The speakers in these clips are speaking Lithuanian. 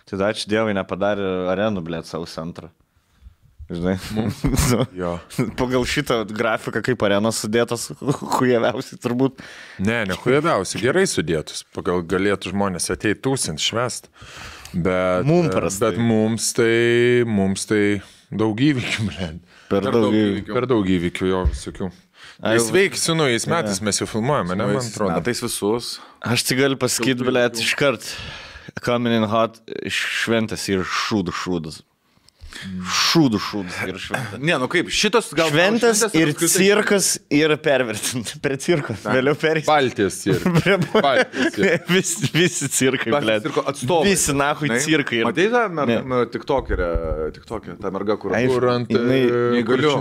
Tai ačiū Dievui nepadarė arenų, blėt, savo centrą. Žinai, Jo. pagal šitą grafiką, kaip arenos sudėtas, hujaviausiai turbūt. Ne hujaviausiai, gerai sudėtus. Pagal galėtų žmonės ateiti tūsint, švest. Bet, bet mums tai daug įvykių, blėt. Per daug įvykių. Per daug įvykių, jo, visokių. Sveiki, su naujais metais mes jau filmuojame, ne, man atrodo. Metais visus. Aš tik galiu pasakyti, blėt, iškart coming in hot šventės ir šūdas. Šūdų ir šventės. Ne, nu kaip, šitos gal... Šventės ir cirkas ir pervertinti. Prie cirko, vėliau perėsi. Baltijos cirkas. Visi cirkai, blėt. Visi nahui cirkai. Matai tą tiktokerę, ta merga, kur ant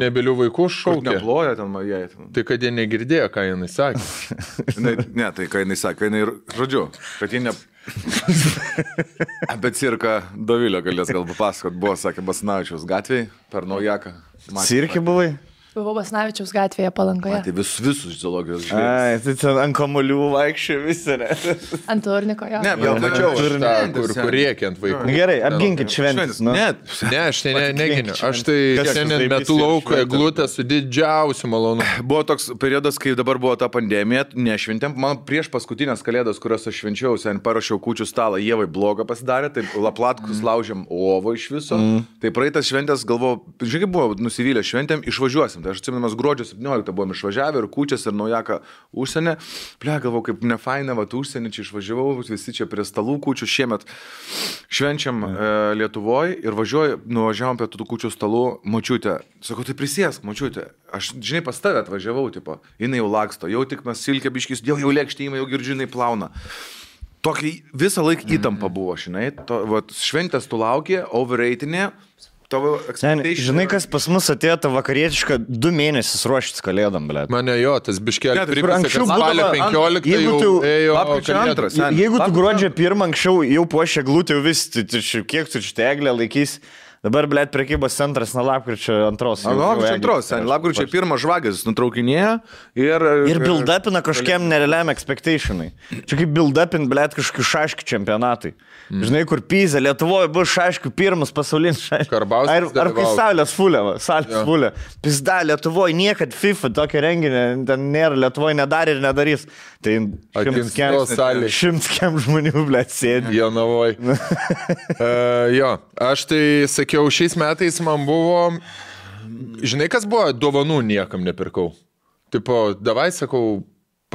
nebylių vaikų šaukia. Neploja ten jai. Tai kad jie negirdėjo, ką jinai sakė. Ne, tai ką jinai sakė, jinai, žodžiu, kad jie ne... Apie cirką Dovilio galės gal papasakot, buvo, sakė, Basanavičiaus gatvėje per Naujaką. Cirke buvai? Buvau Basanavičiaus gatvėje Palangoje. Tai visus zoologijos žvėrys. Ai, tai ten ant kamolių vaikščio visi, ne? Ant turniko, jo. Ne, gal mačiau, kur rėkia ant vaikų. Gerai, apginkit šventės. Ne, aš tai neginiu. Aš tai šiandien metu lauko eglutę su didžiausiu malonu. Buvo toks periodas, kai dabar buvo ta pandemija, nešventėm. Man prieš paskutinės kalėdas, kurios aš švenčiau, sen parašiau kūčių stalą, Ievai blogą pasidarė, tai laplatkus laužėm ovo iš viso. Tai praeitas šventės galvojau, žiūrėk, buvo nusivylę šventėm, išvažiuosim. Tai aš atsimenamas gruodžio 17 buvom išvažiavę ir kūčias ir Naujaką užsienį. Ble, galvau, kaip nefaina, užsienį čia išvažiavau, visi čia prie stalų kūčių. Šiemet švenčiam Lietuvoje ir nuvažiavom prie tų kūčių stalų. Močiutė, sakau, tai prisėsk, močiutė. Aš, žinai, pas tave atvažiavau, tipo, jinai jau laksto, jau tik mes silkę biškis, jau lėkštėjimai, jau girdžiai plauna. Tokį visą laiką įtampa buvo, žinai. Šventės tu laukė, overreitinė. Žinai, kas pas mus atėjo tą vakarietišką 2 mėnesius ruoštis kalėdom, blėt. Mane jo, tas biškelė primės, kad spalio 15 jau ėjo kalėdos. Jeigu tu gruodžio 1 anksčiau jau puošė glūtį, jau vis, kiek tu čia eglę laikys. Dabar, blėt, prekybos centras nuo lapkričio 2. Lapkričio 1 žvagės nutraukinėja ir build-upina kažkiem nerealiam expectationai. Čia kaip build-upin, blėt, kažkokių šaškių čempionatai. Žinai, kur Pizė, Lietuvoje bus šaškių pirmas pasaulinis šaškių. Karbauskis Ar kai salės fulė. Pizda, Lietuvoje niekad FIFA tokio renginio ten nėra, Lietuvoje nedarė ir nedarys. Tai 100 kem žmonių, blėt, sėdi. Jonavoj. Jo, aš tai sakiau, šiais metais man buvo, žinai, kas buvo, dovanų niekam nepirkau. Tipo, davai, sakau,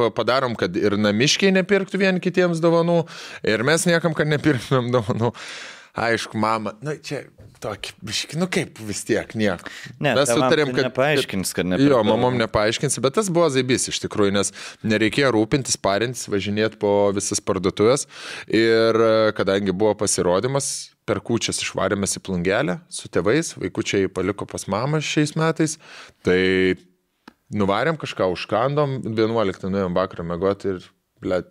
padarom, kad ir namiškiai nepirktų vien kitiems dovanų, ir mes niekam, kad nepirktumėm dovanų. Aišku, mama, čia tokį, kaip vis tiek, nieko. Ne, mes sutarėm, kad nepaaiškins, kad nepirktų. Jo, mamom nepaaiškinsi, bet tas buvo zaibys iš tikrųjų, nes nereikėjo rūpintis, parintis, važinėti po visas parduotuvės. Ir kadangi buvo pasirodymas, per kūčias išvarėmės į Plungelę su tėvais, vaikučiai paliko pas mamą šiais metais, tai nuvarėm kažką, užkandom, 11 nuėjom vakarą mėgoti ir, blėt,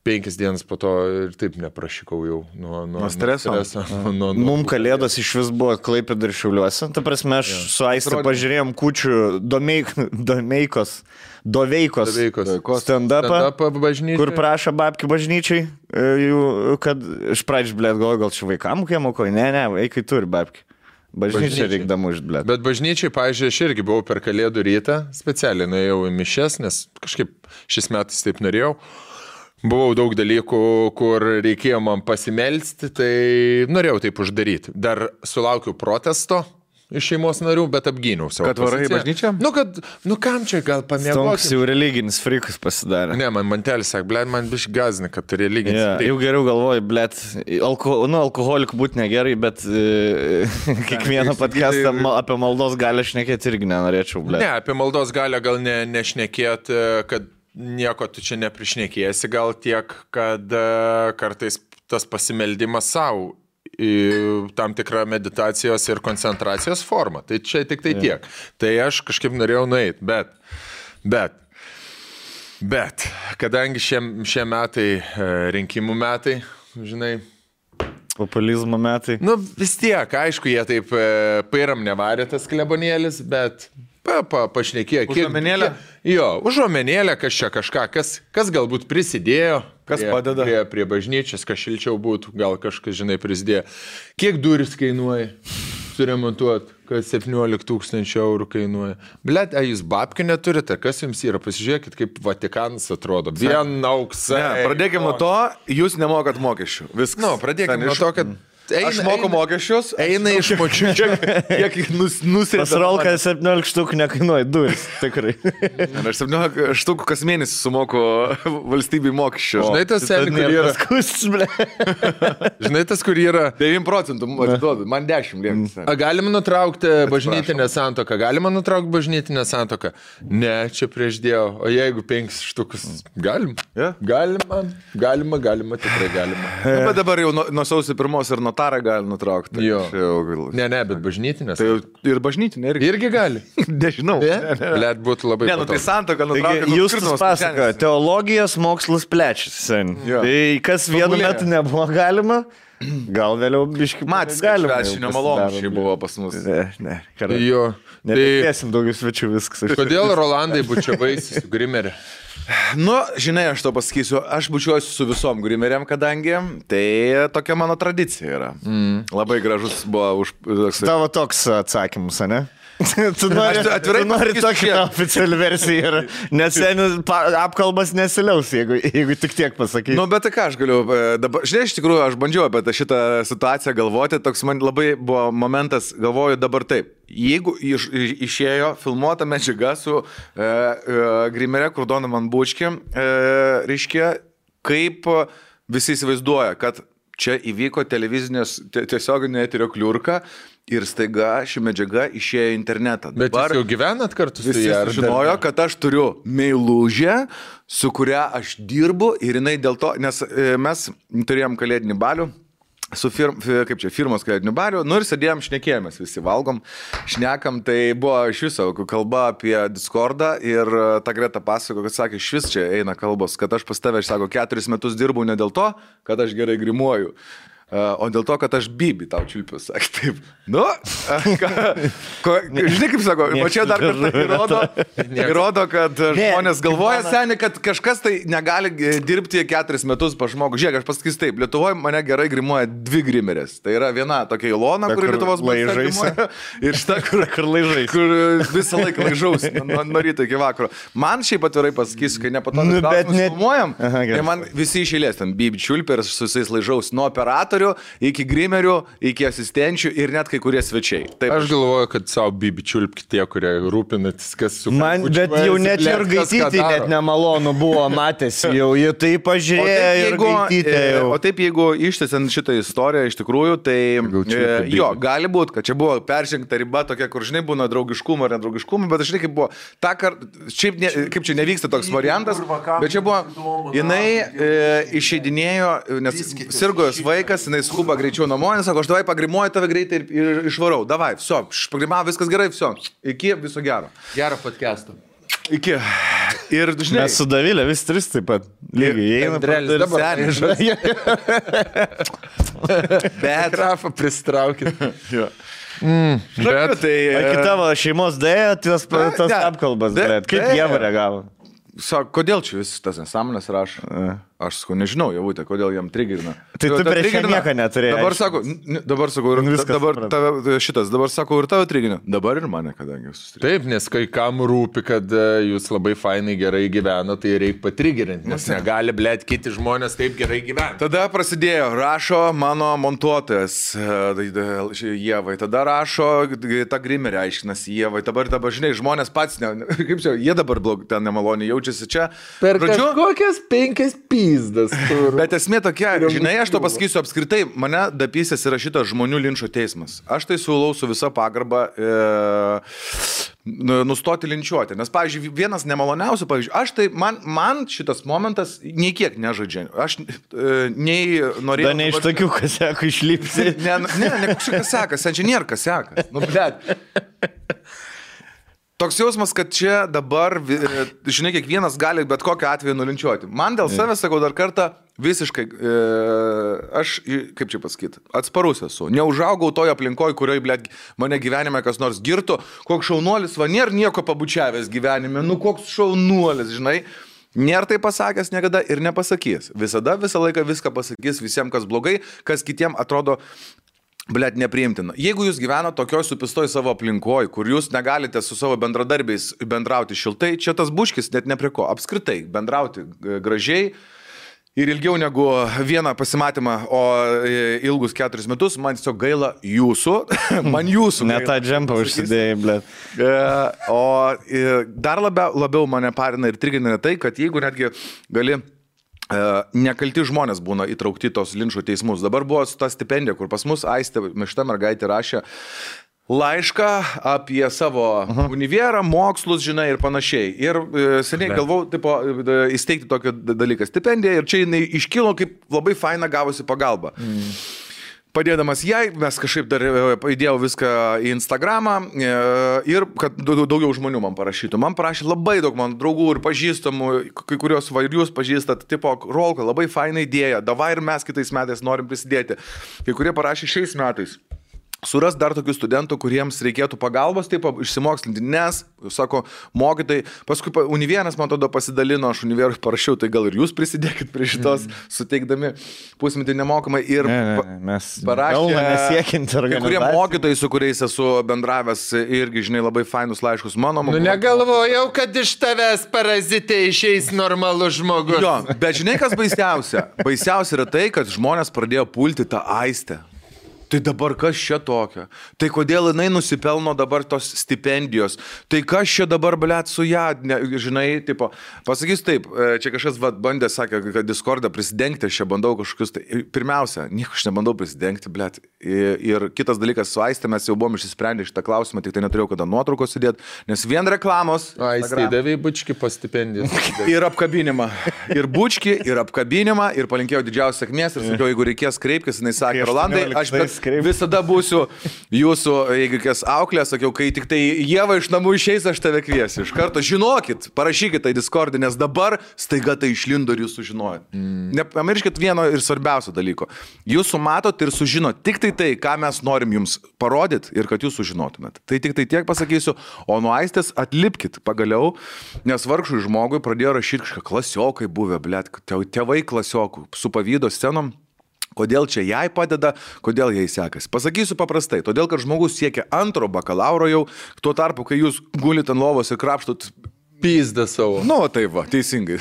5 dienas po to ir taip neprašykau jau nuo streso. Mums kalėdos iš vis buvo Klaipėdoje ir Šiauliuose. Ta prasme, aš su Aiste pažiūrėjom kūčių Doveikos stand-upą, kur prašo babkių bažnyčiai, kad iš pradžių, blėt, gal čia vaikam kiemoko, ne, vaikai turi babkių. Bažnyčiai reikdama už, blėt. Bet bažnyčiai, pavyzdžiui, aš irgi buvau per kalėdų rytą, specialiai nuėjau į mišes, nes kažkaip šis metais taip norėjau. Buvau daug dalykų, kur reikėjo man pasimelsti, tai norėjau taip uždaryti. Dar sulaukiau protesto iš šeimos narių, bet apgyniau savo poziciją. Kad varai bažnyčią? Kam čia gal pamėgoti? Stonks jau religinis frikas pasidarė. Ne, man mantelis sakė, blėt, man biškai gazina, kad tu religinis frikas. Jau geriau galvoju, blėt, alkoholikų būti negerai, bet kiekvieną podcastą apie maldos galę šnekėti irgi nenorėčiau, blėt. Ne, apie maldos galę gal nešnekėti, kad nieko tu čia neprišnekėsi, gal tiek, kad kartais tas pasimeldimas savo tam tikrą meditacijos ir koncentracijos formą. Tai čia tik tai tiek. Tai aš kažkaip norėjau nueiti, bet kadangi šie metai rinkimų metai, žinai, populizmo metai. Vis tiek, aišku, jie taip pairam nevarė tas klebonėlis, bet pašnekėjo. Užuomenėlę? Jo, užuomenėlę, kas čia kažką, kas galbūt prisidėjo Kas padeda? Prie bažnyčios, kas šilčiau būtų, gal kažkas, žinai, prisidėjo. Kiek duris kainuoja suremontuoti, kad 17 000 eurų kainuoja. Blet, jūs babkių neturite, kas jums yra? Pasižiūrėkit, kaip Vatikanas atrodo. Vien auksai. Pradėkime nuo to, jūs nemokat mokesčių. Viskas. Nu, pradėkime nuo to, kad... Aš moku mokesčius, eina iš močių. Kiek nusirita. Pasrolka 17 štukų nekainuoja duris, tikrai. Aš 17 štukų kas mėnesį sumoku valstybei mokesčius. Žinai tas, Žinai tas, kur yra... 9% atiduodu, man 10 lieks. Galima nutraukti bažnytinę santuoką? Galima nutraukti bažnytinę santuoką? Ne, čia prieš Dievą. O jeigu 5 štukus? Galim. Yeah. Galima, tikrai galima. Bet dabar jau nuo sausio 1 ir notarą gali nutraukti. Jo. Ne, bet bažnytinės. Tai ir bažnytinė irgi gali. Nežinau. Blet būtų labai patogu. Tai santuoką nutraukti. Jūs pasaka, teologijos mokslas plečiasi. Tai kas vienu metu nebuvo galima, gal vėliau biškai matys galima. Švenčio malonų buvo pas mus. Ne. Jo. Nepėsim daugiau svečių viskas. Kodėl Rolandai bučiavaisi su Grimerė? Nu, žinai, aš to pasakysiu, aš bučiuosiu su visom Grimeriam, kadangi tai tokia mano tradicija yra. Labai gražus buvo Tavo toks atsakymus, ne? Tu nori tokią oficialią versiją ir nes apkalbas nesiliaus, jeigu tik tiek pasakai. Nu, bet tai ką aš galiu dabar, žinai, iš tikrųjų, aš bandžiau apie šitą situaciją galvoti, toks man labai buvo momentas, galvoju dabar taip. Jeigu išėjo filmuota medžiaga su Grimerė, kur Donovan Bučki, reiškia, kaip visi įsivaizduoja, kad čia įvyko televizinės tiesioginė eterio kliurka ir staiga ši medžiaga išėjo į internetą. Bet dabar jūs jau gyvenat kartu su ją? Visi žinojo, kad aš turiu meilužę, su kuria aš dirbu ir jinai dėl to, nes mes turėjom kalėdinį balių, su firmos kalėdiniu bariu, nu ir sėdėjom, šnekėjomės, visi valgom, šnekam, tai buvo iš viso kalba apie Discordą ir ta Greta pasako, kad sakė, iš vis čia eina kalbos, kad aš pas tave, aš sako, 4 metus dirbau ne dėl to, kad aš gerai grimuoju, o dėl to, kad aš Bibi tau čiulpiu, sakė, taip. Nu, žinai kaip sako, o čia dar kartą įrodo, kad žmonės galvoja, seniai, kad kažkas tai negali dirbti 4 metus pa žmogų. Žiūrėk, aš pasakysiu taip, Lietuvoje mane gerai grimuoja 2 grimerės. Tai yra viena tokia Ilona, kuri Lietuvos grimuoja, ir šita, kur laižais, kur visą laiką laižaus, nuo ryto iki vakaro. Man šiaip atvirai pasakysiu, kai nepatogus klausimus filmuojam, tai man visi iš eilės, ten Bibi čiulpia ir su visais laižaus, nuo operatorių iki grimerių, iki asistenčių ir net kai kurie svečiai. Taip, aš galvoju, kad savo Bibi čiulpki tie, kurie rūpinatys, kas su... Man, bet jau net ir Gaitytį net nemalonu buvo matęs, jau jie tai pažiūrėjo ir Gaitytė jau. O taip, jeigu ištęsiant šitą istoriją iš tikrųjų, tai jo, gali būti, kad čia buvo peržengta riba tokia, kur žinai būna draugiškumo ar nedraugiškumo, bet žinai kaip buvo, ta kartą, šiaip kaip čia nevyksta toks variantas, bet čia buvo, jinai išeidinėjo, nes sirgo jos vaikas, jinai skuba greičiau namo, nes sako, aš davai pagrimuoju tave greitai ir išvarau. Davai, viso, pagrimavo, viskas gerai, viso. Iki, viso gero. Gerą podcastą. Iki. Ir, žinai... Mes su Davilė vis 3 taip pat. Lygiai, Andrelis dabar. Bet... Grafą pristraukit. Jo. Bet tai... Kai tavo šeimos dėjo, tas apkalbas, bet kaip jie reagavo? Sako, kodėl čia vis tas nesąmonės rašo? Aš sakau, nežinau, Javutė, kodėl jam trigerina. Tai tu prieš nieką neturėjai. Dabar sakau, dabar sakau, ir tavo trigerina. Dabar ir mane, kadangi jūs susitrigerinate. Taip, nes kai kam rūpi, kad jūs labai fainai gerai gyveno, tai reikia patrigerinti, nes negali, blėt, kiti žmonės taip gerai gyventi. Tada prasidėjo, rašo mano montuotojas Ievai, tada rašo ta Grimerė aiškinasi Ievai, dabar žinai, žmonės pats, kaip čia, jie dabar ten nemaloniai jaučiasi čia. Per kažkokias 5 pizdas. Bet esmė tokia, žinai, aš to pasakysiu apskritai, mane dapysės yra šitas žmonių linčo teismas. Aš tai siūlau su visa pagarba nustoti linčiuoti. Nes, pavyzdžiui, vienas nemaloniausių, pavyzdžiui, aš tai, man šitas momentas nei kiek nežaidžia. Aš nei norėjau... Da ne iš tokių kasiakų išlipsi. Ne kažkas kasekas, čia nėra kasekas. Nu, blėt. Toks jausmas, kad čia dabar, žinai, kiekvienas gali bet kokią atveju nulinčiuoti. Man dėl savęs, sakau dar kartą, visiškai, aš, kaip čia pasakyti, atsparus esu. Neužaugau toje aplinkoje, kurioje, blėt, mane gyvenime kas nors girtų. Koks šaunuolis, va, nėra nieko pabučiavęs gyvenime. Nu, koks šaunuolis, žinai. Nėra tai pasakęs niekada ir nepasakys. Visada, visą laiką viską pasakys visiems, kas blogai, kas kitiem atrodo blet nepriimtina. Jeigu jūs gyvena tokioj supistoj savo aplinkoj, kur jūs negalite su savo bendradarbiais bendrauti šiltai, čia tas buškis net ne prie ko. Apskritai, bendrauti gražiai ir ilgiau negu vieną pasimatymą, o ilgus 4 metus, man tiesiog gaila jūsų. Man jūsų. Ne tą džempą užsidėjai, blet. O dar labiau mane parina ir trigina tai, kad jeigu netgi gali nekalti žmonės būna įtraukti tos linčo teismus. Dabar buvo ta stipendija, kur pas mus Aistė, šita mergaitė rašė laišką apie savo univerą, mokslus, žinai, ir panašiai. Ir seniai galvau, tipo, įsteigti tokį dalyką stipendiją ir čia jinai iškilo kaip labai faina gavosi pagalba. Padėdamas jai, mes kažkaip dar įdėjau viską į Instagramą ir kad daugiau žmonių man parašytų. Man parašė labai daug mano draugų ir pažįstamų, kai kurios va ir jūs pažįstat, tipo, Rolka, labai faina idėja, davai ir mes kitais metais norim prisidėti. Kai kurie parašė šiais metais. Suras dar tokių studentų, kuriems reikėtų pagalbos, taip išsimokslinti, nes, sako, mokytojai, paskui Univieras, man tada pasidalino, aš Univerui parašiau, tai gal ir jūs prisidėkit prie šitos, suteikdami pusmetį nemokamai ir mes parašė, kai kurie mokytojai, su kuriais esu bendravęs, irgi, žinai, labai fainus laiškus mano. Nu, negalvojau, kad iš tavęs parazitė išeis normalus žmogus. Jo, bet žinai, kas baisiausia? Baisiausia yra tai, kad žmonės pradėjo pulti tą Aistę. Tai dabar kas čia tokio? Tai kodėl jinai nusipelno dabar tos stipendijos? Tai kas čia dabar, blet, su ją, žinai, tipo, pasakys taip, čia kažkas bandė, sakė, kad Discordą prisidengti, aš čia bandau kažkokius, tai pirmiausia, nieko aš nebandau prisidengti, blet. Ir kitas dalykas, su Aistė mes jau buvom išsisprendę šitą klausimą, tik tai neturėjau kada nuotraukos sudėti, nes vien reklamos. Aistė davė bučkį po stipendiją. Ir apkabinimą. Ir bučkį, ir apkabinimą, ir palinkėjau didžiausios sėkmės, ir sakiau, jeigu reikės kreipkis, jinai sakė, Rolandai, aš visada būsiu jūsų, jeigu kas auklė, sakiau, kai tik tai Ieva iš namų išeis, aš tave kviesiu. Iš karto žinokit, parašykit tai Discord'e, nes dabar staiga tai išlindo ir jūs sužinojot. Nepamirškit vieno ir svarbiausio dalyko. Jūs sumatot ir sužinot tik tai, ką mes norim jums parodyti ir kad jūs sužinotumėt. Tai tik tai tiek pasakysiu, o nuo Aistės atlipkit pagaliau, nes vargšui žmogui pradėjo rašyti kažką klasiokai buvę, blet, tėvai klasiokų su pavydo scenom. Kodėl čia jai padeda, kodėl jai sekasi. Pasakysiu paprastai, todėl, kad žmogus siekia 2 bakalauro jau, tuo tarpu, kai jūs gulit ant lovos ir krapštot pizdą savo. Nu, tai va, teisingai.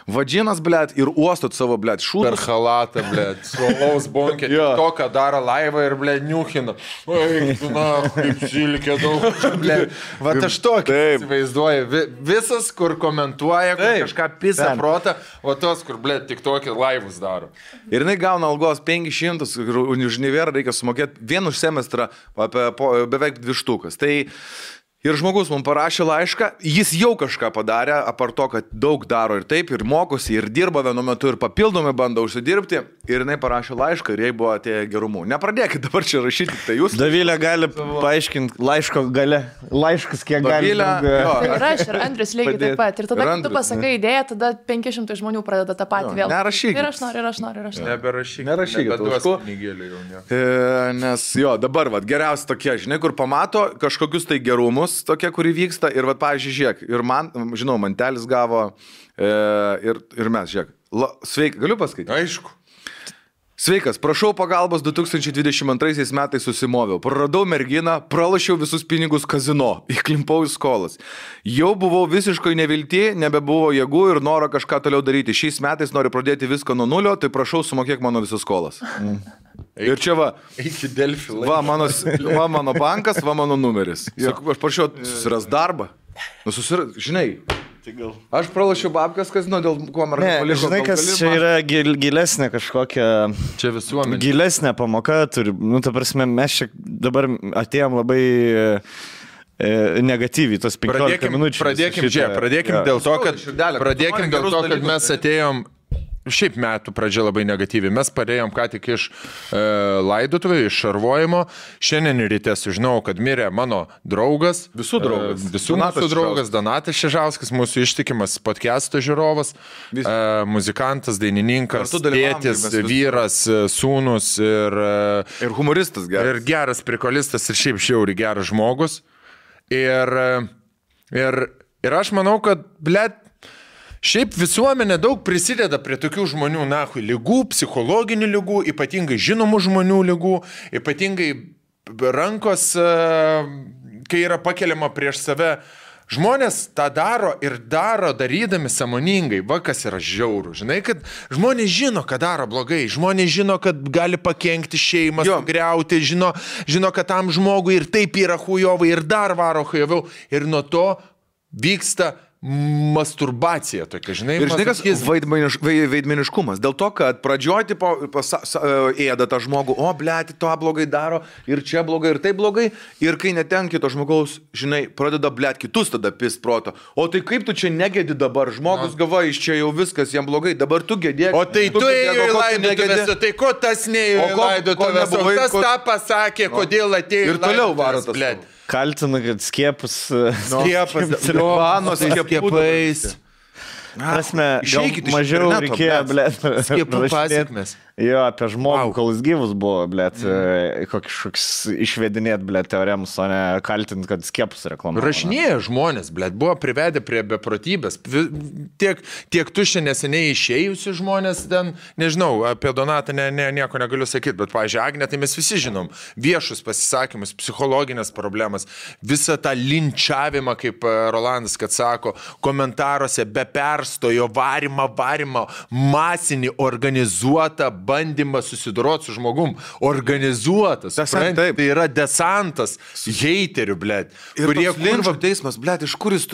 Vadžinas, blet, ir uostot savo, blet, šūdus. Per halatą, blet, suolaus bonkė, to, ką daro laivą ir, blet, niuchina. Oi, na, kaip silkė daug, blet. Va, aš tokį įsivaizduoju. Visas, kur komentuoja, kur kažką pisa protą, o tos, kur, blet, tik tokį laivus daro. Ir jinai gauna algos 500, ir už Univerą reikia sumokėti vien už semestrą beveik 2 štukas. Tai ir žmogus man parašė laišką, jis jau kažką padarė, apart to, kad daug daro ir taip, ir mokosi, ir dirba vienu metu, ir papildomai bando užsidirbti, ir jinai parašė laišką, ir jai buvo atėję gerumų. Nepradėkit dabar čia rašyti, tai jūs. Davilė gali paaiškinti laiško gale, laiškas kiek gali. Tai ir aš, ir Andrius lygiai taip pat. Ir tada, kai tu pasakai idėją, tada 500 žmonių pradeda tą patį vėl. Nerašykit. Ir aš noriu. Neberašykit. Nes jo, dabar, vat, geriausia tokie, žinai, kur pamato kažkokius tai gerumus, tokia, kuri vyksta ir, vat, pavyzdžiui, žiūrėk, ir man, žinau, mantelis gavo ir mes, žiūrėk, sveiki, galiu paskaityti? Aišku. Sveikas, prašau pagalbos 2022 metais susimoviau. Praradau merginą, pralošiau visus pinigus kazino, įklimpau į skolas. Jau buvau visiškai nevilti, nebebuvo jėgų ir noro kažką toliau daryti. Šiais metais noriu pradėti viską nuo nulio, tai prašau sumokėk mano visas skolas. Ir čia va, va mano bankas, va mano numeris. Aš prašau susiras darbą. Žinai. Aš pralašiau babkas, kas, dėl ko merga paliko. Žinai, kas čia yra gilesnė kažkokia. Čia visuomenė. Gilesnė pamoka turi. Nu, ta prasme, mes čia dabar atėjom labai negatyviai, tos 15 minučių. Pradėkim dėl to, kad mes atėjom. Šiaip metų pradžia labai negatyvi. Mes parėjom ką tik iš laidotuvų, iš šarvojimo. Šiandien ryte sužinau, kad mirė mano draugas. Visų draugas. Visų mūsų draugas Donatas Šežauskas, mūsų ištikimas podcast'o žiūrovas, muzikantas, dainininkas, tėtis, vyras, sūnus ir humoristas geras. Ir geras prikolistas ir šiaip žiauriai geras žmogus. Ir aš manau, kad, blet, Šiaip visuomenė daug prisideda prie tokių žmonių, lygų, psichologinių lygų, ypatingai žinomų žmonių lygų, ypatingai rankos, kai yra pakeliama prieš save. Žmonės tą daro ir darydami sąmoningai, kas yra žiaurų. Žinai, kad žmonės žino, kad daro blogai, žmonės žino, kad gali pakenkti šeimą, sugriauti, žino, kad tam žmogui ir taip yra hujovai, ir dar varo hujoviau, ir nuo to vyksta masturbacija tokia, žinai. Ir žinai, kas veidmeniškumas. Dėl to, kad pradžioj ėda tą žmogų, blėti, to blogai daro, ir čia blogai, ir tai blogai, ir kai netenki to žmogaus, žinai, pradeda blėti kitus tada pist proto. O tai kaip tu čia negedi dabar, žmogus gava, iš čia jau viskas jam blogai, dabar tu gedėk. O tai tu ėjo į laidotuvės, tai ko tas neėjo į laidotuvės, o kas tą pasakė, kodėl atėjo į laidotuvės. Ir toliau varo tas blėti. Kaltina, kad skiepus skiepais. Prasme, mažiau reikėjo, skiepų pasiekmes. Jo, apie žmogų, kol jis gyvus buvo, koks išvedinėt, teoremus, o ne kaltint, kad skiepus reklamavo. Rašinėja žmonės, buvo privedę prie beprotybės. Tiek tu šiandien neseniai išėjusi žmonės, ten, nežinau, apie Donatą nieko negaliu sakyti, bet, pavyzdžiui, Agnė, tai mes visi žinom, viešus pasisakymus, psichologinės problemas, visą tą linčiavimą, kaip Rolandas, kad sako, komentaruose be perstojo varimą, masinį organizuotą bandymą susidoroti su žmogum, organizuotas. Tai yra desantas heiterių, Ir toks linčio teismas, iš kur jis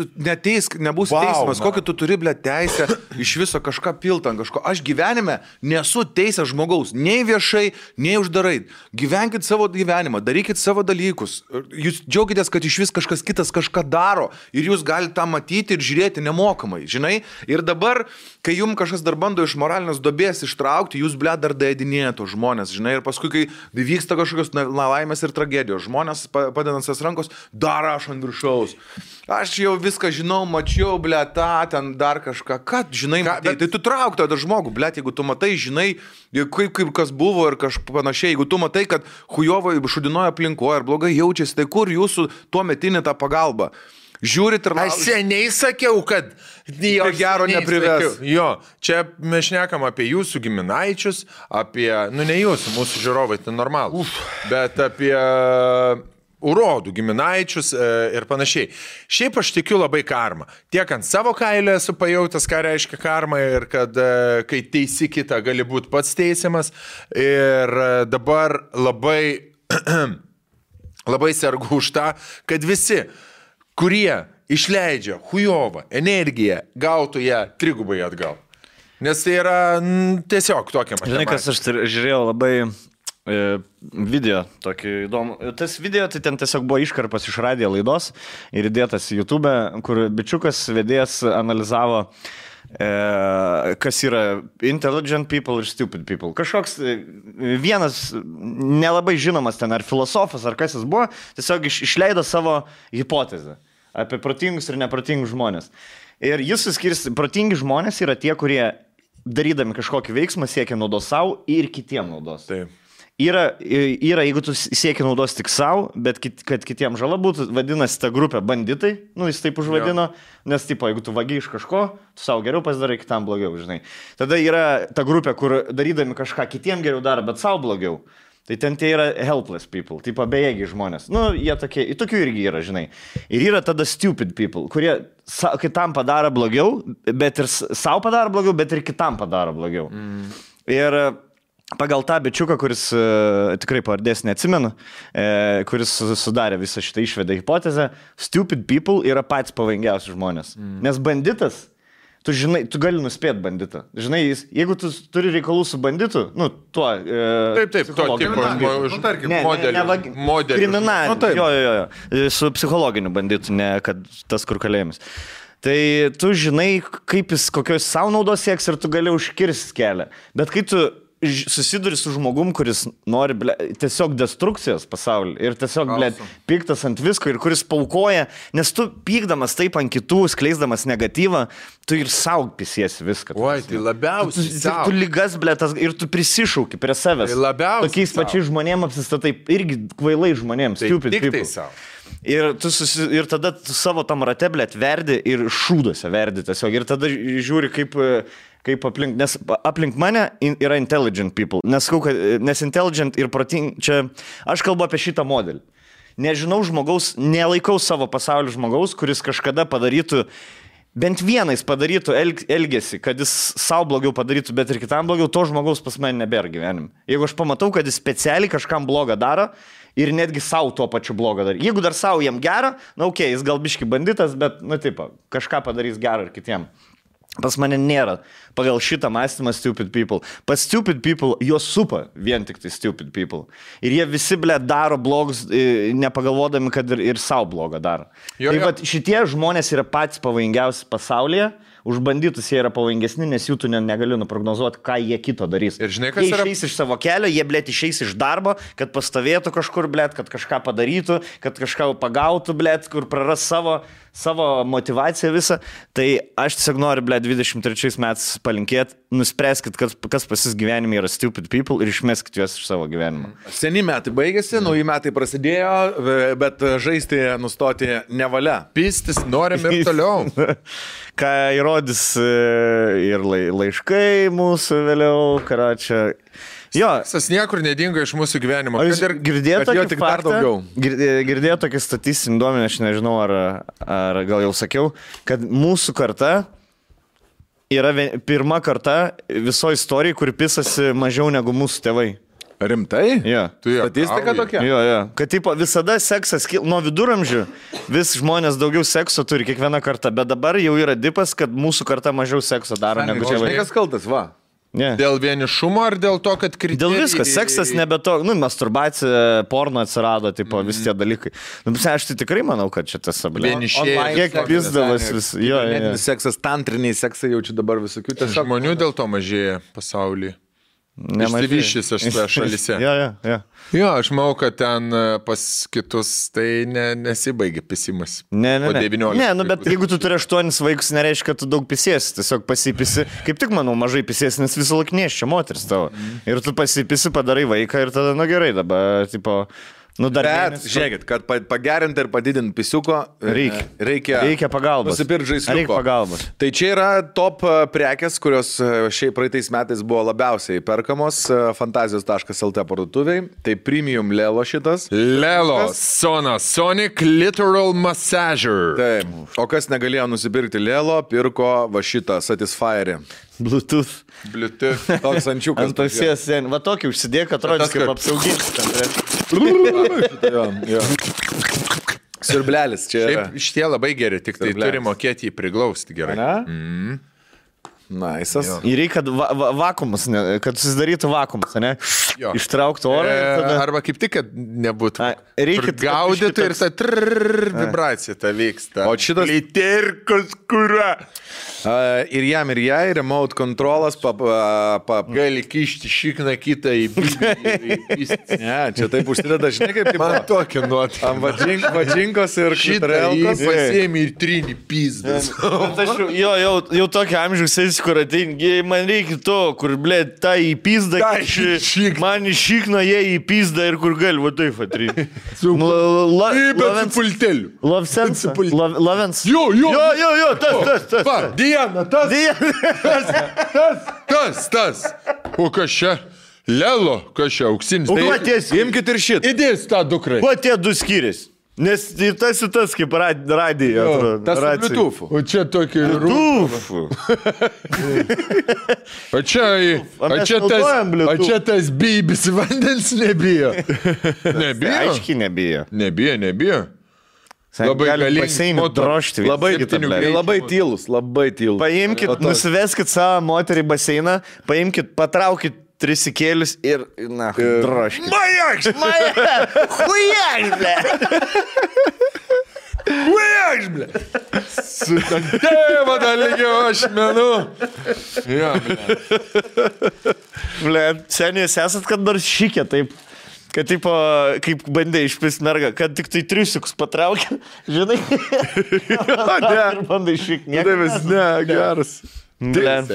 nebus teismas, kokį tu turi, teisę iš viso kažką piltant, kažko. Aš gyvenime nesu teisęs žmogaus, nei viešai, nei uždarai. Gyvenkit savo gyvenimą, darykit savo dalykus. Jūs džiaugitės, kad iš vis kažkas kitas kažką daro ir jūs galite tą matyti ir žiūrėti nemokamai, žinai. Ir dabar, kai jums kažkas dar bando iš moralinės duobės ištraukti, jūs, dar daėdinėja tos žmonės, žinai, ir paskui, kai vyksta kažkokios nelaimės ir tragedijos, žmonės padedant sas rankos, dar aš ant viršaus. Aš jau viską žinau, mačiau, ten dar kažką, kad, žinai, tai tu trauk tą žmogų, jeigu tu matai, žinai, kaip kas buvo ir panašiai, jeigu tu matai, kad hujovai šudinoja aplinkoje ir blogai jaučiasi, tai kur jūsų tuo metinė ta pagalba? Žiūrit ir aš seniai sakiau, kad gero neprives. Jo, čia mes šnekam apie jūsų giminaičius, apie, ne jūsų, mūsų žiūrovai, tai normalų, bet apie urodų giminaičius ir panašiai. Šiaip aš tikiu labai karmą. Tiek ant savo kailio esu pajautęs, ką reiškia karma ir kad kai teisi kitą, gali būti pats teisiamas. Ir dabar labai sergu už tą, kad visi, kurie išleidžia hujovą energiją, gautų ją trigubai atgal. Nes tai yra tiesiog tokia matematika. Žinai, kas aš žiūrėjau labai video, tokį įdomų. Tas video tai ten tiesiog buvo iškarpas iš radijo laidos ir įdėtas į YouTube, kur bičiukas vedėjas analizavo, kas yra intelligent people ir stupid people. Kažkoks vienas nelabai žinomas ten ar filosofas, ar kas jis buvo, tiesiog išleido savo hipotezę apie protingus ir neprotingus žmonės. Ir jis suskirsti, protingi žmonės yra tie, kurie darydami kažkokį veiksmą siekia naudos savo ir kitiem naudos. Taip. Yra, jeigu tu siekia naudos tik savo, bet kad kitiem žala būtų, vadinasi ta grupė banditai, jis taip užvadino, nes tipo, jeigu tu vagi iš kažko, tu savo geriau pasidarai, kitam blogiau, žinai. Tada yra ta grupė, kur darydami kažką kitiem geriau daro, bet savo blogiau. Tai ten tie yra helpless people, tipo bejėgiai žmonės. Jie tokie, tokių irgi yra, žinai. Ir yra tada stupid people, kurie kitam padaro blogiau, bet ir savo padaro blogiau, bet ir kitam padaro blogiau. Ir pagal tą bičiuką, kuris tikrai pavardės neatsimenu, kuris sudarė visą šitą išvedę hipotezę, stupid people yra patys pavojingiausi žmonės. Nes banditas, tu žinai, tu gali nuspėti banditą. Žinai, jeigu tu turi reikalų su banditu, tuo... Taip, to tipo modelį. Kriminalinį. Jo. Su psichologiniu banditu, ne kad tas kur kalėjimas. Tai tu žinai, kaip jis kokios savo naudos sieks ir tu gali užkirsti kelią. Bet kai tu susiduri su žmogum, kuris nori, ble, tiesiog destrukcijos pasaulį ir tiesiog, ble, piktas ant visko ir kuris paukoja, nes tu pykdamas taip ant kitų, skleisdamas negatyvą, tu ir saug pisiesi viską. Oi, tai labiausiai tu lygas, ble, ir tu prisišauki prie savęs. Tai labiausiai tokiais pačiais žmonėms apsistatai, irgi kvailai žmonėms, stupid people. Ir tada tu savo tam rate, ble, verdi ir šūduose verdi tiesiog. Ir tada žiūri, kaip aplink, nes aplink mane yra intelligent people. Nes intelligent ir proting, čia aš kalbu apie šitą modelį. Nežinau žmogaus, nelaikau savo pasaulio žmogaus, kuris kažkada padarytų, bent vienais padarytų elgesį, kad jis savo blogiau padarytų, bet ir kitam blogiau, to žmogaus pas mane nebėra gyvenime. Jeigu aš pamatau, kad jis specialiai kažkam blogą daro ir netgi savo tuo pačiu blogą daro. Jeigu dar savo jam gerą, na okei, jis gal biški banditas, bet, nu taip, kažką padarys gerą ir kitiem. Pas mane nėra pagal šitą mąstymą stupid people. Pas stupid people juos supa vien tik tai stupid people. Ir jie visi, ble, daro blogus, nepagalvodami, kad ir savo blogą daro. Tai vat, šitie žmonės yra patys pavojingiausi pasaulyje. Už bandytus jie yra pavojingesni, nes jų tu negali nuprognozuoti, ką jie kito darys. Ir žinai, kas jie yra... išeis iš savo kelio, jie, blėt, išeis iš darbo, kad pastovėtų kažkur, blėt, kad kažką padarytų, kad kažką pagautų, blėt, kur praras savo motivaciją visą. Tai aš tiesiog noriu, blėt, 23 metais palinkėti, nuspręskit, kas pas jūs gyvenime yra stupid people ir išmeskit juos iš savo gyvenimo. Seni metai baigėsi, nauji metai prasidėjo, bet žaisti nustoti nevalia. Pistis norim ir toliau. Ką įrodys ir laiškai mūsų vėliau, karočią. Jo. Seksas niekur nedingo iš mūsų gyvenimo. Girdėjau tokį statistinį duomenį, aš nežinau, ar gal jau sakiau, kad mūsų karta yra pirma karta visoje istorijoje, kuri pisasi mažiau negu mūsų tėvai. Rimtai? Jo. Statistika tokia? Jo. Kad tipo, visada seksas, nuo viduramžių vis žmonės daugiau sekso turi kiekvieną kartą, bet dabar jau yra dipas, kad mūsų karta mažiau sekso daro negu tėvai. Žinai, kas kaltas, va? Yeah. Dėl vienišumo ar dėl to, kad kriterijai... Dėl viskas, seksas nebe to, masturbacija, porno atsirado, tipo, visi tie dalykai. Aš tai tikrai manau, kad čia tas ablė. Vienišėjai. Kiek pizdavas vis. Jo. Seksas, tantriniai seksai jaučiu dabar visokių. Žmonių dėl to mažėja pasaulyje. Išsivyščiusios šalyse. Jo, aš manau, kad ten pas kitus tai nesibaigia pisimas. Ne, bet jeigu tu turi 8 vaikus, nereiškia, kad tu daug pisiesi, tiesiog pasipisi. Kaip tik, manau, mažai pisiesi, nes visą laiką neščia moteris tavo. Ir tu pasipisi, padarai vaiką ir tada, gerai, dabar, tipo... Bet, žiūrėkit, kad pagerinti ir padidinti pisiuko, reikia pagalbos. Nusipirkti žaisliuko. Reikia pagalbos. Tai čia yra top prekės, kurios šiaip praeitais metais buvo labiausiai perkamos fantazijos.lt parduotuviai. Tai premium Lelo šitas. Lelo, Sonic Literal Massager. Taip. O kas negalėjo nusipirkti Lelo, pirko va šitą Satisfyerį. Bluetooth. Toks ančiukas. Ant ausies, va tokį užsidėk, atrodys kaip apsauginis. Siurblelis čia. Šiaip šitie labai geri, tik tai turi mokėti jį priglausti gerai. Naisas. Ir reikia vakuumus, kad susidarytų vakuumus, ne? Ištraukti orą. Arba kaip tik, kad nebūtų. Reikia gaudyti ir ta vibracija ta vyksta. O šitas... Literkos kura. Ir jam ir jai, remote controlas, gali kišti šikną kitą į pistį. Ne, čia taip užsideda, žinai, kaip tai man tokia nuot. Ant vadžinkos ir klitorelkos. Pasėmė ir trinį pizdas. Jau tokia amžiaus kur ateini, man reikia to, kur, blė, ta į pizdą, man iš šikno jie į pizdą ir kur gali, va taip atrinti. Bet su pulteliu. Lavens. Jo, tas. Diana, tas. O kas čia? Lelo, kas čia, auksinis. O patės, imkit ir šitą. Įdės tą dukrai. Kuo tie du skiriasi? Nes ir tas kaip radija. Tas Bluetooth. O čia tokį Bluetooth. O čia tas bybis vandens nebijo. Aiškiai nebijo. Nebijo. Labai galingai drožti. Labai tylus. Paimkit, nusiveskit savo moterį baseiną, paimkit, patraukit trisikėlius ir, drožkit. Majaks, Hujaks, ble. Su tėva dalygio ašmenų. Jo, Blet, seniai, jūs esat kad nors šikė taip. Kad tipo, kaip bandė išpist mergą, kad tik tai triusiukus patraukė, žinai? Ir bandai šik, nieko. Ne, geras.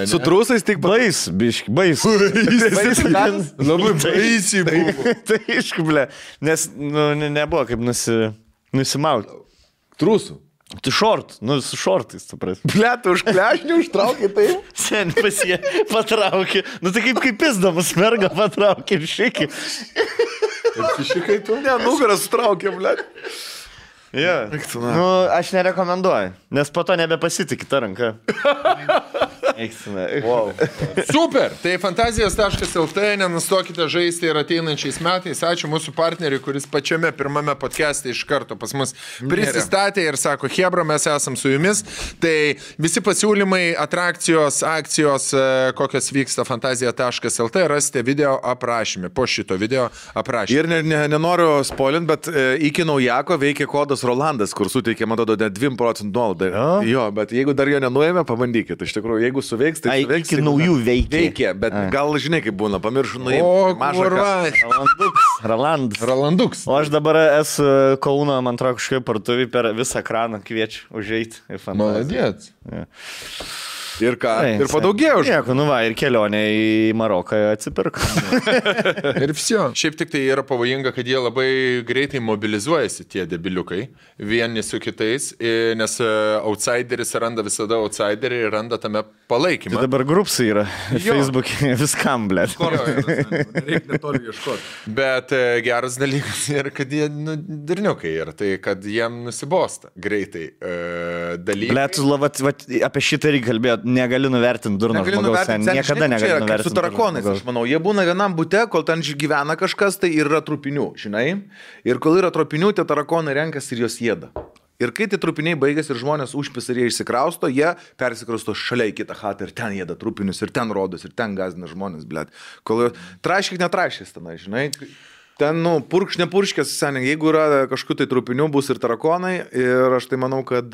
Su trūsais tik bais, biški, bais. Labai baisiai buvo. Tai iški, ble, nes nebuvo kaip nusimauti. Trūsų. Tu šort, su šortais, supras. Ble, tu už klešnių užtraukė taip? Seniai pas jie patraukė. Tai kaip pizdamas mergą patraukė ir šikį. Šikai tu? Ne, nugaras sutraukė, ble. Ja. Aš nerekomenduoju, nes po to nebepasitikė tą ranką. Wow. Super, tai fantazijos.lt, nenustokite žaisti ir ateinančiais metais. Ačiū mūsų partneriui, kuris pačiame pirmame podcast'e iš karto pas mus prisistatė ir sako, Hebra, mes esam su jumis. Tai visi pasiūlymai, atrakcijos, akcijos, kokios vyksta fantazija.lt, rasite video aprašymę, po šito video aprašymę. Ir nenoriu spoilint, bet iki naujako veikia kodas Rolandas, kur suteikia, man atrodo, 2% nuolaidą. Jo, bet jeigu dar jo nenuėmė, pabandykit. Iš tikrųjų, jeigu suveiks, tai suveiks. Iki naujų veikia. Bet gal žinai, kaip būna, pamiršu nuėmė. O, mažą Rolanduks. O aš dabar esu Kauno, man atrodo, kažkaip partuviai per visą ekraną kviečiu užeiti. Maladėt. Ir ką? Ir padaugėjo už. Nieko, ir kelionė į Maroką atsipirko. Ir visio. Šiaip tik tai yra pavojinga, kad jie labai greitai mobilizuojasi, tie debiliukai, vieni su kitais, nes outsideris randa visada outsiderį ir randa tame palaikymą. Tai dabar grupsai yra Facebook'e viskam, blėt. Reikia netoli ieškoti. Bet geras dalykas yra, kad jie durniukai yra, tai kad jiem nusibosta greitai dalykai. Blėt, apie šitą reikia kalbėti. Negali nuvertinti durno žmogaus, niekada negali nuvertinti. Su tarakonais, aš manau, jie būna vienam bute, kol ten gyvena kažkas, tai yra trupinių, žinai. Ir kol yra trupinių, tie tarakonai renkasi ir jos jėda. Ir kai tie trupiniai baigėsi ir žmonės užpis ir jie išsikrausto, jie persikrausto šalia į kitą chatą ir ten jėda trupinius, ir ten rodos, ir ten gazina žmonės, blėt. Kol traškik netraškis tenai, žinai. Ten, purkš, nepurškės, seniai, jeigu yra kažkokių tai trupinių, bus ir tarakonai. Ir aš tai manau, kad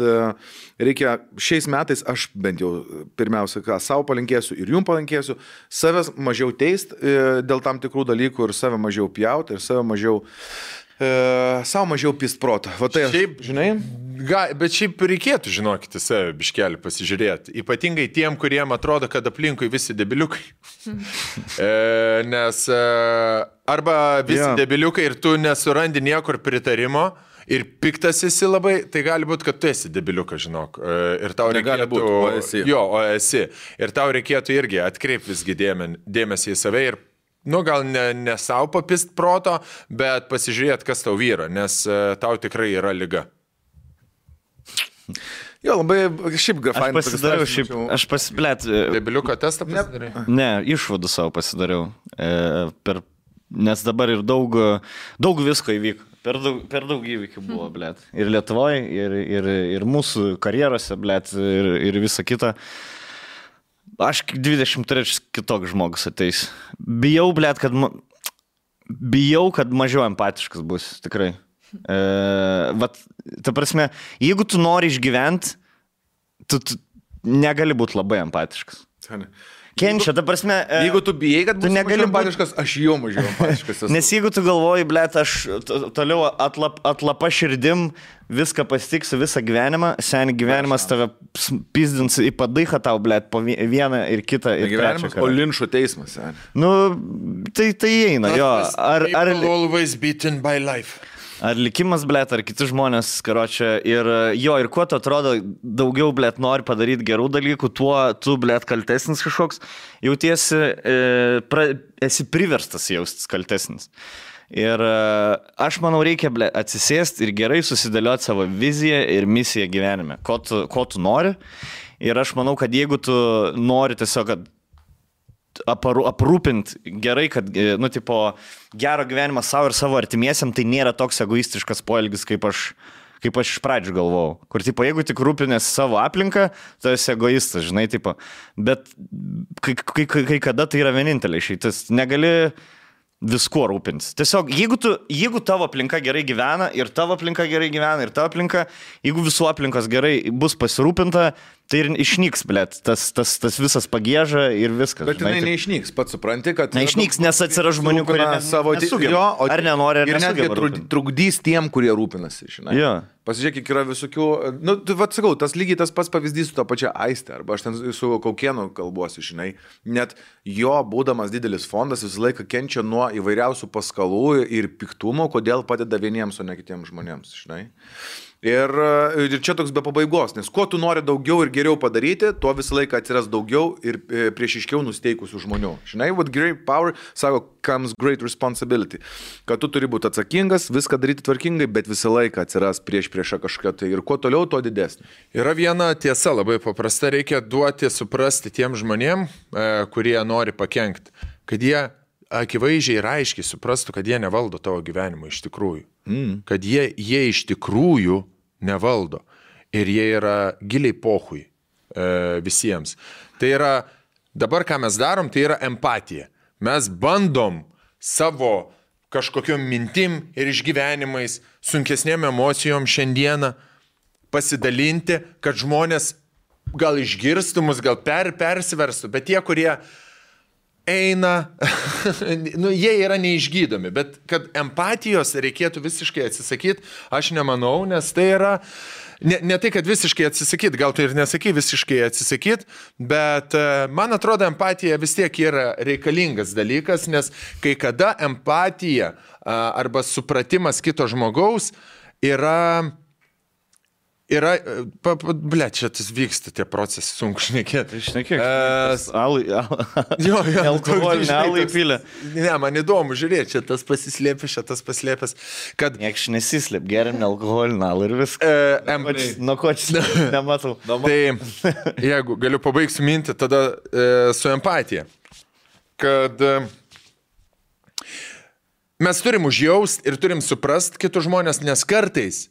reikia šiais metais, aš bent jau pirmiausia, ką savo palinkėsiu ir jums palinkėsiu, savęs mažiau teist dėl tam tikrų dalykų ir save mažiau pjauti ir save mažiau... savo mažiau pist protą. Va tai, šiaip, žinai? Bet šiaip reikėtų, žinokite, save biškelį pasižiūrėti. Ypatingai tiem, kuriem atrodo, kad aplinkui visi debiliukai. Nes arba visi debiliukai ir tu nesurandi niekur pritarimo ir piktas esi labai, tai gali būti, kad tu esi debiliukas, žinok. Ir tau reikėtų... o esi. Jo, o esi. Ir tau reikėtų irgi atkreipti visgi dėmesį į save ir gal ne savo papist proto, bet pasižiūrėti, kas tau vyra, nes tau tikrai yra liga. Jo, labai šiaip fainas. Aš pasiplėt. Debiliuko testą pasidariai? Ne, išvadų savo pasidariau. Nes dabar ir daug visko įvyko. Per daug įvykių buvo, blėt. Ir Lietuvoje, ir mūsų karjerose, blėt, ir visa kita. Aš 23 kitoks žmogus ateis. Bijau, blėt, kad mažiau empatiškas bus, tikrai. Ta prasme, jeigu tu nori išgyventi, tu negali būti labai empatiškas. Kenčia, ta prasme... Jeigu tu bijai, kad tu negali empatiškas, aš jau mažiau empatiškas. Nes jeigu tu galvoji, blėt, aš toliau atlapa širdim viską pasitiksiu visą gyvenimą, seniai gyvenimas tave pizdins į padaichą tau, blėt, po vieną ir kitą. Ir gyvenimas po linčo teismas, seniai. Tai eina, jo. Always beaten by life. Ar likimas, blėt, ar kiti žmonės, karočią, ir kuo tu atrodo daugiau, blėt, nori padaryti gerų dalykų, tuo tu, blėt, kaltesnis kažkoks, jautiesi, esi priverstas jaustis kaltesnis. Ir aš manau, reikia, blėt, atsisėsti ir gerai susidėlioti savo viziją ir misiją gyvenime, ko tu nori. Ir aš manau, kad jeigu tu nori tiesiog, kad aprūpinti gerai, kad, gero gyvenimą savo ir savo artimiesiam, tai nėra toks egoistiškas poelgis, kaip aš iš pradžių galvojau. Kur, jeigu tik rūpinėsi savo aplinką, tai esi egoistas, žinai, bet kai kada tai yra vienintelė išeitis. Negali viskuo rūpintis. Tiesiog, jeigu tavo aplinka gerai gyvena ir tavo aplinka gerai gyvena ir tavo aplinka, jeigu visų aplinkos gerai bus pasirūpinta, tai ir išnyks, blėt, tas visas pagieža ir viskas. Bet jinai neišnyks, pats supranti, kad... Neišnyks, nes atsiras žmonių, kurie nesugeba. Ar nenori, ar nesugeba. Ir netgi trukdys tiem, kurie rūpinasi, žinai. Jo. Pasižiūrėk, yra visokių... Nu, vat sakau, tas lygiai tas pats pavyzdys su to pačia Aiste, arba aš ten su Kaukienu kalbuosi, žinai. Net jo, būdamas didelis fondas, visą laiką kenčia nuo įvairiausių paskalų ir piktumo, kodėl padeda vieniems, o ne kitiems žmonėms, žinai. Ir čia toks be pabaigos, nes kuo tu nori daugiau ir geriau padaryti, tuo visą laiką atsiras daugiau ir priešiškiau nusteikusių žmonių. Žinai, with great power, sako, comes great responsibility. Kad tu turi būti atsakingas, viską daryti tvarkingai, bet visą laiką atsiras priešą kažką tai. Ir kuo toliau, tuo didesnė. Yra viena tiesa labai paprasta, reikia duoti suprasti tiem žmonėm, kurie nori pakenkti, kad jie akivaizdžiai ir aiškiai suprastų, kad jie nevaldo tavo gyvenimo iš tikrųjų. Kad jie iš tikrųjų nevaldo. Ir jie yra giliai pohui visiems. Tai yra, dabar ką mes darom, tai yra empatija. Mes bandom savo kažkokiom mintim ir išgyvenimais, sunkesnėm emocijom šiandieną pasidalinti, kad žmonės gal išgirstų mus, gal persiverstų, bet tie, kurie eina, nu, jie yra neišgydomi, bet kad empatijos reikėtų visiškai atsisakyti, aš nemanau, nes tai yra, ne tai, kad visiškai atsisakyti, gal tai ir nesakai visiškai atsisakyti, bet man atrodo, empatija vis tiek yra reikalingas dalykas, nes kai kada empatija arba supratimas kito žmogaus yra, čia tas vyksta tie procesai, sunku šnekėti. Šnekėk, alkoholinį alų įpylę. Ne, man įdomu žiūrėti, čia tas pasislėpęs, čia tas paslėpęs, kad... Nieks nesislėp, geriam alkoholinį alų ir viską. Nuo ko čia nematau. Tai jeigu galiu pabaigsiu mintį, tada su empatija, kad mes turim užjaust ir turim suprast kitus žmonės, nes kartais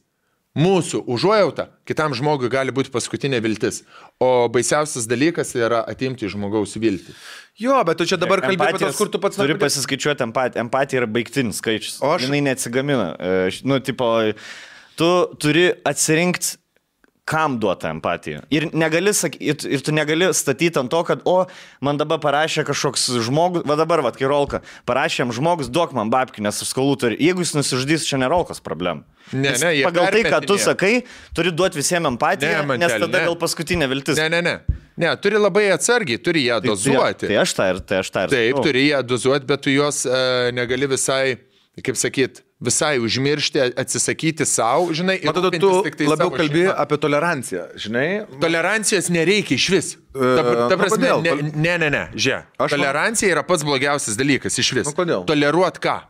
mūsų užuojauta kitam žmogui gali būti paskutinė viltis, o baisiausias dalykas yra atimti žmogaus viltį. Jo, bet tu čia dabar kalbė apie tas, kur tu pats... Turi pasiskaičiuoti empatiją. Empatija yra baigtinis skaičius. Jinai neatsigamina. Nu, tipo, tu turi atsirinkti, kam duota empatija. Ir tu negali statyti ant to, kad, man dabar parašė kažkoks žmogus, dabar, kai Rolka, parašė jam žmogus, duok man babkį, nes aš skolų turiu. Jeigu jis nusižudys, čia ne Rolkos problem. Pagal tai, ką tu sakai, turi duoti visiems empatiją, nes tada gal paskutinė viltis. Ne, turi labai atsargiai, turi ją dozuoti. Tai aš tą ir. Taip, turi ją dozuoti, bet tu jos negali visai, kaip sakyt, visai užmiršti, atsisakyti savo, žinai, ir tada tu labiau kalbi apie toleranciją, žinai? Tolerancijos nereikia iš vis. Ta prasme, žiūrėk. Tolerancija yra pats blogiausias dalykas iš vis. Toleruot ką?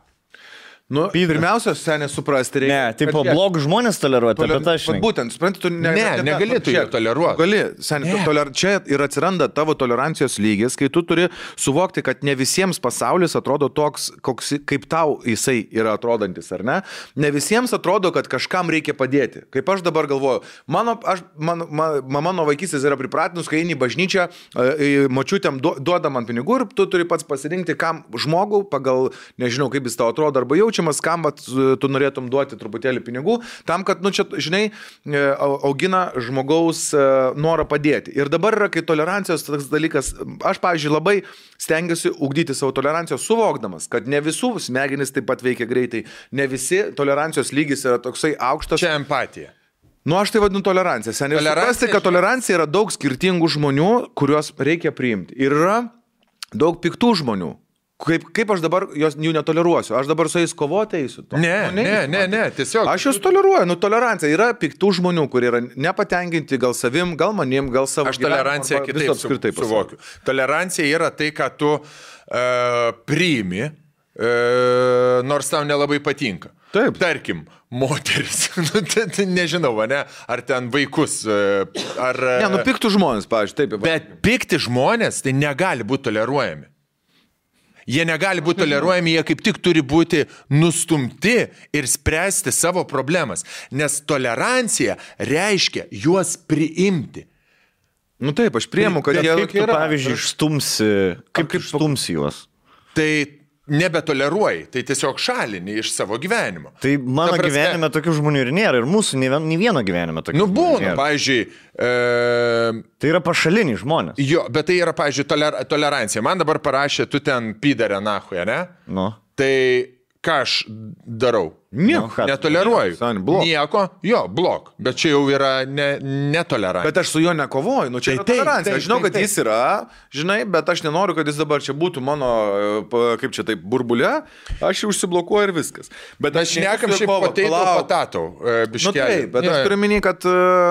Nu, pirmiausia, seniai suprasti reikia. Ne, tipo, blogus žmonės toleruoti, bet aš... Būtent, supranti, tu negalėtų jų toleruoti. Gali, seniai, čia ir atsiranda tavo tolerancijos lygis, kai tu turi suvokti, kad ne visiems pasaulis atrodo toks, kaip tau jisai yra atrodantis, ar ne? Ne visiems atrodo, kad kažkam reikia padėti. Kaip aš dabar galvoju, mama nuo vaikystės yra pripratinus, kai eini į bažnyčią, močiutėm duoda man pinigų ir tu turi pats pasirinkti, kam žmogų pagal, nežinau, kaip jis tau atrodo arba jaučia, kam tu norėtum duoti truputėlį pinigų, tam, kad, čia, žinai, augina žmogaus norą padėti. Ir dabar yra, kai tolerancijos toks dalykas, aš, pavyzdžiui, labai stengiuosi ugdyti savo toleranciją, suvokdamas, kad ne visų smegenys taip pat veikia greitai, ne visi tolerancijos lygis yra toksai aukštas. Čia empatija. Nu, aš tai vadinu toleranciją. Seniai suprasti, kad tolerancija yra daug skirtingų žmonių, kuriuos reikia priimti. Ir yra daug piktų žmonių. Kaip aš dabar jų netoleruosiu? Aš dabar su jais kovoti eisiu? Ne, tiesiog. Aš juos toleruoju, tolerancija. Yra piktų žmonių, kurie yra nepatenkinti gal savim, gal manim, gal savo gyvenimu. Aš toleranciją kitaip suvokiu. Tolerancija yra tai, ką tu priimi, nors tau nelabai patinka. Taip. Tarkim, moteris, nežinau, ne, ar ten vaikus, ar... Ne, piktų žmonės, pavyzdžiui, taip. Bet pikti žmonės tai negali būti toleruojami. Jie negali būti toleruojami, jie kaip tik turi būti nustumti ir spręsti savo problemas. Nes tolerancija reiškia juos priimti. Nu taip, aš priimu, kad jie kaip tu, pavyzdžiui, išstumsi, kaip išstumsi juos? Tai nebetoleruoji, tai tiesiog šalini iš savo gyvenimo. Tai mano gyvenime tokių žmonių ir nėra, ir mūsų nei vieno gyvenime tokių žmonių būna, nėra. Pavyzdžiui... Tai yra pašaliniai žmonės. Jo, bet tai yra, pavyzdžiui, tolerancija. Man dabar parašė, tu ten pidarė nahuja, ne? Nu. Tai ką aš darau? Nieko. Netoleruoju. Nieko, jo, blok. Bet čia jau yra netolerancija. Bet aš su juo nekovoju, nu čia yra tolerancija. Aš žinau, kad jis yra, žinai, bet aš nenoriu, kad jis dabar čia būtų mano, kaip čia taip, burbulė. Aš jau užsiblokuoju ir viskas. Bet aš nekam šiaip patatau. Nu taip, bet aš turiu minį, kad,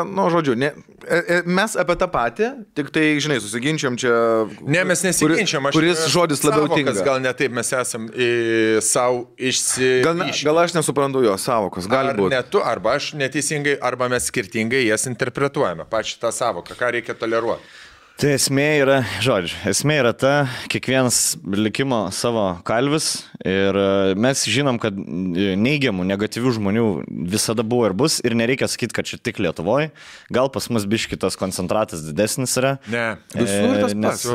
nu, žodžiu, mes apie tą patį, tik tai, žinai, susiginčiam čia. Ne, mes nesiginčiam. Kuris žodis labiau tinka. Gal ne taip, mes esam savo išsivyšę. Gal aš nesuprantu jo savokos, gali būti. Ne tu, arba aš neteisingai, arba mes skirtingai jas interpretuojame. Pačią tą savoką, ką reikia toleruoti. Tai esmė yra ta, kiekvienas likimo savo kalvis ir mes žinom, kad neigiamų, negatyvių žmonių visada buvo ir bus ir nereikia sakyti, kad čia tik Lietuvoje. Gal pas mus biški tas koncentratas didesnis yra. Ne, visur tas pats.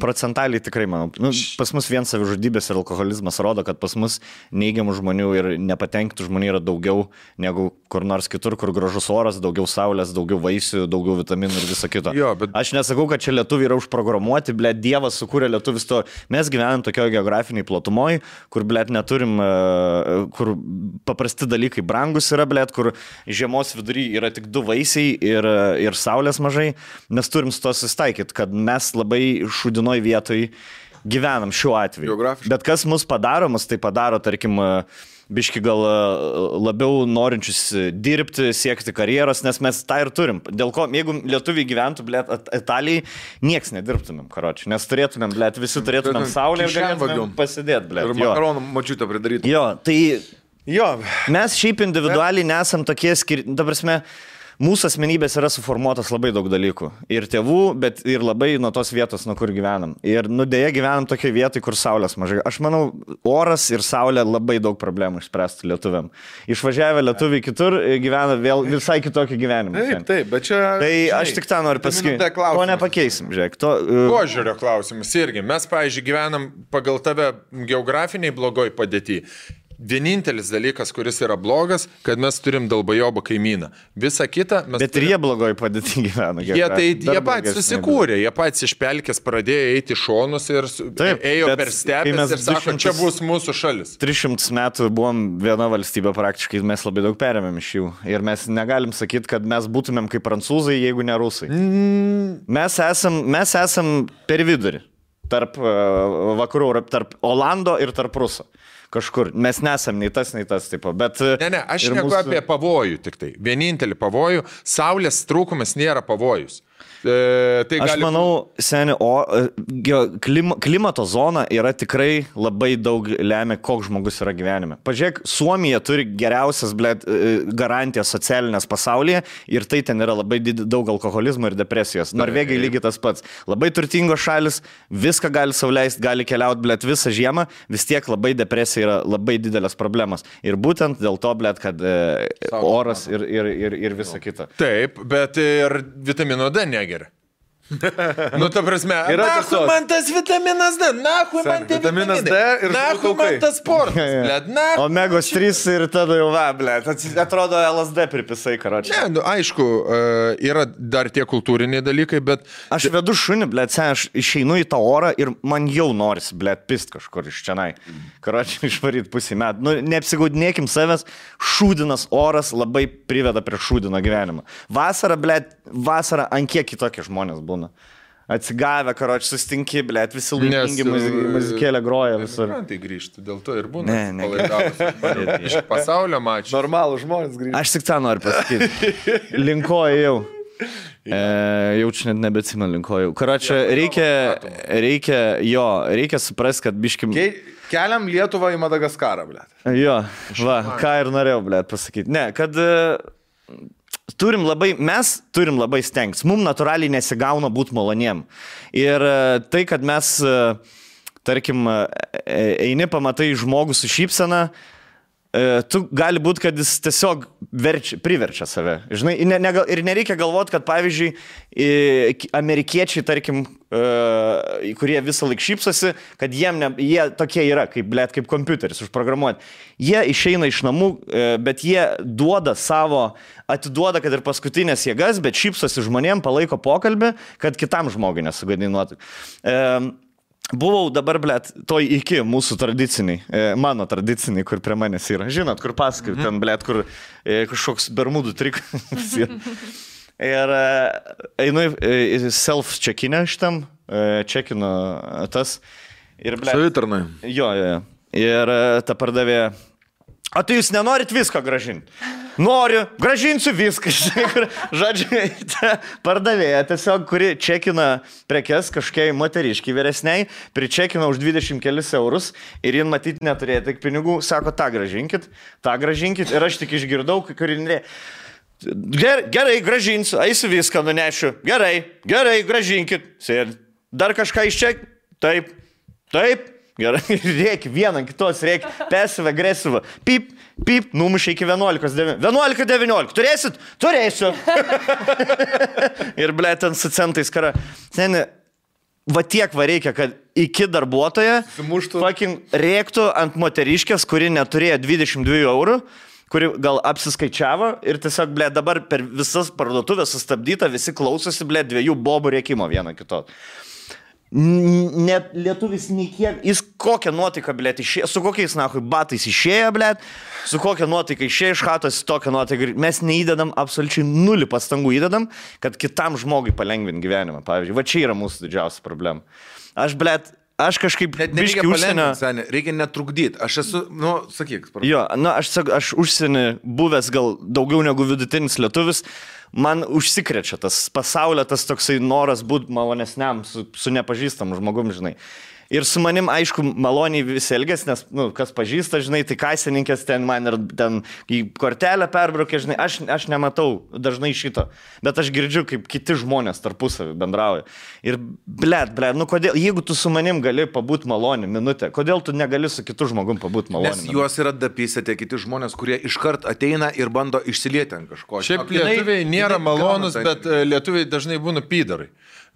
Procentaliai tikrai, manau. Nu, pas mus vien savižudybės ir alkoholizmas rodo, kad pas mus neigiamų žmonių ir nepatenkintų žmonių yra daugiau negu kur nors kitur, kur gražus oras, daugiau saulės, daugiau vaisių, daugiau vitaminų ir viso kito. Jo, bet... Aš nesakau, kad čia lietuviai yra užprogramuoti, blėt, Dievas sukūrė lietuvis to. Mes gyvenam tokioje geografiniai platumoj, kur, blėt, neturim, kur paprasti dalykai brangus yra, blėt, kur žiemos vidury yra tik 2 vaisiai ir saulės mažai. Mes turim su to susitaikyti, kad mes labai šūdinoj vietoj gyvenam šiuo atveju. Bet kas mus tai padaro, tarkim, biški gal labiau norinčius dirbti, siekti karjeros, nes mes tą ir turim. Dėl ko, jeigu lietuviai gyventų, blėt, Italijai, nieks nedirbtumėm, karoči, nes turėtumėm, blėt, visi turėtumėm saulę ir galėtumėm pasidėti, blėt. Ir makaronų močiutę pridaryti. Jo, tai mes šiaip individualiai nesam tokie ta prasme, mūsų asmenybės yra suformuotas labai daug dalykų. Ir tėvų, bet ir labai nuo tos vietos, nuo kur gyvenam. Ir dėja gyvenam tokiai vietai, kur saulės mažai. Aš manau, oras ir saulė labai daug problemų išspręstų lietuviam. Išvažiavę lietuviai kitur gyvena vėl visai kitokį gyvenimą. Taip, bet čia... Tai aš tik tą noriu pasakyti. To nepakeisim, žiūrėk. Požiūrio klausimas irgi. Mes, pavyzdžiui, gyvenam pagal tave geografiniai blogoj padėti. Vienintelis dalykas, kuris yra blogas, kad mes turim dalbajobą kaimyną. Visa kita mes... Bet ir jie blogoj padėti gyvena. Jie patys susikūrė, jie patys iš pelkės pradėjo eiti šonus ir ėjo per stepes ir sako, čia bus mūsų šalis. 300 metų buvom viena valstybė praktiškai, mes labai daug perėmėm iš jų. Ir mes negalim sakyti, kad mes būtumėm kaip prancūzai, jeigu ne rusai. Mes esam per vidurį. Tarp vakarų, tarp Olando ir tarp Ruso. Kažkur. Mes nesam nei tas, tipo. Bet... Ne, aš neku apie pavojų tik tai. Vienintelį pavojų. Saulės trūkumas nėra pavojus. Aš manau, seni, klimato zona yra tikrai labai daug lemia, koks žmogus yra gyvenime. Pažiūrėk, Suomija turi geriausias, blėt, garantijas socialinės pasaulyje ir tai ten yra labai daug alkoholizmo ir depresijos. Norvegai lygiai tas pats. Labai turtingos šalis, viską gali sau leisti, gali keliauti, blėt, visą žiemą, vis tiek labai depresija yra labai didelės problemas. Ir būtent dėl to, blėt, kad oras ir visa kita. Taip, bet ir vitamino D negeria. Nu, ta prasme, nahui man tas vitaminas D, nahui man tie vitaminas D ir nahui man tas sportas, blėt, nahui. Omegos 3 ir tada jau blėt, atrodo LSD pripisai, karočiui. Ne, nu, aišku, yra dar tie kultūriniai dalykai, bet... Aš vedu šunį, blėt, aš išeinu į tą orą ir man jau norisi, blėt, pist kažkur iš čianai. Karočiui, išvaryt pusį metų. Nu, neapsigaudinėkim savęs, šūdinas oras labai priveda prie šūdino gyvenimą. Vasara, blėt, ant kiek kitokie žmonės būna. Atsigavę, karoči, sustinki, blėt, visi laimingi muzikėlė groja visur. Tai grįžti, dėl to ir būna. Iš pasaulio mačiau. Normalų žmonės grįžti. Aš tik tą noriu pasakyti. Linkoju jau. Jaučiu net nebetsimenu linkoju. Karoči, reikia suprasti, kad biškim... Keliam Lietuvą į Madagaskarą, blėt. Jo, ką ir norėjau, blėt, pasakyti. Ne, kad... Mes turim labai stengtis. Mums natūraliai nesigauna būti maloniem. Ir tai, kad mes, tarkim, eini, pamatai žmogų su šypsena, tu gali būti, kad jis tiesiog priverčia save. Žinai, ir nereikia galvoti, kad pavyzdžiui, amerikiečiai, tarkim, kurie visą laiką šypsosi, kad jie tokie yra, kaip kompiuteris užprogramuoti. Jie išeina iš namų, bet jie atiduoda, kad ir paskutinės jėgas, bet šypsosi žmonėm, palaiko pokalbį, kad kitam žmogui nesugadinuotų. Buvau dabar, toj iki mūsų tradiciniai, mano tradiciniai, kur prie manęs yra. Žinot, kur pasakai, ten, kur kažkoks bermudų trikas. Ir einu self-checkinę šitam, checkinu tas. Savitarnai. Jo. Ir ta pardavėja, o tai jūs nenorit visko gražinti? Noriu, gražinsiu viską. Žodžiu, pardavėja tiesiog, kuri čekina prekes kažkiai moteriškiai vyresniai, pričekina už 20 kelis eurus ir jin matyti neturėjo tik pinigų, sako, tą gražinkit. Ir aš tik išgirdau, kuri nerė. Gerai, gražinsiu, eisiu viską nunešiu. Gerai, gražinkit. Dar kažką išček? Taip. Gerai, reikia, vieną kitos reikia, pasyvą, agresyvą. Pip, numušė iki 11:19. 11:19, turėsit? Turėsiu. Ir, ten su centais kara. Seni, va tiek va reikia, kad iki darbuotoja rėktų ant moteriškės, kuri neturėjo 22 eurų, kuri gal apsiskaičiavo ir tiesiog, dabar per visas parduotuvės sustabdyta, visi klausosi, dviejų bobų rėkimo vieno kito. Net lietuvis nei kiek, jis kokią nuotaiką, išėjo, su kokiais batais išėjo, su kokią nuotaiką išėjo iš chatos, tokią nuotaiką. Mes neįdedam, absoliučiai 0 pastangų įdedam, kad kitam žmogui palengvinti gyvenimą. Pavyzdžiui, va čia yra mūsų didžiausia problema. Aš kažkaip biškį užsienio... Reikia netrukdyti. Aš esu, sakyk. Jo, aš užsienį buvęs gal daugiau negu vidutinis lietuvis. Man užsikrečia tas pasaulio, tas toksai noras būti malonesniam su nepažįstam žmogum, žinai. Ir su manim, aišku, maloniai visi elgės, nes, kas pažįsta, žinai, tai kasininkės ten man ir ten į kortelę perbraukė, žinai, aš nematau dažnai šito, bet aš girdžiu, kaip kiti žmonės tarpusavį bendrauja. Ir, kodėl, jeigu tu su manim gali pabūti malonį minutę, kodėl tu negali su kitu žmogum pabūti malonį? Nes juos yra dapysę tie kiti žmonės, kurie iškart ateina ir bando išsilieti ant kažko. Šiaip lietuviai nėra malonus, bet lietuviai dažnai būna pydarai.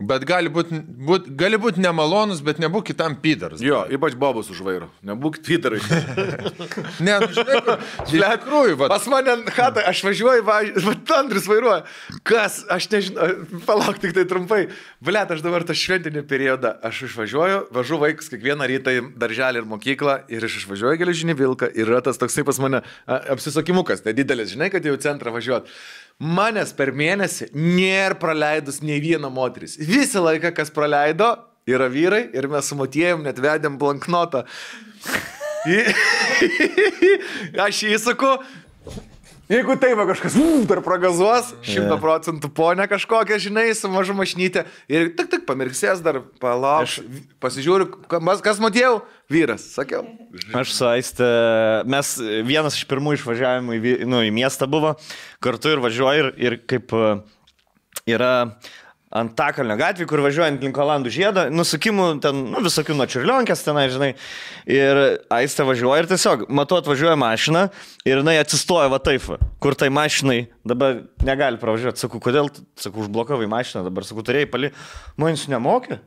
Bet gali būt nemalonus, bet nebūk kitam pydaras. Jo, ypač bobus už vairo. Nebūk pydarai. Ne, žinai, tikrųjų. Pas mane chatą, aš važiuoju, Andris vairuoja. Kas, aš nežinau, palauk tik tai trumpai. Aš dabar tą šventinį periodą, aš važu vaikus kiekvieną rytą į darželį ir mokyklą ir aš išvažiuoju geležinį vilką ir yra tas toksai pas mane apsisakimukas, nedidelis, žinai, kad jau centrą važiuot. Manęs per mėnesį nėra praleidus nei vieną moteris. Visą laiką, kas praleido, yra vyrai ir mes su motiejum net vedėm blanknotą. Aš jį sakau, jeigu taip kažkas dar pragazuos, 100% ponė kažkokia, žinai, su mažu mašnytė ir tik pamirksės dar, palauk, pasižiūriu, kas motiejau? Vyras, sakiau. Aš su Aiste, mes vienas iš pirmų išvažiavimų į miestą buvo, kartu ir važiuoju ir kaip yra Antakalnio gatvė, kur važiuojant link Olandų žiedo, nusukimų ten, visokių nuo Čiurlionkės tenai, žinai, ir Aiste važiuoja ir tiesiog, matau, atvažiuoja mašina ir jinai atsistoja va taip, kur tai mašinai dabar negali pravažiuoti. Sakau, kodėl, užblokavai mašiną, dabar sakau, turėjai pali, manis nemokė?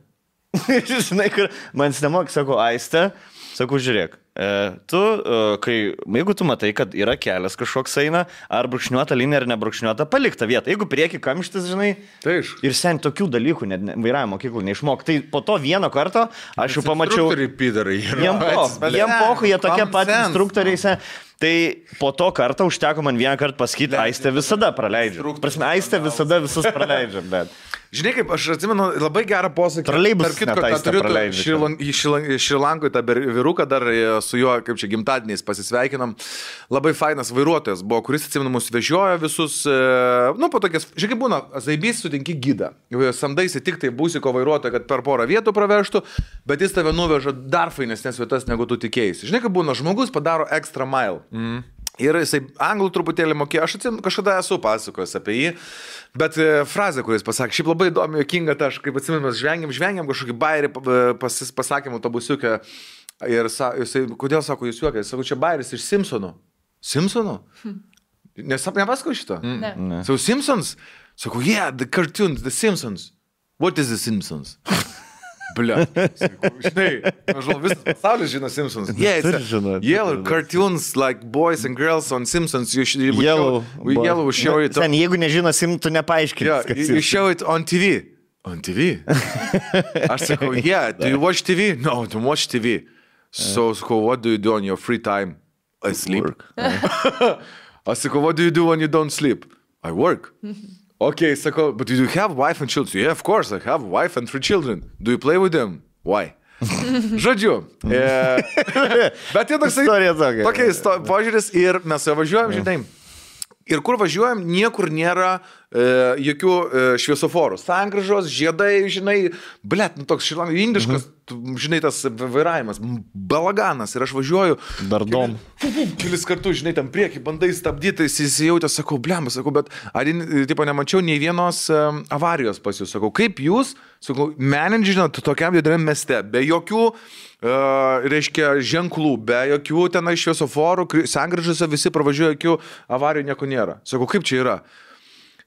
Žinai, kur manis nemokė, sakau, Aiste, sakau, žiūrėk. Jeigu tu matai, kad yra kelias kažkoks eina, ar brūkšniuota linija, ar nebrūkšniuota, palik tą vietą. Jeigu prieki kamštis, žinai, ir sen tokių dalykų net vairavimo mokyklų neišmok. Tai po to vieno karto aš jau pamačiau... Jiem pohu, jie tokie pat instruktoriai. Tai po to kartą užteko man vieną kartą pasakyti, Aiste visada praleidžia. Prasme, Aiste visada visus praleidžia, bet... Žinai, kaip aš atsimenu labai gerą posakį. Troleibus Šrilankoj tą vyruką dar su juo, kaip čia, gimtadieniais pasisveikinam. Labai fainas vairuotojas buvo, kuris, atsimenu, mus vežiojo visus, po tokias, žinai, kaip būna, zaibys sutinki gidą. Samdaisi tik tai būsiko vairuotoją, kad per porą vietų pravežtų, bet jis tave nuveža dar fainesnės vietas, negu tu tikėjai. Žinai, kaip būna, žmogus padaro extra mile. Ir jisai anglų truputėlį mokėjo, aš atsimenu, kažkada esu pasakojęs apie jį, bet frazė, kuris pasakė, šiaip labai įdomi, jokinga, tai aš kaip atsimenu, mes žvengiam kažkokį bairį, pasakėm autobusiukę ir jisai, kodėl sako, jūs juokai, sako, čia bairis iš Simpsonų. Simpsonų? Nepasakau šito? Ne. So Simpsons? Sakau, yeah, the cartoons, the Simpsons. What is the Simpsons? Bля. Žinai, aš žinau, visas pasaulis žino Simpsons. Yeah, yellow cartoons like boys and girls on Simpsons. Yellow show it. Sen, jeigu nežino Simpsons, tu nepaaiškini. Yeah, you show it on TV. On TV? Aš sakau, yeah, do you watch TV? No, don't watch TV. So, what do you do on your free time? I sleep. Aš sakau, what do you do when you don't sleep? I work. Okay, sakau, but do you have wife and children? Yeah, of course, I have a wife and 3 children. Do you play with them? Why? Žodžiu. Bet tai toks požiūris ir mes važiuojam, žinai. Ir kur važiuojam, niekur nėra jokių šviesoforų. Sankryžos, žiedai, žinai, blet, toks indiškas, žinai, tas vairavimas, balaganas. Ir aš važiuoju. Dardom. Kelis kartus, žinai, tam priekį, bandai stabdyti, įsijautę, sakau, blem, sakau, bet tipo, nemačiau nei vienos avarijos pas jūs. Sakau, kaip jūs, sakau, menedžinat tokiam dideliam mieste, be jokių reiškia ženklų, be jokių tenai šviesoforų, sankryžose visi pravažiuoja, jokių avarijų nieko nėra. Sakau, kaip čia yra?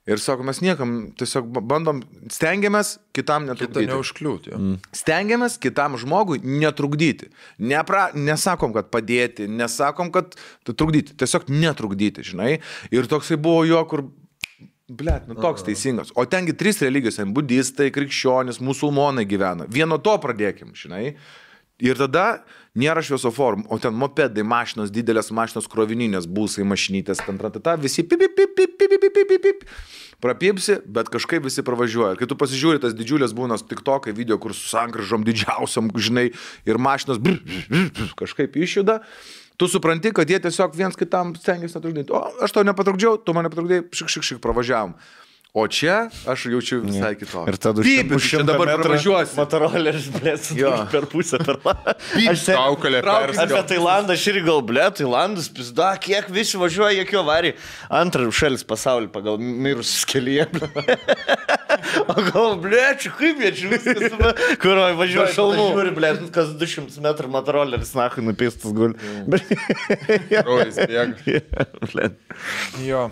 Ir sako, mes niekam tiesiog bandom, stengiamės kitam netrukdyti. Kita neužkliūti. Stengiamės kitam žmogui netrukdyti. Nesakom, kad padėti, nesakom, kad trukdyti. Tiesiog netrukdyti, žinai. Ir toksai buvo jo, kur, blet, toks teisingas. O tengi 3 religijos, budistai, krikščionis, musulmonai gyvena. Vieno to pradėkim, žinai. Ir tada nėra šviesoforų, o ten mopedai, mašinos, didelės mašinos, krovininės, būsai, mašinytės, visi pip, prapipsi, bet kažkaip visi pravažiuoja. Ir kai tu pasižiūri, tas didžiulės būnas tiktokai video, kur su sankryžom didžiausiam, žinai, ir mašinos kažkaip išjuda, tu supranti, kad jie tiesiog viens kitam stengiasi netrukdyti. O, aš tau nepatrukdžiau, tu man nepatrukdėjai, šik, pravažiavam. O čia aš jaučiu visai kitokį. Ir tada čia dabar pravažiuosi. Motoroleris, blėt, per pusę per landą. Kaukalė perskau. Apie Tailandą aš irgi gal, blėt, Tailandas, pizda, kiek visi važiuoja, jokių avarijų. Antras šalis pasaulyje pagal mirusius kelyje. O gal, blėt, čia kaip jie čia viskas, kur važiuoja šalmų. Žiūri, blėt, kas 200 metrų motoroleris, nahui, nupistas guli. Rojas bėga. Jo.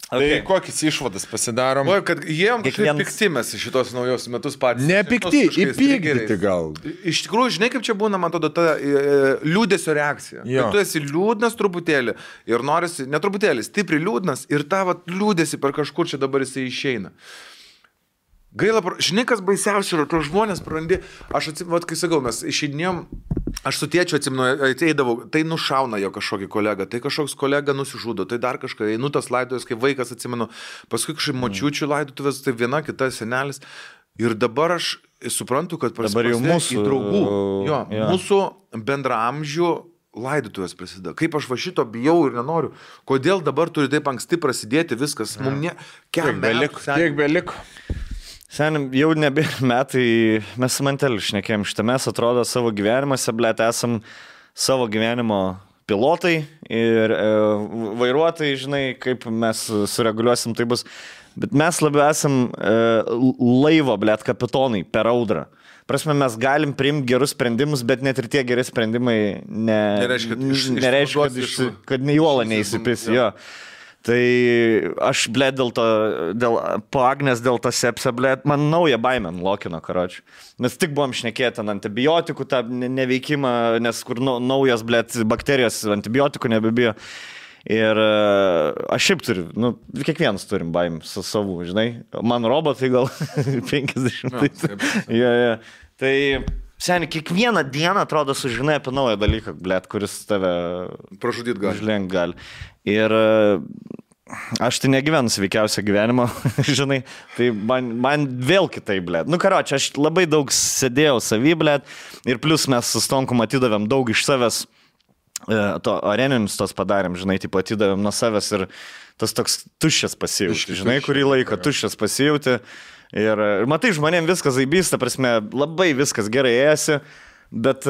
Okay. Tai kokias išvadas pasidarom? O, kad jiem kažkaip piktimės šitos naujos metus patys. Nepikti, įpykdyti gal. Iš tikrųjų, žinai, kaip čia būna, man atrodo, ta liūdesio reakcija. Kad tu esi liūdnas truputėlį ir norisi, ne truputėlį, stipriai liūdnas ir tavo liūdesi per kažkur čia dabar jisai išeina. Gaila, žinai, kas baisiausia yra, to žmonės prarandi, aš atsimenu, kai sakau, mes išeidinėjom, aš su tėčiu atsimenu, ateidavau, tai nušauna jo kažkokį kolegą, tai kažkoks kolega nusižudo, tai dar kažką, einu tas laidotuvės, kai vaikas atsimenu, paskui kažkaip močiučių laidotuvės, tai viena, kita senelis. Ir dabar aš suprantu, kad prasidėjo mūsų draugų, mūsų bendraamžių laidotuvės prasideda. Kaip aš va šito bijau ir nenoriu, kodėl dabar turi taip anksti prasidėti viskas, mums tiek beliko. Senim, jau nebėra metai, mes su Manteliu šnekėjom šitą, mes atrodo savo gyvenimuose, blėt, esam savo gyvenimo pilotai ir vairuotojai, žinai, kaip mes sureguliuosim, tai bus. Bet mes labiau esam laivo, blėt, kapitonai per audrą. Prasme, mes galim priimti gerus sprendimus, bet net ir tie geri sprendimai nereiškia, kad nei uola neįsipis. Tai aš, blėt, po Agnės, dėl to sepsio, blėt, man naują baimę lokino, karočiui. Mes tik buvom šnekėti ant antibiotikų tą neveikimą, nes kur naujas, blėt, bakterijos antibiotikų nebebijo. Ir aš šiaip turiu, kiekvienas turim baimę su savu, žinai. Man robotai gal 50. Tai, seniai, kiekvieną dieną atrodo sužinai apie naują dalyką, blėt, kuris tave pražudyt gali. Ir aš tai negyvenu sveikiausią gyvenimą, žinai, tai man vėl kitai, blėt. Karoči, aš labai daug sėdėjau savy, blėt, ir plus mes su Stonku atidavėm daug iš savęs, to areninius tos padarėm, žinai, taip atidavėm nuo savęs ir tas toks tuščias pasijauti, žinai, kurį laiką tuščias pasijauti. Ir matai, žmonėm viskas zaibys, ta prasme, labai viskas gerai ėsi, bet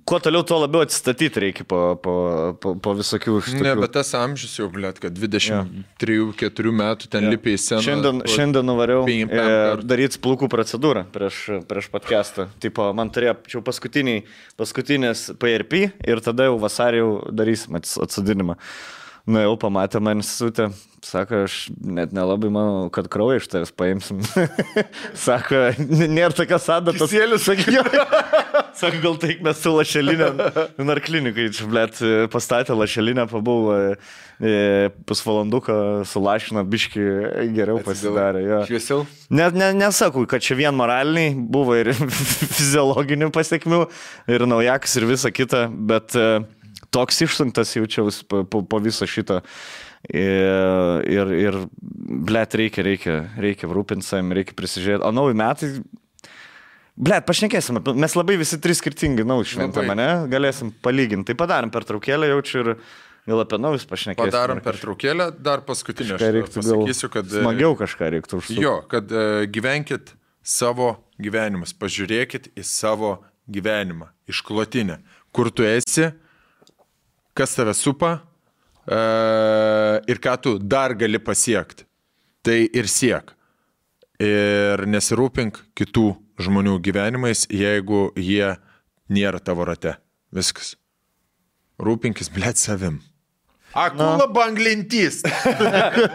kuo toliau, tuo labiau atsistatyti reikia po visokių šitokių. Ne, bet tas amžius jau, blėt, kad 23-4 metų ten lipi į sceną. Šiandien nuvariau daryti plaukų procedūrą prieš podcastą. Tipo, man turėjo paskutinės PRP ir tada jau vasarį jau darysim atsodinimą. Na jau pamatė man institutę, sako, aš net nelabai manau, kad kraują iš tavęs paimsim. Sako, nėra tokios adatos. Kisėlius, sakyčiau. Sako, gal taik mes su lašelinė, narklinikai, blėt, pastatė lašelinę, pabuvau pusvalanduką, sulašino, biški geriau pasidarė. Ja. Šviesiau? Nesakau, kad čia vien moraliniai, buvo ir fiziologinių pasiekmių, ir naujakas, ir visa kita, bet toks išsunktas jaučiausi po viso šito. Ir blėt, reikia rūpinti savim, reikia prisižiūrėti. O nauji metai, blėt, pašnekėsim, mes labai visi trys skirtingi nauji šventame, ne? Galėsim palyginti. Tai padarom pertraukėlę, jaučiu ir gal apie naujus pašnekėsim. Padarom pertraukėlę, dar paskutinę aš pasakysiu, kad... Smagiau kažką reiktų užsukti. Jo, kad gyvenkit savo gyvenimus, pažiūrėkit į savo gyvenimą, išklotinę, kur tu esi, kas tave supa ir ką tu dar gali pasiekti. Tai ir siek. Ir nesirūpink kitų žmonių gyvenimais, jeigu jie nėra tavo rate. Viskas. Rūpinkis, blėt, savim. Akula banglentys.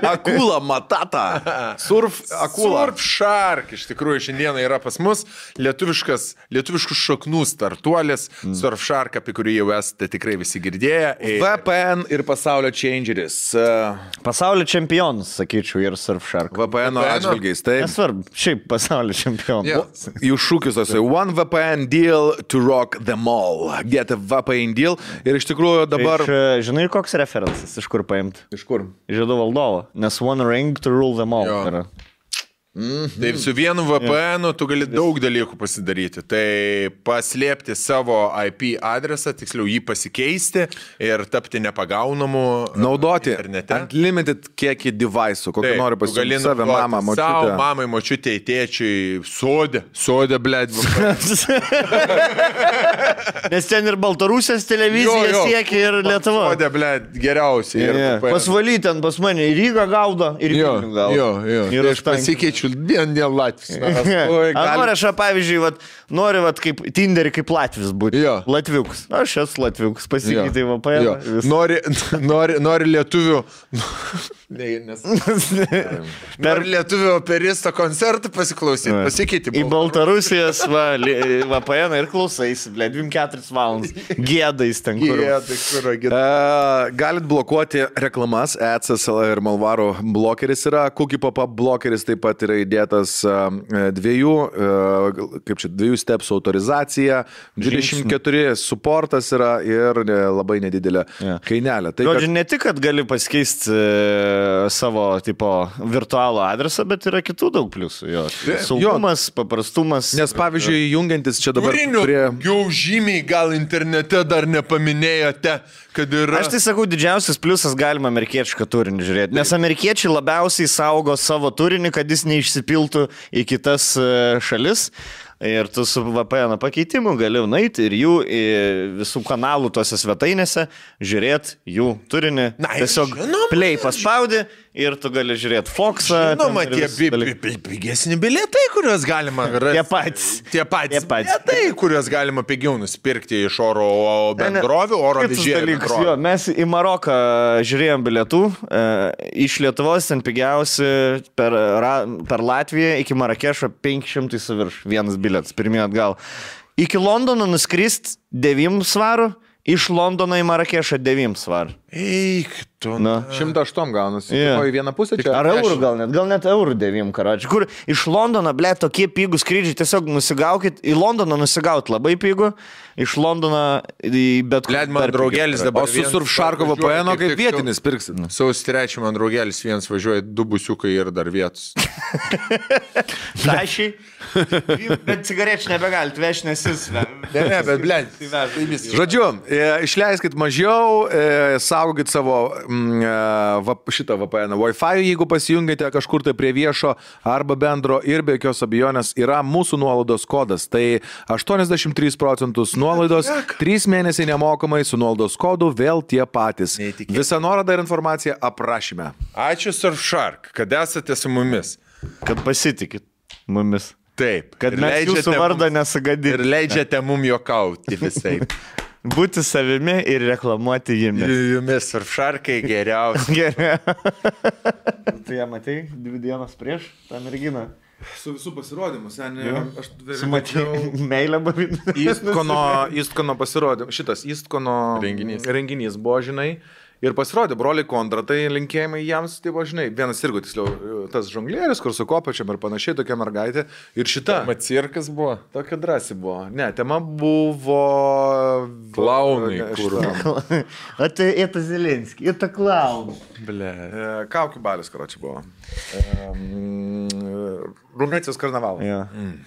Akula matata. Surf akula. Surf shark. Iš tikrųjų, šiandieną yra pas mus lietuviškų šaknų startuolis. Surf shark, apie kurį jau esate tikrai visi girdėję. VPN ir pasaulio changeris. Pasaulio čempionas, sakyčiau, ir surf shark. VPN atžvilgiais, taip. Nesvarbu, šiaip pasaulio čempionas. Yeah. Jų šūkis tasai. One VPN deal to rock them all. Get a VPN deal. Ir iš tikrųjų dabar... Žinai, koks referentas? Iš kur paimti? Iš kur? Žiedų valdovo. Nes one ring to rule them all. Jo. Taip, su vienu VPN tu gali daug dalykų pasidaryti. Tai paslėpti savo IP adresą, tiksliau jį pasikeisti ir tapti nepagaunamu. Naudoti internete. Unlimited kiekį device'ų, kokį nori pasiūlyti save, mamą, močiutę. Savo mamai, močiutei, tėčiui, sodė, blėt. Nes ten ir Baltarusijos televizija siekia ir Lietuva. Sodė, blėt, geriausiai. Pasvaly ten pas mane į Rygą gaudo ir į Vilnių gaudo. Jo. Ir aš pasikeičiu dien Latvis. Nori aš, pavyzdžiui, nori kaip Tinderį kaip Latvis būti. Latviuks. Aš esu Latviuks, pasikeitai VPN. Nori lietuvių... Nori lietuvių operisto koncertų pasiklausyti, pasikeiti. Į Baltarusijos VPN ir klausaisi, 24 valandas. Gėdais ten kur. Galit blokuoti reklamas, AdSense ir Malvaro blokeris yra, Cookie Pop-up blokeris taip pat yra įdėtas dviejų stepsų autorizacija, 24 supportas yra ir labai nedidelė kainelė. Žodžiu, ne tik, kad gali pasikeisti savo tipo virtualų adresą, bet yra kitų daug pliusų. Saugumas, paprastumas. Nes pavyzdžiui, jungiantis čia dabar prie... Jau žymiai gal internete dar nepaminėjote, kad yra... Aš tai sakau, didžiausias pliusas galima amerikiečių turinį žiūrėti. Nes amerikiečiai labiausiai saugo savo turinį, kad jis neišsipiltų į kitas šalis. Ir tu su VPN pakeitimu gali nueiti ir jų visų kanalų tose svetainėse žiūrėti jų turinį. Tiesiog play paspaudi ir tu gali žiūrėti Foxą. Žinoma, tie pigesni bilietai, kuriuos galima rasti. Tie patys bilietai, kuriuos galima pigiau nusipirkti iš oro bendrovių, oro vežėjų. Mes į Maroką žiūrėjom bilietų. Iš Lietuvos ten pigiausi per Latviją iki Marakešo 500 su virš vienas bilietas, pirmie atgal. Iki Londono nuskrist 9 svarų, iš Londono į Marakešą 9 svarų. Eik, tu. 108 gaunasi. Į vieną pusę čia. Ar eurų gal net eurų 9, karoči. Kur iš Londono, to kie pigų skrydžiai, tiesiog nusigaukit. Į Londoną nusigaut labai pigų. Iš Londono į bet kur. Man draugelis dabar. O su Surfsharko VPN kaip vietinis pirksit. Sausio 3 man draugelis vienas važiuoja 2 busiukai ir dar vietos. Tašiai. Bet cigarečių nebegalit vežti, nes jis. Ne, bet blėt. Žodžiu, išleiskit mažiau, saugokit savo šitą VPN. Wi-Fi, jeigu pasijungite kažkur tai prie viešo arba bendro ir be jokios abejonės yra mūsų nuolaidos kodas. Tai 83% nuolaidos, 3 mėnesiai nemokamai su nuolaidos kodu vėl tie patys. Visą nuorodą ir informaciją aprašyme. Ačiū Surfshark, kad esate su mumis. Kad pasitikit mumis. Taip. Kad mes jūsų vardą nesugadinti. Ir leidžiate mum juokauti visai. Būti savimi ir reklamuoti jumis. Jumis Surfsharkai geriausi. Tai ją matei 2 dienas prieš tą merginą? Su visų pasirodymu, seniai. Aš sumačiau meilę bavimą. Eastcono pasirodymu. Šitas Eastcono renginys buvo, žinai. Ir pasirodė broliai Kondratai, linkėjimai jiems, tai buvo, žinai, vienas irgi, tiksliau, tas žonglieris, kur su kopačiam ir panašiai, tokia mergaitė. Ir šita. Tema cirkas buvo? Tokia drąsi buvo. Ne, tema buvo... Klaunai. O tai это Zelenskis, это klaun. Ble. Kaukių balis, karočiui, buvo. Rumunijos karnavalą. Ja.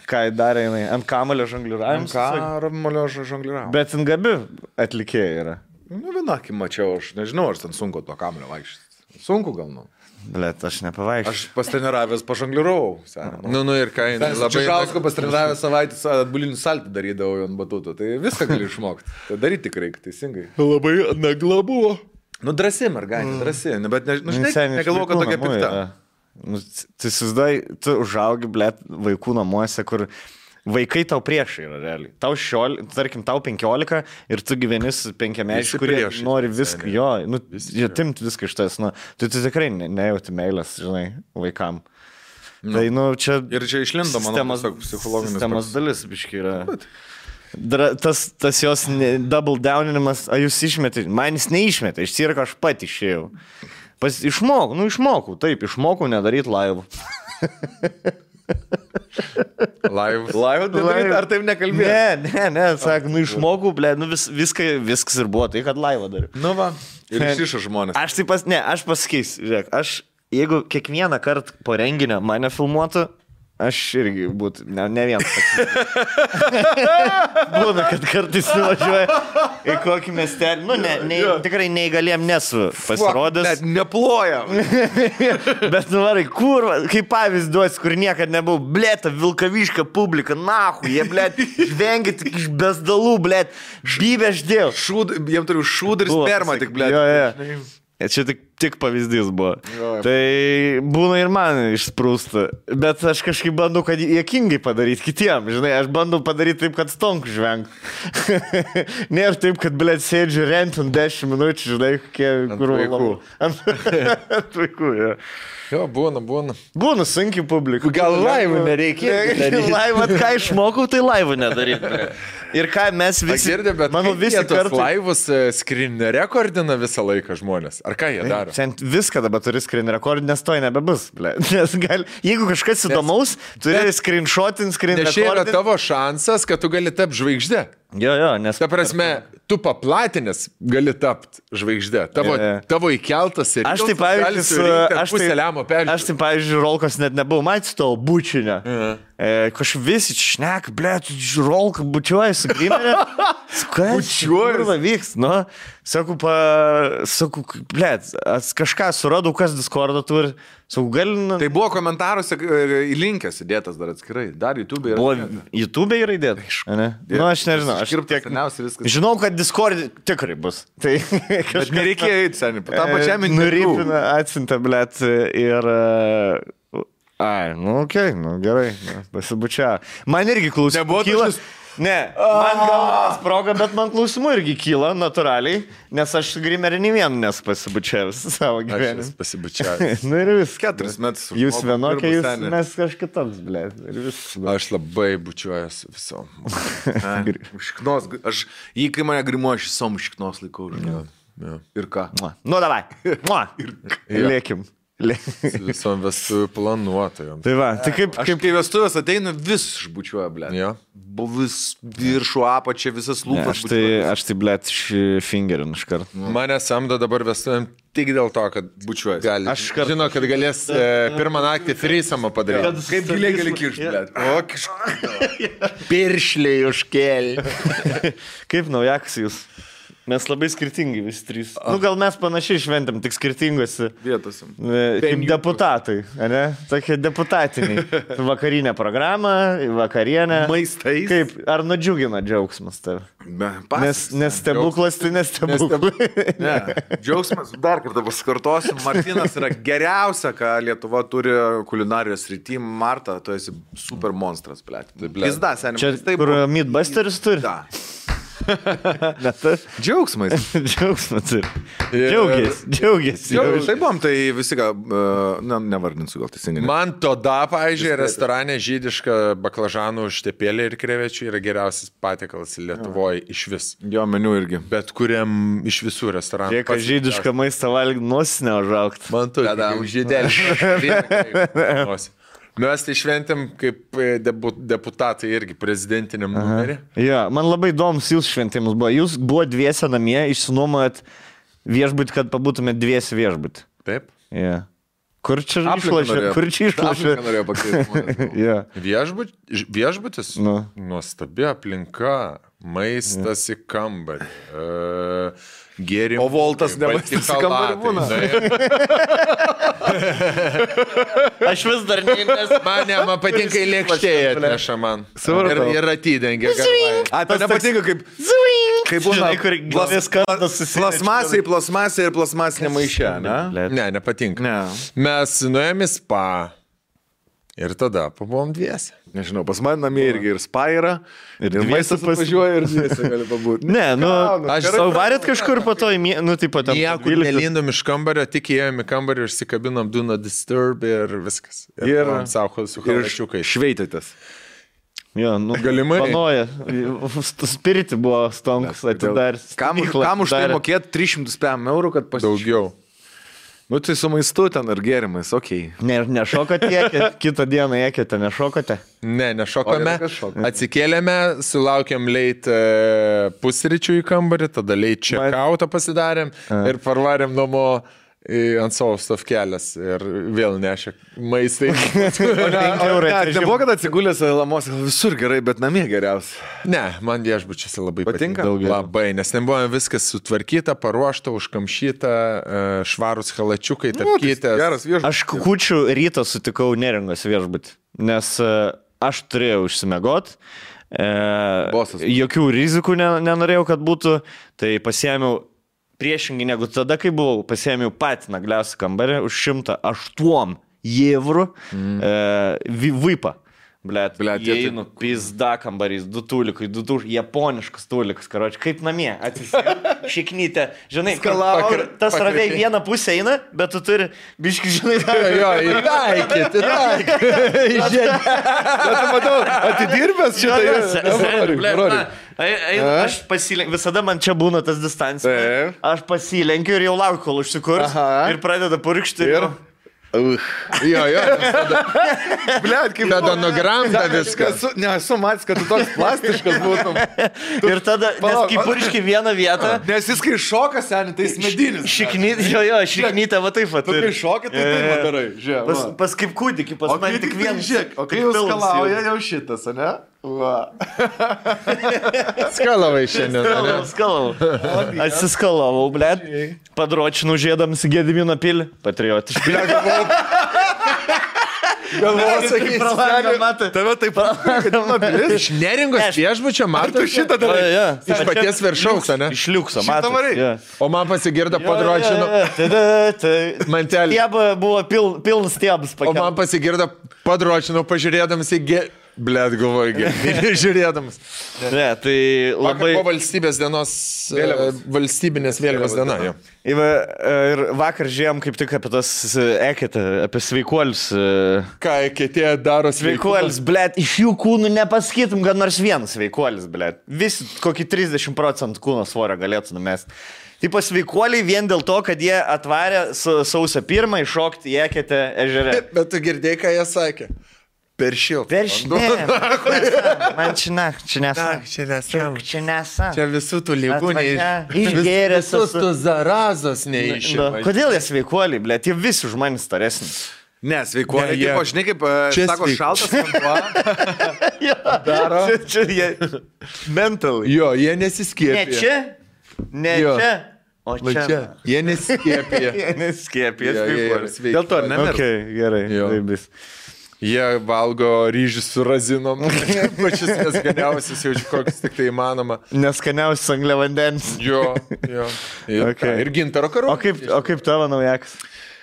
Ką darė jinai? Ant kamulio žongliravimas? Ant kamulio žongliravimas. Bet ant gabi atlikėjai yra. Nu, vienakį mačiau, aš nežinau, ar ten sunku to kamulio vaikščioti. Sunku gal, nu. Blet, aš nepavaikščiau. Aš pastreniravęs pažongliravau. Nu, ir ką, labai... Čižausko pastreniravęs savaitės atbulinį saltį darydavau ant batuto, tai viską gali išmokti. Tai daryti tik reikia, teisingai. Labai nagla buvo. Nu, drąsi, mergaitė, drąsi, bet negalvoju, kad tokia pikta. Nu, tu įsivaizduoji, tu užaugi, blet, vaikų namuose, kur... Vaikai tau priešai yra realiai. Tau tarkim, tau 15 ir tu gyveni su 5-mečiais, kurie nori viską, atimt viską iš tas, nu, tu tikrai nejauti meilės, žinai, vaikam. Nu. Tai, nu, čia... Ir čia išlindo, manau, psichologinis. Sistemos dalis, biškai, yra. Tas jos double downinimas, jūs išmetė, man jis neišmetė, iš cirko aš pat išėjau. Išmokau, nedaryti laivų. Laivų nedaryti, ar taip nekalbėjai? Ne, sakai, išmokau, ble, viskas ir buvo tai, kad laivą dariau. Nu va, ir išišo žmonės. Aš pasakysiu, žiūrėk, jeigu kiekvieną kartą po renginio mane filmuotų, aš irgi būtų, ne vienas. Būna, kad kartais nuvažiuoja į kokį miestelį. Nu, tikrai neįgaliem nesu pasirodęs. Bet neplojam. Bet nuvarai, kur, kaip pavyzdį duosi, kur niekad nebuvau, blėta, Vilkaviška publika, nahu, jie, blėt, žvengia tik iš bezdalų, blėt, bybė aš dėl. Jiem turiu šūdą ir spermą tik, blėt. Jo. Čia tik pavyzdys buvo. Tai būna ir man išsprūsta. Bet aš kažkaip bandau, kad juokingai padaryti kitiem. Žinai, aš bandau padaryti taip, kad stonku žvengt. Nėra taip, kad, blėt, sėdžiu rentant 10 minučių, žinai, kur vaikų. Ant vaikų, jo. Jo, būna. Būna sunkiai publika. Gal laivų nereikia. Laivą, ką išmokau, tai laivų nedaryti. Ir ką mes visi... Girdė, bet manau, visi kartu... laivus screen rekordina visą laiką žmonės. Ar ką jie daro? Viską dabar turi screen rekord, nes to nebebus. Nes jeigu kažkas įdomaus, turi screenshotint, screen rekordint. Nes čia yra tavo šansas, kad tu gali tapti žvaigždė. Jo, nes... Ta prasme, tu paplatinės gali tapti žvaigždė. Tavo įkeltas ir... Aš taip, pavyzdžiui, Rolkos net nebuvau matęs to bučinio. Kažkaip visi šnek, blėt, Rolką bučiuoja su grimerė. Bučiuoja. Vyks, nu. Sakau, blėt, kažką suradau, kas Discordą turi. Sakau, gal... Tai buvo komentaruose įlinkęs įdėtas dar atskirai. Dar YouTube yra. Buvo YouTube yra įdėtas. Nu, aš nežinau. Žinau, kad Discord tikrai bus. Tai kažkas... Nereikėjo eiti, seniai. Tą pačiam interviu. Nuripina, atsinta, blėt, ir... Ai, nu, okei, gerai, pasibučia. Man irgi klausimų kyla. Ne, man gal sproga, bet man klausimų irgi kyla natūraliai, nes aš grimerį nei vienu nesu pasibučiavęs savo gyvenimą. Aš pasibučiavęs. Nu ir vis. 4 metus. Jūs vienokie, mes kažkitoks, blėt. Aš labai bučiuojas visom. Šiknos, kai mane grimuoja, aš visom šiknos laikau. Ir ką? Nu, davai. Lėkim. Visom vestuvių planuotojom. Tai va, tai kaip... Aš kai vestuvės ateinu, vis išbučiuoja, blėt. Jo. Vis viršų apačia, visas lūpas. Aš tai, blėt, fingerin iš karto. Mane samdo dabar vestuvėm tik dėl to, kad bučiuoja. Aš žinau, kad galės pirmą naktį threesome'ą padaryti. Kaip giliai gali kiršti, blėt. O, kažką. Piršliai užkėlė. Kaip naujakas jūs? Mes labai skirtingi visi trys. Gal mes panašiai šventėm, tik skirtingose vietose. Kaip deputatai, ne? Tokie deputatiniai. Vakarinė programa, vakarienė. Maistais. Kaip, ar nudžiugina džiaugsmas tave? Nes stebuklas tai nestebuklas. Ne, džiaugsmas, dar kartą pasikartosiu, Martinas yra geriausia, ką Lietuva turi kulinarijos srity. Marta, tu esi super monstras, blėt. Pizda, seniai. Čia kur Mythbusters turi? Da. Džiaugsmas. Džiaugsmas ir. Džiaugiasi. Tai buvom, tai visi, nevardinsiu gal teisingai. Man tada, pavyzdžiui, restorane žydiška baklažanų užtepėlė ir krevečių yra geriausias patiekalas Lietuvoje iš vis. Jo meniu irgi. Bet kuriam iš visų restoranų. Kiek žydišką maistą valgyti nosinę užaugti. Man tu, žydelį. Mes tai šventėm kaip deputatai irgi prezidentiniam numerį. Ja, man labai įdomus jūsų šventimas buvo. Jūs buvo dviese namie, išsinuomojat viešbutį, kad pabūtumėt dviese viešbutį. Taip. Ja. Kur čia išlošė? Kur čia išlošė? Norėjau pakeisti. Ja. Viešbutis? Nuostabi aplinka, maistas į kambarį. Gėrimų. O Voltas nemaistas į kambarį būna. Aš vis dar nes man patinka į lėkštėje atneša man. Ir atidengia. Tai nepatinka kaip būna plasmasė ir plasmasinė maišė, ne? Ne, nepatinka. Mes nuėjome į spa ir tada pabuvom dviese. Nežinau, pas man namie irgi ir spa yra, ir maistas važiuoja ir dviese gali pabūti. Ne, aš savo varėt kažkur po to, tipo ten. Niekur nelindom iš kambario, tik įėjom į kambarį, užsikabinom do not disturb ir viskas. Ir savo su halačiukai. Šveitėtės. Jo, galimai. Panoja. Spiriti buvo stonks atidaręs. Kam už tai mokėti 305 eurų, kad pasižiūrėtų? Daugiau. Tai su maistu ten ar gėrimais, okei. Nešokote, kitą dieną ekėte, nešokote? Ne, nešokome. Atsikėlėme, sulaukėm leit pusryčių į kambarį, tada leit check-outą pasidarėm ir parvarėm namo ant savo stovkelės ir vėl nešė maistai. Nebuvo, kad atsigulęs lamos visur gerai, bet namie geriausia. Ne, man viešbučiuose labai patinka. Labai, nes ten buvo viskas sutvarkyta, paruošta, užkamšyta, švarus halačiukai, tapkytė. Aš kukučių rytą sutikau Neringos viešbutį, nes aš turėjau užsimiegot. Jokių rizikų nenorėjau, kad būtų, tai pasiėmiau priešingai negu tada, kai buvau, pasiėmiau patį nagliausią kambarį už 108 eurų vipą. Blet, įeinu, pizda kambarys, 2 tulikai, 2 japoniškas tulikas, karoči, kaip namie, atsisėdu, šiknytę, žinai, tas raviai vieną pusę eina, bet tu turi, biški, žinai, įtaikyti. Bet matau, atidirbęs šitą. Aš pasilenkiu, visada man čia būna tas distancija, aš pasilenkiu ir jau laukiu, kol užsikurs ir pradeda purkšti. Jo. Blet, kaip tada nugramda viskas. Nesu matęs, kad tu toks plastiškas būtum. Ir tada, nes kai purški vieną vietą. Nes jis kai šoka, seniai, tai jis medinis. Šiknytę, va taip pat. Tu kai šoki, tai taip padarai. Pas kaip kūdikį, pas man tik vienas. O kai jau skalauja, jau šitas, ne? Skalavai šiandien. Skalavau. Atsiskalavau, blet. Padročinau žiedams į Gedimino pilį. Patriotiškai. Galvoju, sakysi, tave taip iš Neringos viešbučio matai šitą darai. Iš paties viršaus, ne? Iš liukso matai. O man pasigirdo padročino. Mantelį. Stieba buvo pilnas stiebas. O man pasigirdo padročino pažiūrėdamas į Blet, galvoju, žiūrėdamas. Ne, tai labai... Vakar po valstybės dienos, valstybinės vėliavos diena. Ir vakar žiūrėjom kaip tik apie tas eketę, apie sveikuolius. Ką eketė daro sveikuolius? Blet, iš jų kūnų nepasakytum, kad nors vienas sveikuolis, blet. Visi kokį 30% kūno svorio galėtų numesti. Tipo sveikuoliai vien dėl to, kad jie atvarė sausio 1 iššokti į eketę ežere. Bet tu girdėjai, ką jie sakė? Per šiltą. Man čia nesa. Čia visų tų lygų išgėręs. Visus tų zarazos neišima. Kodėl jie sveikuoliai, blėt, jie visi už manį staresni. Ne, sveikuoliai, tipo, žinai, kaip sako, šaltas vanduo. Daro. Čia jie mental. Jo, jie nesiskiepia. Ne, čia Ne čia. O čia. Jie neskiepė. Jie neskiepė. Dėl to nemirš. Okay, gerai. Jie valgo ryžius su razinom. Pačius neskaniausius, jau kokius tik tai įmanoma. Neskaniausius angliavandens. Jo. Okay. Ir gintaro karu. O kaip tavo naujakas?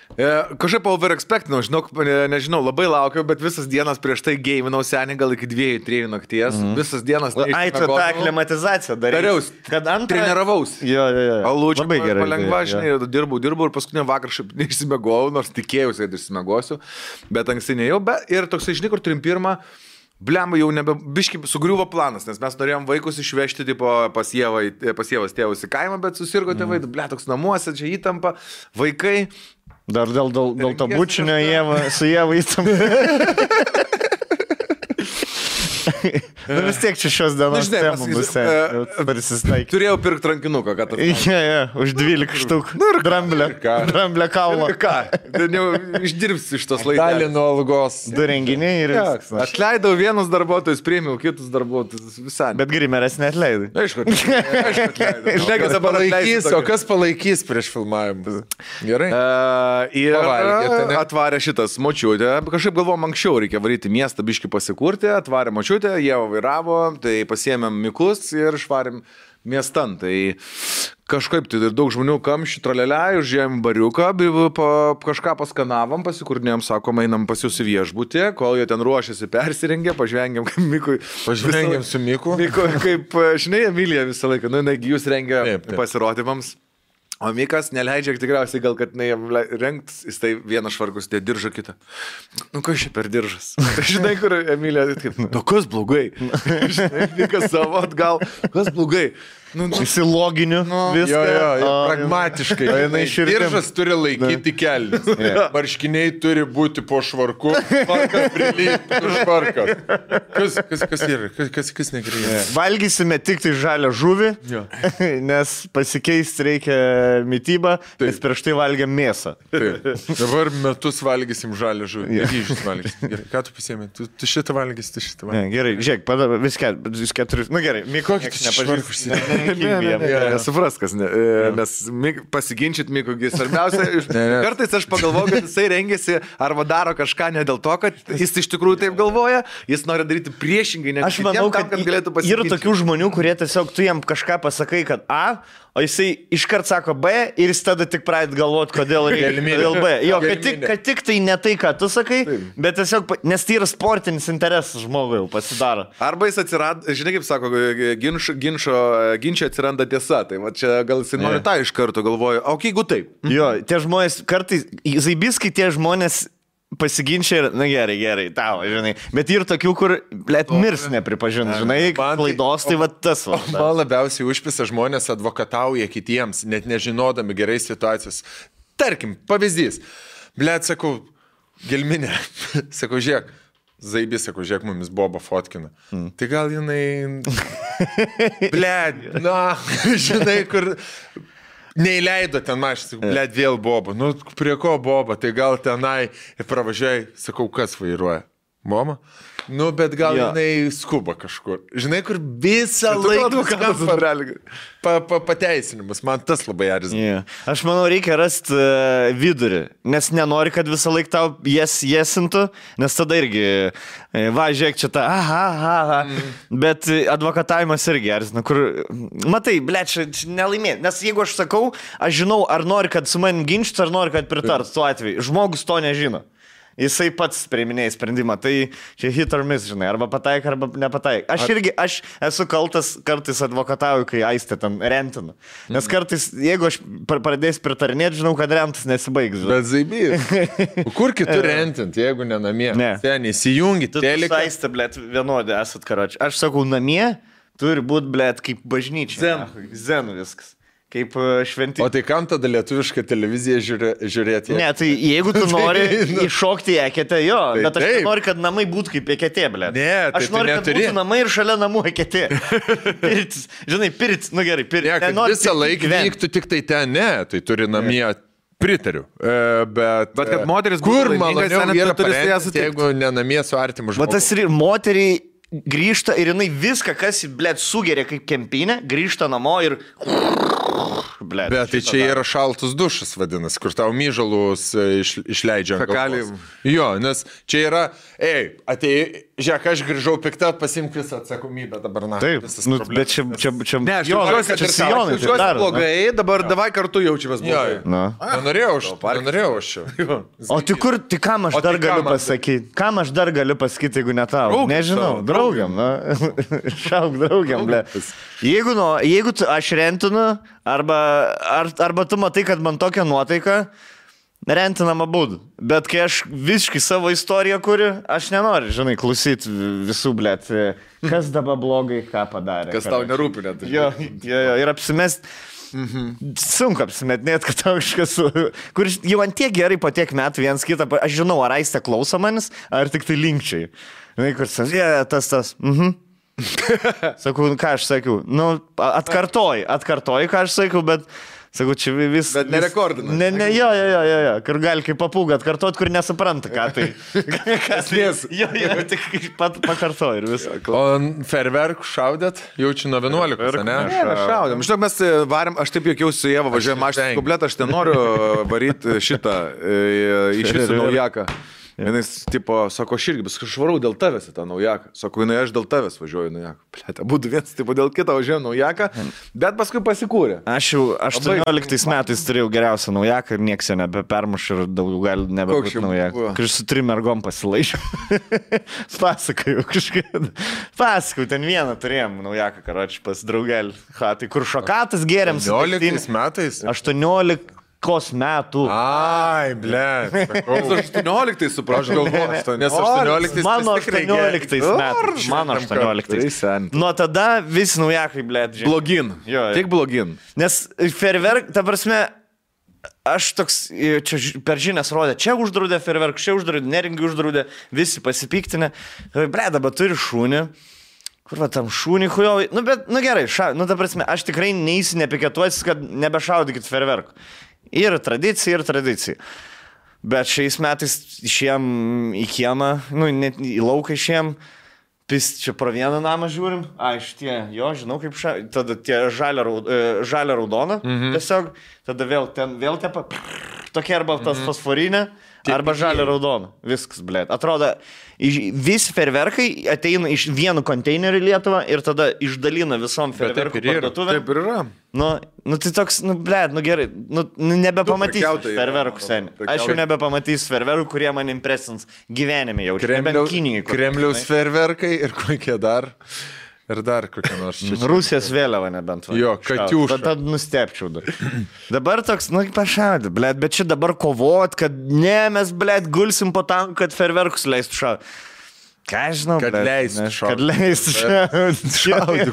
Kažkaip overexpectinau, nežinau, labai laukiau, bet visas dienas prieš tai geiminau senį gal iki 2-3 nakties. Visas dienas. Ai, tu tą aklimatizaciją dariaus. Kad treniravaus. Jo. Alūčiu, palengva, žinai, dirbau ir paskutinį vakarą šiaip neišsimegojau, nors tikėjausi, kad išsimegosiu, bet anksti nejau. Ir toksai, žinai, kur 31. Blemba jau biškai sugriuvo planas, nes mes norėjom vaikus išvežti tipo, pas Ievos tėvus į kaimą, bet susirgo tėvai, toks namuose, čia įtampa, vaikai. Dar dėl to bučinio su Ieva įtampa. Vis tiek čia šios dienos temų bus. Turėjau pirkti rankinuką, kad tas. Už 12 štuk. Dramblę kaulą. Ką? Išdirbsi iš tos laikos. Dalį nuo algos. 2 renginiai ir viskas. Atleidau vienus darbuotojus, priėmiau kitus darbuotojus. Visai. Bet grimeras neatleidai. Aišku, atleidai. O kas palaikys prieš filmavimus? Gerai. Ir atvarė šitas močiutė. Kažkaip galvom, anksčiau reikia varyti miestą, biškį pasikurti. Atvarė močiutė, jie vairavo, tai pasiėmėm miklus ir švarėm miestan. Tai kažkaip tai daug žmonių kamščių traleliai, užėjom bariuką, kažką paskanavom, pasikurnėjom, sakom, einam pas jūs į viešbutį, kol jie ten ruošiasi, persirengė, pažvengėm kaip Mikui. Pažvengėm su Miku. Miku, kaip, žinai, Emilija visą laiką, negi jūs rengia pasirodymams. O Mikas neleidžia tikriausiai gal, kad rengtis, jis tai vieną švarkus, tai diržą kitą. Kas čia per diržas? Žinai, kur Emilija, kas blogai? Žinai, Mikas savo atgal, kas blogai? Įsiloginiu viską. Jo, pragmatiškai. Diržas turi laikyti kelnes. Marškiniai turi būti po švarku, švarkas prilygti švarkas. Kas yra? Kas negrįžė? Valgysime tik tai žalią žuvį, nes pasikeisti reikia mitybą, nes prieš tai valgėm mėsą. Dabar metus valgysim žalią žuvį. Ryžius valgysim. Gerai, ką tu pasiėmė? Tu šitą valgysi, tu šitą valgysi. Gerai, žiūrėk, vis keturius. Gerai, Mikų nepažįsti. Nesupras, kas, nes pasiginčyt Mikui svarbiausia. Kartais aš pagalvoju, kad jisai rengėsi arba daro kažką ne dėl to, kad jis iš tikrųjų taip galvoja, jis nori daryti priešingai, ne aš manau, kad galėtų pasiginčyti. Yra tokių žmonių, kurie tiesiog tu jam kažką pasakai, kad A, o jisai iškart sako B ir jis tada tik pradeda galvoti, kodėl reikia dėl B. Jo, kad tik tai ne tai, ką tu sakai, bet tiesiog, nes tai yra sportinis interesas žmogui jau pasidaro. Arba jis atsirado, žinai kaip sako, ginčio atsiranda tiesa, tai va čia gal jis nori tą iš karto galvoja, o jeigu taip. Jo, tie žmonės, kartais, zaibiskai tie žmonės pasiginčia ir, na gerai, tau, žinai, bet ir tokių, kur, blėt, mirs nepripažins, žinai, klaidos, tai va tas va. Man labiausiai užpisa žmonės advokatauja kitiems, net nežinodami gerai situacijos. Tarkim, pavyzdys, blėt, sakau, gelminė, sakau, žiūrėk, Zaibis, sakau, žiūrėk, mumis Boba fotkina. Tai gal jinai, blėt, žinai, kur... Neįleido ten mašinį, blėt, vėl Boba. Nu, prie ko Boba? Tai gal tenai pravažiuoji, sakau, kas vairuoja? Mama? Nu, bet gal jinai skuba kažkur. Žinai, kur visą laiką pateisinimas. Man tas labai erzina. Aš manau, reikia rasti vidurį, nes nenori, kad visą laiką tau jesintų, nes tada irgi, va, žiūrėk čia tą, bet advokatavimas irgi erzina, kur, matai, blėt, čia nelaimėti, nes jeigu aš sakau, aš žinau, ar nori, kad su manim ginčytų, ar nori, kad pritart tuo atveju. Žmogus to nežino. Jisai pats priiminėja sprendimą, tai čia hit or miss, žinai, arba pataik, arba nepataik. Aš esu kaltas, kartais advokatauju, kai Aistė ten rentinu. Nes kartais, jeigu aš pradėsiu pritarinėti, žinau, kad rentas nesibaigs. Bet Zaibys, kur kitur rentint, jeigu ne namie? Ten įsijungit, teleką. Aistė, blėt, vienodė esat, karoči. Aš sakau, namie turi būti, blėt, kaip bažnyčia. Zen viskas. Kaip šventi. O tai kam tada lietuvišką televiziją žiūrėti? Ne, tai jeigu tu nori iššokti eketę, jo, bet aš noriu, kad namai būtų kaip eketė, blėt. Ne, tai aš noriu, kad būtų namai ir šalia namų eketė. Pirtis, žinai, pirtis, nu gerai, pirtis. Ne, kad visą laiką vyktų tik tai ten, ne, tai turi namie. Pritariu, bet kad moteris kur maloniau yra parengti, jeigu ne namie su artimu žmogu. Bet tas ir moteriai grįžta ir jinai viską, kas, blėt, sugeria kaip kempinė, grįžta namo ir blėt. Bet tai čia yra šaltus dušas vadinasi, kur tau myžalus išleidžia. Jo, nes čia yra, atėjai, žiūrėk, aš grįžau piktą, pasimk visą atsakomybę dabar. Taip, bet čia ne, aš jaučiuosi blogai, dabar davai kartu jaučiamės blogai. Nenorėjau aš čia. O tai kam aš dar galiu pasakyti? Kam aš dar galiu pasakyti, jeigu ne tau? Nežinau, draugiam, šauk draugiam, ble. Jeigu aš rentinu, arba tu matai, kad man tokia nuotaika, rentinam abudu. Bet kai aš visiškai savo istoriją kuriu, aš nenoriu, žinai, klausyti visų, blėt, kas dabar blogai, ką padarė. Kas tau nerūpi net. Jo, ir apsimest. Sunku apsimetinėt, kad tau kažkas, kur jau ant tiek gerai po tiek metų vienas kitą, aš žinau, ar aistė klauso manis, ar tik tai linkčiai. Žinai, kur tas. Sakau, ką aš sakiau, atkartoji, ką aš sakiau, bet sakau, čia vis... Bet nerekordina. Jo, kur gali kaip papūgą atkartot, kur nesupranta, ką tai. Kas nes? Jo, tik pakartoji ir visą. O ferverkų šaudėt? Jaučiu nuo 11, ne? Ne, šaudėm. Žinok, mes varėm, aš taip juokiausi su Ieva, važiuojam mašiną kompletą, aš nenoriu varyti šitą iš visų naujaką. Jis, tipo, sako, aš irgi, bet aš varau dėl tavęs į tą naujaką. Sako, aš dėl tavęs važiuoju naujaką. Plėtą, būtų vienas, tipo, dėl kito važiuoju naujaką, bet paskui pasikūrė. Aš jau 18 metais turėjau geriausią naujaką ir nieks jo nebepermuš ir daugiau gali nebebūti naujaką. Kai su 3 mergom pasilaišiau. Pasakau, ten vieną turėjom naujaką, karoči, pas draugelį. Tai kur šokatas geriam. 18 metais? 18 metų. Ai, blėt. 18 suprantu. Nes 18 mano 18 metais. Mano 18. Nuo tada visi naujakai, blėt. Blogin. Tik blogin. Nes ferverk, ta prasme, aš toks, čia per žinias rodė, čia uždraudė ferverk, čia uždraudė, Neringį uždraudė, visi pasipiktinę. Blėt, dabar turi šūnį. Kur va tam šūnį hujovai? Gerai, ta prasme, aš tikrai neįsi nepiketuotis, kad nebešaudykit ferverkų. Ir tradicija. Bet šiais metais išėjom į kiemą, net į lauką išėjom, čia pro vieną namą žiūrim, žinau kaip tada tie žalia raudona, tiesiog, tada vėl tepa, tokia arba tas fosforinė, arba žalia raudona, viskas, blėt. Atrodo, visi ferverkai ateina iš vienu konteineriu į Lietuvą ir tada išdalina visom ferverkų parduotuvėm. Taip ir yra. Tai toks, blėt, gerai, nebepamatysiu ferverkų seniai. Aš jau nebepamatysiu ferverkų, kurie man impresins gyvenime jau. Kremliaus ferverkai ir kokie dar. Ir dar kokia nors čia. Rusijos vėliava nebent. Jo, Katiuša. Tad nustepčiau. Dabar toks, pašaudė, blėt, bet čia dabar kovot, kad mes, blėt, gulsim po tam, kad ferverkus leistų šaudyti. Ką aš žinau, kad leistų šaudyti. Kad leistų šaudyti.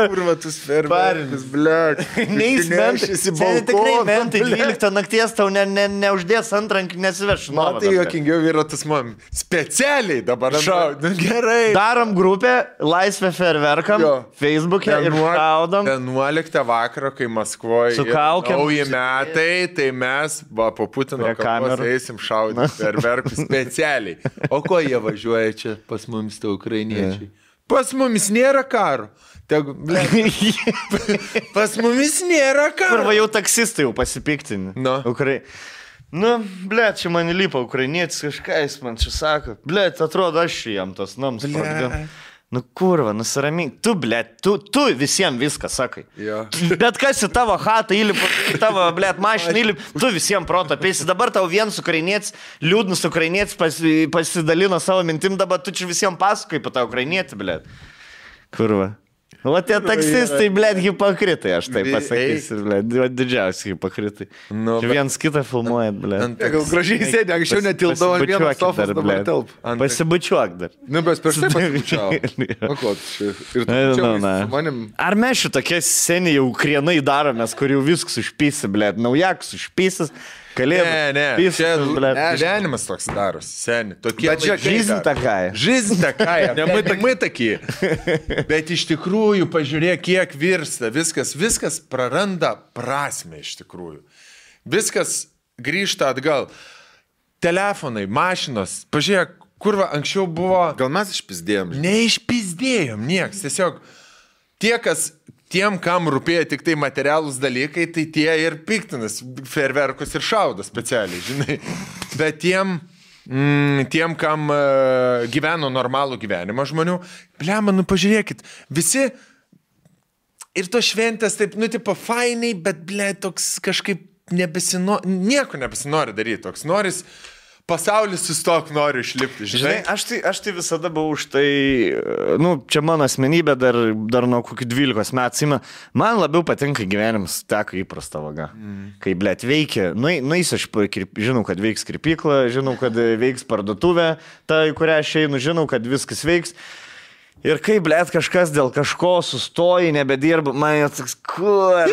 Kur va tus ferverkus, blėt. Neįsmenšysi balkoną. Tikrai mentai 12 nakties tau neuždės antrankių, nesiveš. Matai, jokingiau yra tas man. Specialiai dabar šaudyti. Gerai. Darom grupę, laisvę ferverkam, Facebook'e ir šaudom. 11 vakaro, kai Maskvoje nauji metai, tai mes po Putino kameros eisim šaudyti ferverkus. Specialiai. O ko jie važiuoja čia pas mumis, tai ukrainiečiai? Pas mumis nėra karo. Pas mumis nėra karo. Arba jau taksistai jau pasipiktinė. Blėt, čia man įlipa ukrainietis kažką, jis man čia sako. Blėt, atrodo, aš jam tos nams pradėjau. Kurva, nusiramink. Tu, blėt, tu visiems viską sakai. Bet kas į tavo chatą įlipa, į tavo, blėt, mašiną įlipa, tu visiems proto apeisi. Dabar tau vienas ukrainietis, liūdnas ukrainietis pasidalino savo mintim, dabar tu čia visiems pasakai apie tą ukrainietį, blėt. Kurva. O tie taksistai, blėt, hipokritai, aš taip pasakysiu, blėt, didžiausi hipokritai. Vienas kitą filmuojat, blėt. Gal gražiai sėdė, anksčiau netildavo ant vieną sofos, dabar telp. Pasibučiuok dar. Bet prieš tai pasibučiau. Ar mes šitokie seniai jau krienai daromės, kur jau viskas užpysi, blėt, naujakas užpysis. Ne, čia gyvenimas toks daros, seni. Bet čia жизнь такая. Жизнь такая, мы такие. Bet iš tikrųjų, pažiūrėk, kiek virsta, viskas praranda prasmę iš tikrųjų. Viskas grįžta atgal. Telefonai, mašinos, pažiūrėk, kur anksčiau buvo... Gal mes išpizdėjom? Neišpizdėjom, nieks. Tiesiog tie, kas tiem, kam rūpėjo tik tai materialūs dalykai, tai tie ir piktinas fejerverkus ir šaudo specialiai, žinai. Bet tiem, kam gyveno normalų gyvenimą žmonių, blema, nu pažiūrėkit, visi ir to šventės taip, nu, tipo, fainai, bet, ble, toks kažkaip nieko nebesinori daryti, toks noris, pasaulis sustok, noriu išlipti, žinai. Aš tai visada buvau už tai, nu, čia mano asmenybė dar nuo kokių 12 metų, man labiau patinka gyvenimas teka įprasta vaga. Kai, blėt, veikia, nueisiu aš, žinau, kad veiks kirpykla, žinau, kad veiks parduotuvė, ta, į kurią aš einu, žinau, kad viskas veiks. Ir kai, blėt, kažkas dėl kažko sustoji, nebedirba, man toks, kur.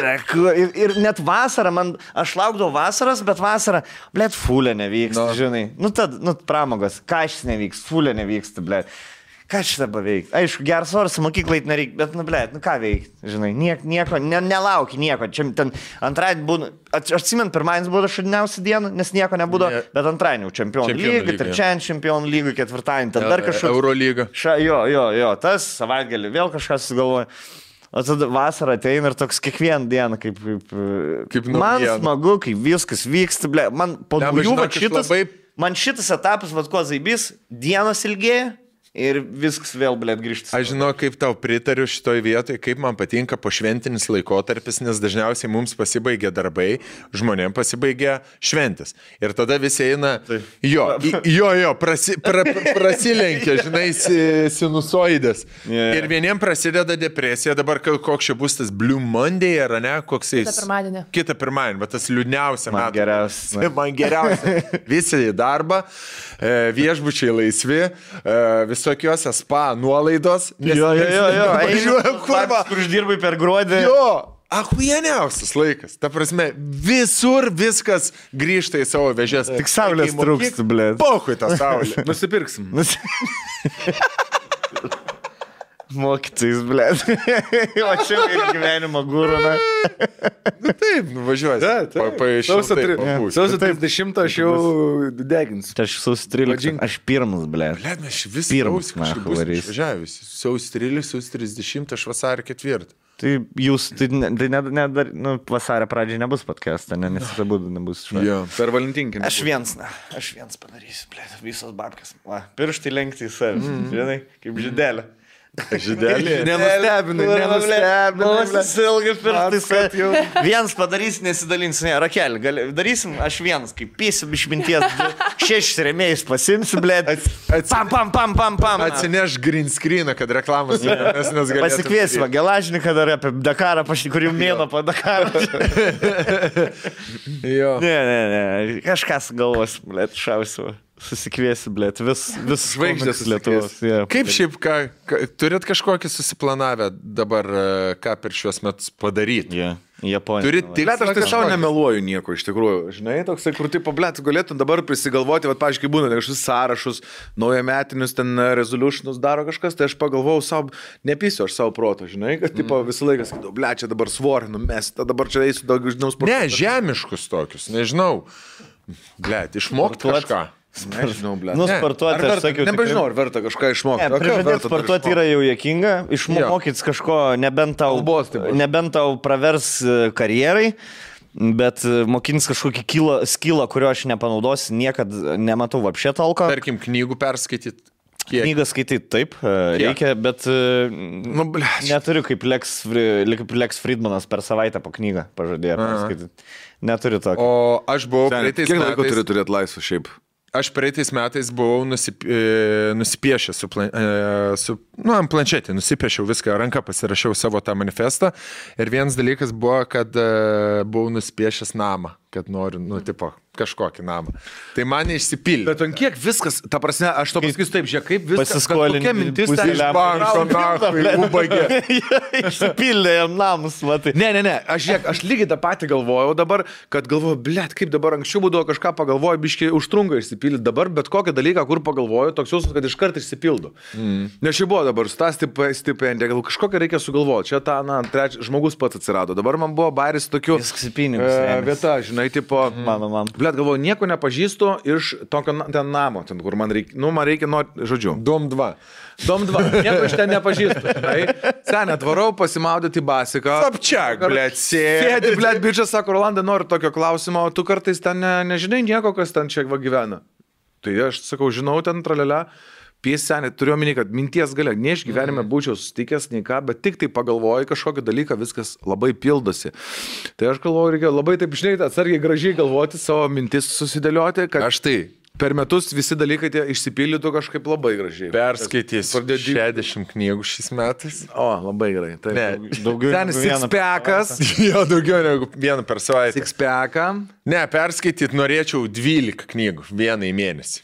Ir net vasarą, aš laukdavau vasaras, bet vasarą, blėt, fulė nevyks, žinai. Nu, pramogas, kažkas nevyks, fulė nevyks, blėt. Ką šitą paveikti? Aišku, geras oras mokyklai nereikia, bet, nu, blėt, nu ką veikti, žinai, nieko, nelauki nieko. Čia ten antradienį būna, aš atsimenu, pirmadienis buvo šudiniausia diena, nes nieko nebūdo, bet antradienį čempionų lyga, trečiadienį čempionų lyga, ketvirtadienį, ten dar kažkas. Eurolyga. Jo, tas savaitgalį vėl kažkas sugalvoja. O tada vasarą ateina ir toks kiekvieną dieną, kaip man smagu, kai viskas vyksta, blėt, man po dviejų man šitas etapas, vad ko zaibys, dienos ilgėja. Ir viskas vėl, blėt, grįžti. Aš žinau, kaip tau pritariu šitoj vietoje, kaip man patinka pošventinis laikotarpis, nes dažniausiai mums pasibaigia darbai, žmonėm pasibaigia šventis. Ir tada visi eina, prasilenkia, žinai, sinusoidės. Ir vieniem prasideda depresija, dabar koks čia bus tas Blue Monday, ar ne, koks jis. Kitą pirmadienį, bet tas liūdniausia metų. Man geriausia. Visi į darbą, viešbučiai laisvi, visokiuose spa nuolaidos. Jo. Kur uždirbai per gruodį. Jo, achuieniausias laikas. Ta prasme, visur viskas grįžta į savo vežės. Tik saulės trūksta, blėt. Pochui tą saulę. Nusipirksim. Mokytis, blėt. O čia ir gyvenimo gūrų, na. Nu taip, nuvažiuosi. Sausio 30 aš jau deginsiu. Aš sausio 13. Aš pirmas, blėt. Blėt, mes vis kažkaip bus išvažiavęs. Sausio 13, sausio 30, aš vasario 4. Tai jūs, vasario pradžiai nebus podcast'ą, nes tai būtų nebus švaria. Per Valentinkinį. Aš viens padarysiu, blėt, visos babkės. Pirštai lenkti į savęs, žinai, kaip žydelė. Žydelė. Nenustebinai. Ilgai pirštai. Vienas padarys, nesidalins. Ne, Rakel, darysim, aš vienas, kaip pysim iš minties. 6 rėmėjus pasimsiu, blėt. Pam. Atsineš green screeną, kad reklamas galėtų. Pasikviesime Gelažniką dar apie Dakarą, kur jau mėno po Dakarą. Ne. Kažkas galvos, blėt, šausiu. Susikviesi, blėt, vis žvaigždės Lietuvos. Kaip šiaip, turit kažkokį susiplanavę dabar, ką per šios metus padaryti? Japonija. Turit tik... Blėt, aš tai savo nemeluoju nieko, iš tikrųjų. Žinai, toksai, kur taip, blėt, galėtum dabar prisigalvoti, pavyzdžiui, būna kažkokius sąrašus, naujametinius ten resolutionus daro kažkas, tai aš pagalvojau savo, nepysiu aš savo proto, žinai, kad tipo, visą laiką sakydavau, blėt, čia dabar svorį numesti, dabar čia eisiu daug žinau sporto. Ne, žemiškus tokius, nežinau. Blėt, išmokti kažką. Nežinau, blėt. Sportuoti, aš sakiau. Nebežinau, ar verta kažką išmokti. Prižadėti sportuoti yra jau juokinga. Išmokyti kažko, nebent tau pravers karjerai, bet mokintis kažkokį skillą, kurio aš nepanaudosiu, niekada nematau vapšė talko. Tarkim, knygų perskaityti. Knygą skaityti taip, reikia, bet neturiu kaip Lex Friedmanas per savaitę po knygą pažadėjo perskaityti. Neturiu tokio. O aš buvau praeitais metais... Kiek laiko turi turėti laisvą šiaip? Aš praeitais metais buvau nusipiešęs ant planšetį, nusipiešiau viską, ranką pasirašiau savo tą manifestą ir vienas dalykas buvo, kad buvau nusipiešęs namą, kad noriu, kažkokį namą. Tai man neišsipildė. Bet ant kiek viskas, ta prasme, aš to pasakysiu taip, žiūrėk, kaip viskas, pasiskolinti. Kokia mintis ten iš banko, ubagė. Išsipildė jam namus, matai. Ne, aš lygiai tą patį galvojau dabar, kad galvoju, blėt, kaip dabar anksčiau būdavo kažką pagalvoju, biškiai užtrunka išsipildyti. Dabar bet kokią dalyką, kur pagalvoju, toks jausmas, kad iškart išsipildo. Nes čia buvo dabar stipendija, gal kažkokią reikia sugalvoti. Čia ta, trečias žmogus pats atsirado. Dabar man buvo bairis tokių vieta, žinai, tipo, Blet, galvoju, nieko nepažįstu iš tokio ten namo, ten, kur man reikia, žodžiu. Dom 2. Nieko iš ten nepažįstu. Senė, atvarau pasimaudyti basiką. Sapčiak, blet, sėdi, blet, bičias, sako, Rolanda, noriu tokio klausimo, o tu kartais ten nežinai nieko, kas ten čia gyvena. Tai aš sakau, žinau, ten tralelę. Senė, turiu omeny, kad minties galia, ne iš gyvenime būčiau susitikęs, nei ką, bet tik tai pagalvoju kažkokį dalyką, viskas labai pildosi. Tai aš galvoju, reikia labai taip, žinai, atsargiai gražiai galvoti, savo mintis susidėlioti, kad aš tai per metus visi dalykai tie išsipildytų kažkaip labai gražiai. Perskaitysiu 60 knygų šiais metais. O, labai gerai. Taip, ne, daugiau negu six-packas. Jo, daugiau negu vieną per savaitę. Six-packą. Ne, perskaityti norėčiau 12 knygų vieną į mėnesį.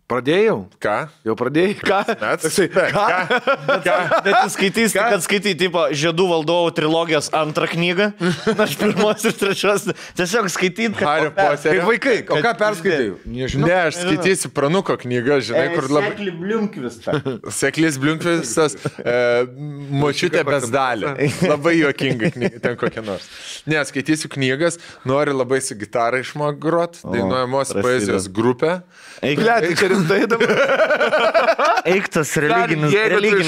Pradėjau? Ką? Jau pradėjai? Ką? Bet tu skaitysi, kad skaitai, tipo, Žiedų valdovų trilogijos antrą knygą, aš pirmos ir trečios, tiesiog skaityti, kad... Hario Poterio. Kaip vaikai, o ką perskaitai? Ne, aš skaitysiu Pranuko knygą, žinai, kur labai... Sekli Bliunkvistas. Seklis Bliunkvistas, močiutė bezdalė. Labai juokinga knyga, ten kokia nors. Ne, skaitysiu knygas, noriu labai su gitara išmok grot, dainuojamos poezijos grupę. Eiktas religinis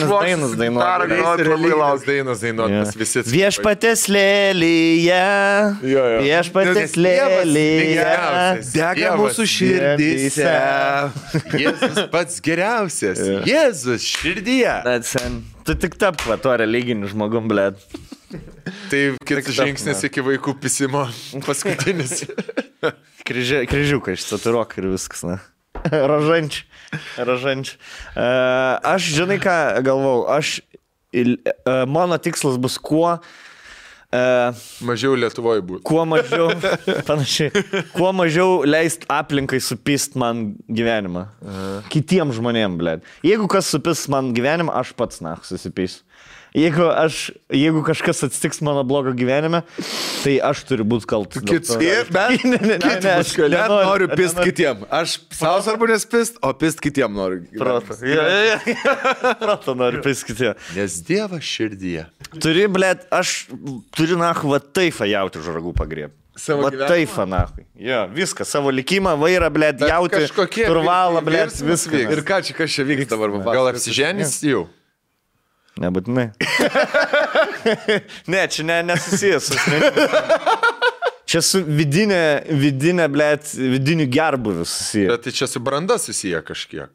dainas dainuot. Viešpatės lėlyje. Viešpatės lėlyje. Dega mūsų širdyse. Jėzus pats geriausias. Jėzus širdyje. Tu tik tap va tuo religiniu žmogum, blėt. Tai kitas žingsnis iki vaikų pisimo paskutinis. Kryžiukai išsaturuok ir viskas, na. Ražančiai. Aš, žinai ką, galvau, mano tikslas bus kuo mažiau Lietuvoje būtų. Kuo mažiau, panašiai, kuo mažiau leist aplinkai supist man gyvenimą. Kitiem žmonėm, blėt. Jeigu kas supis man gyvenimą, aš pats, susipysiu. Jeigu kažkas atsitiks mano blogo gyvenime, tai aš turiu būti kaltas. Aš noriu pist kitiem. Aš savo svarbu nespist, o pist kitiem noriu. Proto noriu pist kitiem. Nes Dievas širdyje. Aš turiu nahu va taifą jauti už ragų pagrieb. Va taifą nahu. Jo, viską, savo likimą, vairą, blėt, jauti, turvalą, blėt, viską. Ir ką čia vyksta dabar? Gal apsiženys jau? Nebūtinai. Ne, čia nesusijęs. Čia su vidinė, blėt, vidiniu gerbuviu susiję. Bet tai čia su branda susiję kažkiek.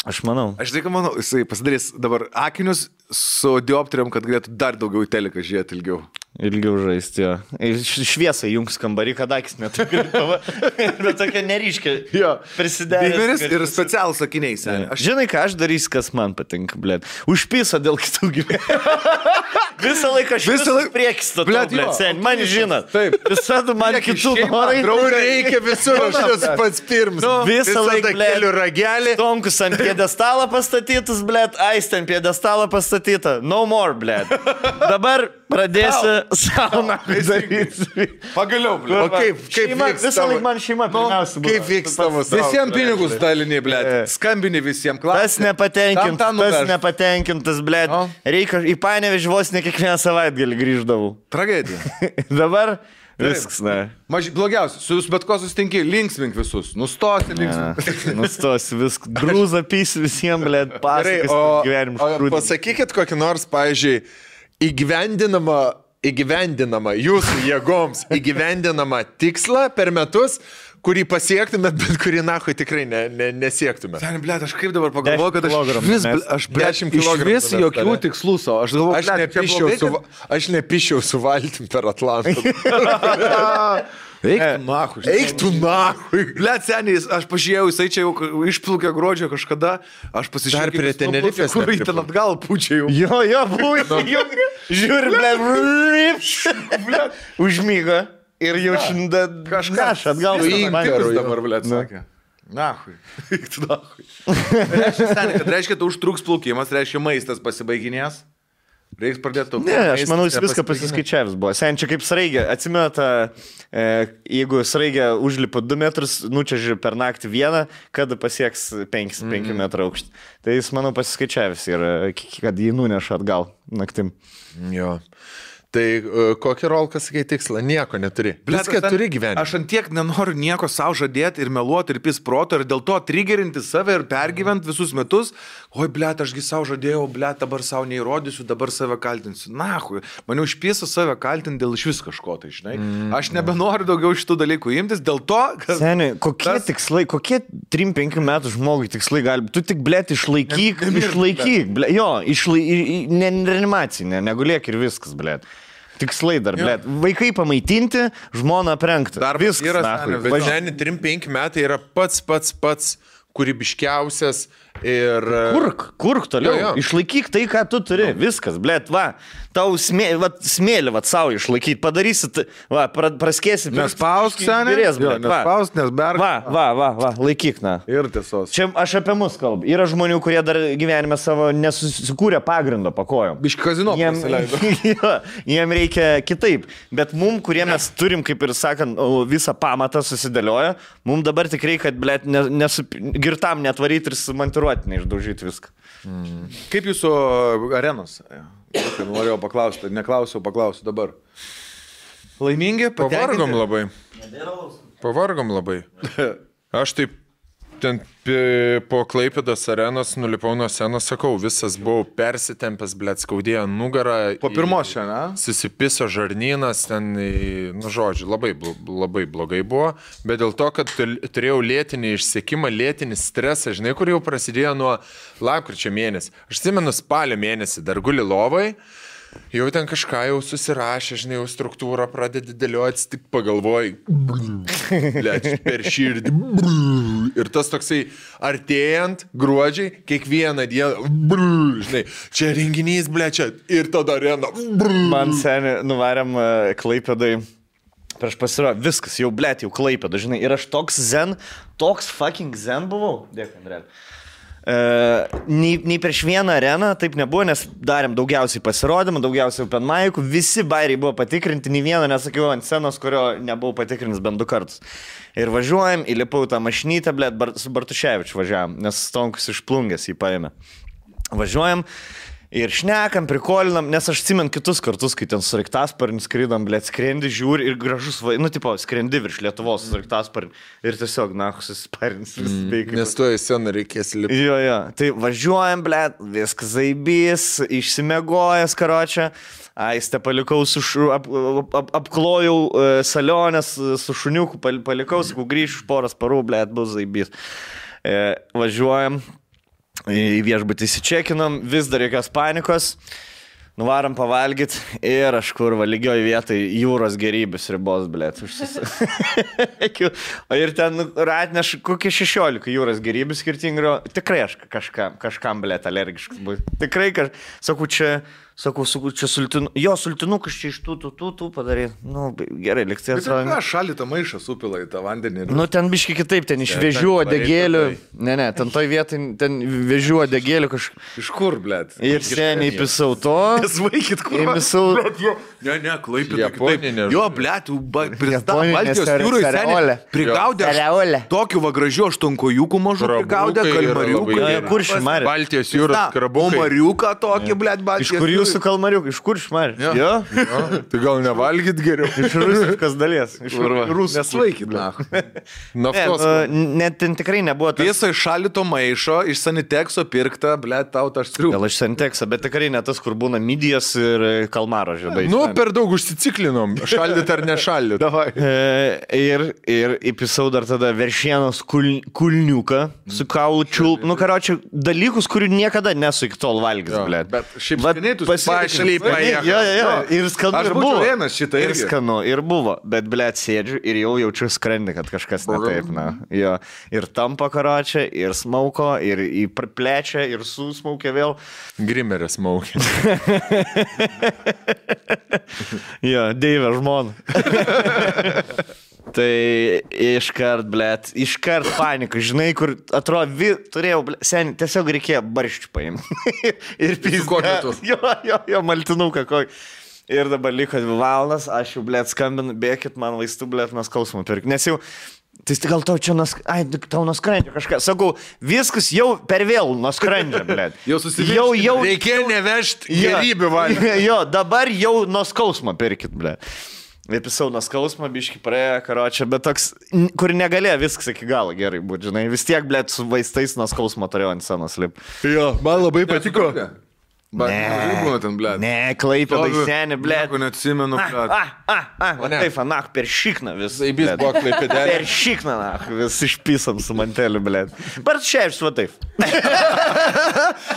Aš manau. Aš tai manau, jisai pasidarys dabar akinius su dioptrijom, kad galėtų dar daugiau į teleką žiūrėti ilgiau. Ilgiau žaisti, jo. Šviesą jungs kambarį, kad akis netai. Bet tokia neryškia. Jo. Prisidėjęs. Ir specialus akiniai, seniai. Žinai, ką aš darysiu, kas man patinka, blėt. Užpisa dėl kitų gyvenimų. Visą laiką aš priekis to, blėt, seniai. Man žinot. Taip. Visada man kitų norai. Reikia visur, aš esu pats pirmas. Visą laiką, blėt. Ragelį. Tomkus ant piedestalą pastatytus, blėt. Aistė ant piedestalą pastatyta. No more, blėt. Dabar pradėsiu sauną daryti. Pagaliau, blėt. O kaip visą laiką man šeima pirmiausia. Kaip vyks tavo sauną? Visiems pinigus daliniai, blėt. Skambini visiems klausimą. Tas nepatenkintas, blėt. Reikia į Panevėžį vos ne kiekvieną savaitgalį grįždavau. Tragedija. Dabar viskas, ne. Blogiausia, su jūs bet ko susitinki, linksmink visus. Nustosi linksmink. Nustosi viską. Grūza pysi visiems, blėt, pasakas gyvenimus. O pasakykit kokį nors, pavyzdžiui, įgyvendinama jūsų jėgoms, įgyvendinama tikslą per metus, kurį pasiektumėt, bet kurį nahui tikrai nesiektumėt. Sen, blėt, aš kaip dabar pagalvoju, kad aš 10 kg. Vis jokių tikslų savo. Aš nepišiau su valtim per Atlantą. Eik tu nahui. Blet, seniai, aš pažiūrėjau, jisai čia jau išplukė gruodžio kažkada, aš pasižiūrėjau. Dar prie Tenerifės. Kur į ten atgal pučia jau. Jo, buvo. Žiūri, blet. Užmyga. Ir jau šiandien kažkas atgal. Įimtikas dabar, blėt, sakė. Nahui. Eik tu nahui. Reiškia, tu užtruks plaukimas, reiškia, maistas pasibaiginės. Reiks pradėti. Ne, aš manau, jis viską pasiskaičiavęs buvo. Sen čia kaip sraigė. Atsimeta, jeigu sraigė užlipa 2 metrus, nučiaži per naktį vieną, kada pasieks 5 metrų aukštį. Tai jis, manau, pasiskaičiavęs ir kad jį nuneša atgal naktim. Jo. Tai kokį rolką, sakai, tikslą? Nieko neturi. Viską turi gyvenime. Aš antiek nenoriu nieko savo žadėti ir meluoti ir pis proto ir dėl to triggerinti save ir pergyventi visus metus. Oi, blėt, ašgi savo žadėjau, blėt, dabar savo neįrodysiu, dabar save kaltinsiu. Nahui, man jau išpėsiu save kaltinti dėl iš vis kažko, tai žinai. Aš nebenoriu daugiau šitų dalykų imtis, dėl to, kad... Seniai, kokie tikslai, kokie 3-5 metų žmogui tikslai gali... Tu tik, blėt, išlaikyk, blėt. Jo, reanimacija, negulėk ir viskas, blėt. Tikslai dar, blėt. Vaikai pamaitinti, žmoną aprengti. Dar viskas. Bet šiandien 3-5 metai yra pats kūrybiškiausias ir... Kurk toliau. Jo. Išlaikyk tai, ką tu turi. Viskas, blėt, va. Tau smėlį, va, savo išlaikyti. Padarysit, va, praskėsi. Nespausk, seniai. Nespausk, nes berg. Va, laikyk, na. Ir tiesos. Čia aš apie mus kalbu. Yra žmonių, kurie dar gyvenime savo nesusikūrė pagrindo pakojom. Biški kazino pasileido. Jiem reikia kitaip. Bet mum, kurie mes turim, kaip ir sakant, visą pamatą susidėlioja, mum dabar tik reikia, kad, blėt, girtam netvaryti ir sumontiruoti, neišdaužyti viską. Kaip jūsų arenos? Norėjau paklausti, neklausiau, paklausiu dabar. Laimingi? Pavargom labai. Aš taip ten po Klaipėdos arenos nulipau nuo scenos, sakau, visas buvau persitempęs, blėt, skaudėjo nugarą. Po pirmos šiandien, susipiso žarnynas, ten, nu žodžiu, labai blogai buvo, bet dėl to, kad turėjau lėtinį išsekimą, lėtinį stresą, žinai, kur jau prasidėjo nuo lapkričio mėnesį. Aš atsimenu spalio mėnesį, dar guli lovai, jau ten kažką jau susirašė, žinai, jau struktūrą pradedi dėlioti, tik pagalvoji, blėt, per širdį, ir tas toksai artėjant gruodžiai, kiekvieną dieną, žinai, čia renginys, blėt, čia, ir tada arena. Man seniai nuvarėm Klaipėdai, prieš pasirodė, viskas, jau blėt, jau Klaipėda, žinai, ir aš toks fucking zen buvau, dėkui, Andrėl. Nei prieš vieną areną taip nebuvo, nes darėm daugiausiai pasirodymų, daugiausiai open mic'ų, visi bairiai buvo patikrinti, nei vieną nesakiau ant scenos, kurio nebuvau patikrinęs bent 2 kartus. Ir važiuojam, įlipau tą mašinytę, blėt, su Bartuševičiu važiavam, nes Stonkus iš Plungės jį paėmė. Važiuojam ir šnekam, prikolinam, nes aš atsimenu kitus kartus, kai ten su Sraigtasparniu skrydom, blėt, skrendi, žiūri ir gražus, nu, tipo, skrendi virš Lietuvos su Sraigtasparniu ir tiesiog, na, susisparins. Nes tu į sceną reikės lipti. Jo, tai važiuojam, blėt, viskas zaibys, išsimegojęs, karočią, aistę palikau, apklojau salionės su šuniuku, palikau, sakau, grįšiu už poros parų, blėt, bus zaibys. Važiuojam. Į viešbutį įsičekinom, vis dar jokios panikos, nuvarom pavalgyti ir aš kur lygioj vietoj jūros gerybės ribos, blėt, o ir ten atneš kokie 16 jūros gerybės skirtingų, tikrai aš kažkam, blėt, alergiškas bus. Tikrai, sakau, čia sultinukas čia iš tų padarė. Nu, gerai, liktai atsirado. Bet ką šalį tą maišą supila į tą vandenį? Nu, ten biški kitaip, ten iš vėžių odegėlių. Ne, ten toj vietai, ten vėžių odegėlių kažkaip. Iš kur, blėt? Ir seniai pisau to. Nesvaikit, kur. Ne, Klaipėda. Japoninė. Jo, blėt, pristav Baltijos jūroj seniai. Prigaudė tokių va gražių aštunkojukų mažų, prigaudė kalmariukų. Kuršių marių. Baltijos jūros krabukai. Mariuką tokį, blėt, Baltijos jūros. Jūsų kalmariukai, iš kur šmarė? Jo? Tai gal nevalgyt geriau? Iš rusiškas dalies. Iš rusų. Nesvaikit, na. Naftos. Net ten tikrai nebuvo tas. Tiesa, iš šalito maišo, iš Sanitekso pirkta, blėt, tau tas striukas. Gal iš Sanitekso, bet tikrai ne tas, kur būna midijas ir kalmaro žiedai. Nu, per daug užsiciklinom. Šaldyt ar nešaldyt. Ir įpisau dar tada veršienos kulniuką su kaulu čiulp. Nu, karočią, dalykus, kurių niekada nesu iki tol valgys, blėt. Bet šiaip skaniai pašlypa. Jo. Ir skanu ir buvo. Ir skanu ir buvo. Bet, blėt, sėdžiu ir jau jaučiu skrandį, kad kažkas ne taip, na. Jo. Ir tampa karočią, ir smauko, ir plečia, ir susmaukė vėl. Grimeris smaukė. Jo, Deivė žmona. Tai iškart panika, žinai, kur atrodo, turėjau, seniai, tiesiog reikėjo barščių paimti. Ir pizga. Jo, maltinuką kokį. Ir dabar liko 2 valandas, aš jau, blėt, skambinu, bėkit man vaistų, blėt, nuo skausmo pirkti. Nes jau Tai gal tau čia tau nuskrendžia kažką. Sakau, viskas jau per vėl nuskrendžia, blėt. Jau susivirškime. Reikėjo nevežti gerybių valį. Jo, dabar jau nuo skausmo pirkit, blėt. Vypisau nuo skausmo, biški praėjo, karočią, bet toks, kur negalėjo viskas iki galo gerai būti, žinai. Vis tiek, blėt, su vaistais nuo skausmo turėjau ant scenos lip. Jo, man labai patiko. Ne, Klaipėdai seni, blėt. Nieko neatsimenu, blėt. Taip, anach, per šikną vis. Zaibys buvo Klaipėdelė. Per šikną, anach, vis išpisam su manteliu, blėt. Bar šiaip su taip.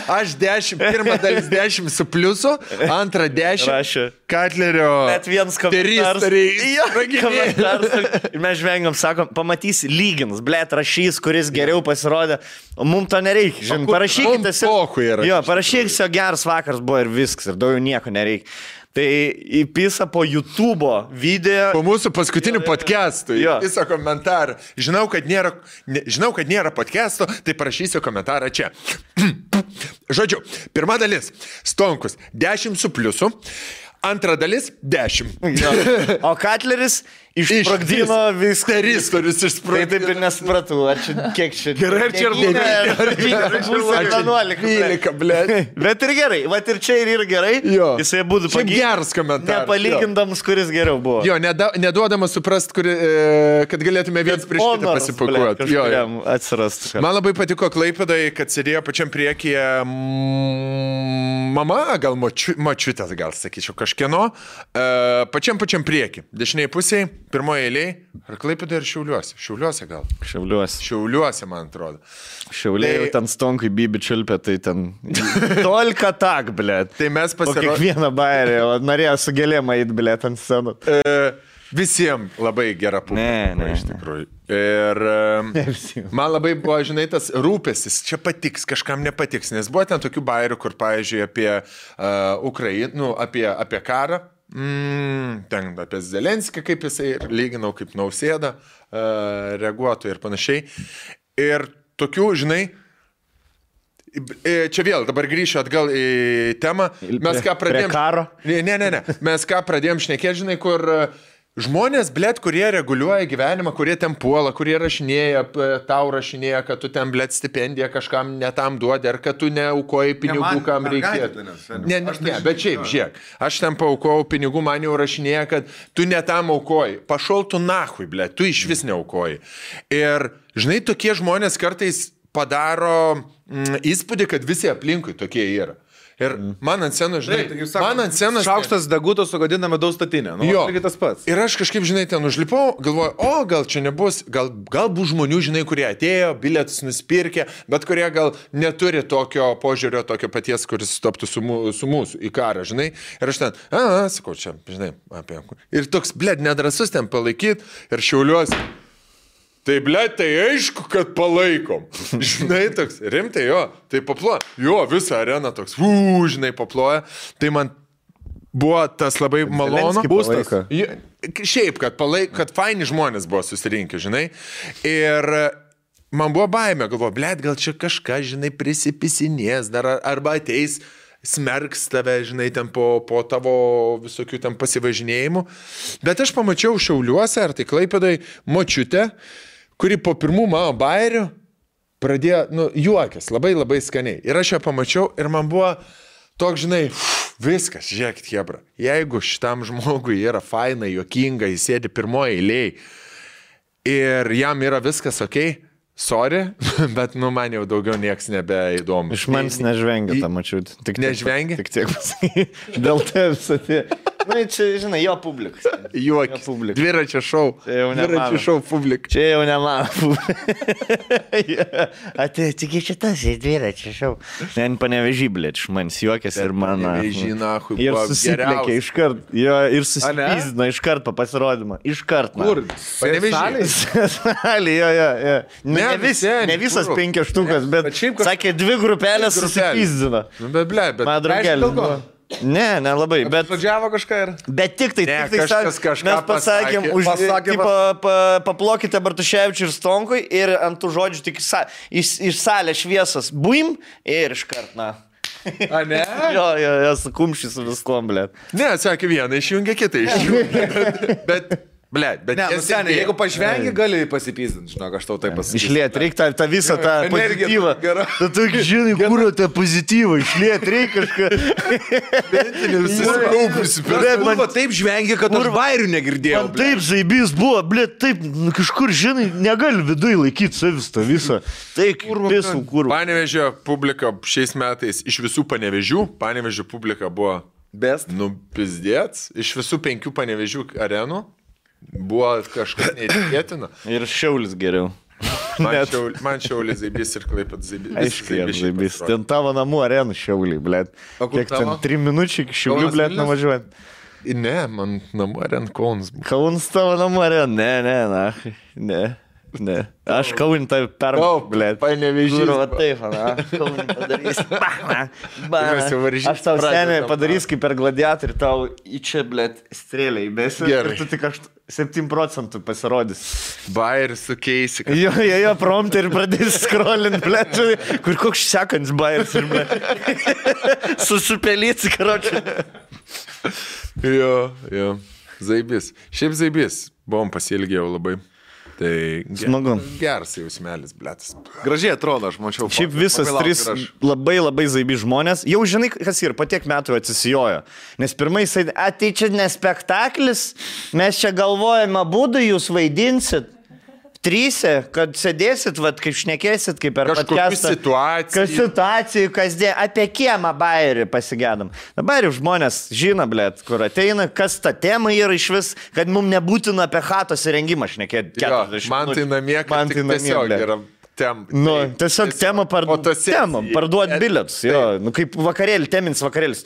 Aš 10, pirmą dalis 10 su pliusu, antrą 10. Rašė. Katlerio. Bet vienas komentaras. Ir mes žvengiam, sakom, pamatysi, lygins, blėt, rašys, kuris geriau pasirodė. O mums to nereikia, žinai, parašykite. Jo, parašykite, geras vakaras buvo ir viskas, ir daugiau nieko nereikia. Tai įpisa po YouTube'o video. Po mūsų paskutinių podcastų įpisa komentarą. Žinau, kad nėra podcast'o, tai parašysiu komentarą čia. Žodžiu, pirma dalis. Stonkus 10 su pliusu. Antra dalis 10. O Katleris išsprogdino viską. Teristorius išsprogdino. Taip ir nesupratau, ar čia kiek čia. Gerai, ar čia ir 11, blėt. Bet ir gerai, va ir čia ir yra gerai. Jisai būtų geras komentaras. Nepalygindams, kuris geriau buvo. Jo, neduodamas suprast, kad galėtume viens prieš kitą pasipakuoti. Atsirastų. Man labai patiko Klaipėdai, kad sėdėjo pačiam priekyje mama, gal močiutės, gal sakyčiau, kažkieno, pačiam priekį. Dešiniai pusėje, pirmoje eilėje, ar Klaipėdai ir Šiauliuose? Šiauliuose gal? Šiauliuose, man atrodo. Šiauliai jau ten stonkai bibi čiulpė, tai ten tolka tak, blėt. Tai mes pasirodėme. Kiekvieną bairį, o norėjo su gėlėm eit, blėt, ant scenų. Visiems labai gera publika, iš tikrųjų. Ir man labai buvo, žinai, tas rūpestis, čia patiks, kažkam nepatiks, nes buvo ten tokių bairių, kur, pavyzdžiui, apie Ukrainą, apie karą, ten apie Zelenskį, kaip jisai lyginau, kaip Nausėda reaguotų ir panašiai. Ir tokių, žinai, čia vėl, dabar grįšiu atgal į temą. Mes ką pradėjom... Prie karo? Ne. Mes ką pradėjom šnekėti, žinai, kur... Žmonės, blėt, kurie reguliuoja gyvenimą, kurie ten puola, kurie rašinėja, tau rašinėja, kad tu ten, blėt, stipendiją kažkam netam duodi, ar kad tu neaukoji pinigų, kam reikėtų. Ne, bet šiaip, žiūrėk, aš ten paaukojau pinigų, man jau rašinėja, kad tu netam aukoji. Pašol tu nahui, blėt, tu iš vis neaukoji. Ir, žinai, tokie žmonės kartais padaro įspūdį, kad visi aplinkui tokie yra. Ir man ant scenos, žinai, man ant scenos... Šaukštas deguto sugadina medaus statinę. Jo, tas pats. Ir aš kažkaip, žinai, ten užlipau, galvoju, gal čia nebus, gal bus žmonių, žinai, kurie atėjo, bilietus nusipirkė, bet kurie gal neturi tokio požiūrio, tokio paties, kuris stoptų su mūsų į karą, žinai. Ir aš ten, sakau, čia, žinai, apie... Ir toks, blėd, nedrasus ten palaikyti ir Šiauliuose. Tai, blėt, tai aišku, kad palaikom. Žinai, toks, rimtai, jo, tai paploja. Jo, visą areną toks, žinai, paploja. Tai man buvo tas labai malonu. Būstas. Šiaip, kad faini žmonės buvo susirinkę, žinai. Ir man buvo baimė, galvoju, blėt, gal čia kažką, žinai, prisipisinės dar, arba ateis smerks tave, žinai, ten po tavo visokių ten pasivažinėjimų. Bet aš pamačiau Šiauliuose, ar tai Klaipėdai, močiutę, kuri po pirmų mano bairių pradėjo, juokės, labai labai skaniai. Ir aš ją pamačiau ir man buvo toks, žinai, viskas, žiūrėkit, hebra. Jeigu šitam žmogui yra faina, juokinga, jis sėdi pirmoje eilėje ir jam yra viskas okei, sorry, bet, man jau daugiau nieks nebeįdomu. Iš manęs nežvengia tą mačiut. Nežvengia? Tik tiek pasakai. Dėl tai visą tai. Čia, žinai, jo publikas. Juokis. Dviračio šou. Dviračio šou publika. Čia jau ne mano publika. Tik iš šitas į dviračio šou. Ten Panevėžy, blėt, iš manęs juokės ir mano. Panevėžy, nahui, ir susiplėkė iškart. Jo, ir susipizdino iškart po pasirodymą. Iškart. Kur? Panevėžy. Salė, jo. Ne visas 5 štukas, bet sakė 2 grupelės susipizdino. Bet, blėt, man draugelį. Ne, nelabai, bet... Pradžiavo kažką ir... Bet tik tai kažkas mes pasakėm, paplokite Bartuševičiui ir Stonkui ir ant tų žodžių tik iš salės šviesas buim ir iškart, A, ne? Jo, su kumščiai su viskom, blėt. Ne, sakė vieną, išjungia kitą išjungia. Bet Blet, bet seniai, jeigu pažvengi, gali pasipyzdinti, žinok, aš tau tai pasakysiu. Išliet, reikia tą visą tą pozityvą. Tu žinai, kur tą pozityvą, išliet, reikia kažką. Man taip žvengi, kad aš bairių negirdėjau. Man taip zaibys buvo, blet, taip, kažkur, žinai, negali viduje laikyti savis tą visą. Taip, visų kur. Panevėžio publika šiais metais, iš visų Panevėžių, Panevėžio publika buvo best. Pizdėts, iš visų 5 Panevėžių arenų. Buvo kažkas neįtikėtina. Ir Šiaulis geriau. Man Šiaulis zaibys ir Klaipėd zaibys. Aiškiai, zaibys. Ten tavo namų arenų Šiauliai, blėt. Kiek ten 3 minučių iki Šiaulių, blėt, nuvažiuojant. Ne, man namų arenų Kaunas buvo. Kaunas tavo namų arenų, ne. Aš Kaunį tai blėt. Panevėžys. Va taip, Kaunį padarys. Aš tau seniai padarys kaip per gladiatorių, tau į čia, blėt, strėlę įbėsi. Ir tu tik 7% pasirodys. Bairis sukeisi. Jo, promptą ir pradės scrollint, blėt, kur koks sekants bairis ir blėt. Susipelyts, karočią. Jo. Zaibys. Šiaip zaibys. Buvom pasiilgėjau labai. Tai smagu. Geras jausmelis, blėtas. Gražiai atrodo, aš mačiau. Šiaip visas 3 labai zaibi žmonės. Jau žinai, kas ir po tiek metų atsisijojo. Nes pirmai jisai, tai čia ne spektaklis, mes čia galvojame, būdų jūs vaidinsit. 3, kad sėdėsit, kaip šnekėsit, kaip per podcastą. Kas situacijų, kasdien, apie kiemą bairį pasigėdam. Dabar jau žmonės žino, blėt, kur ateina, kas ta tema yra iš vis, kad mums nebūtina apie chatos įrengimą šnekėti. Man tai namie, kad tik tiesiog yra tema. Tiesiog tema parduot bilietus. Kaip vakarėlį, temins vakarėlis,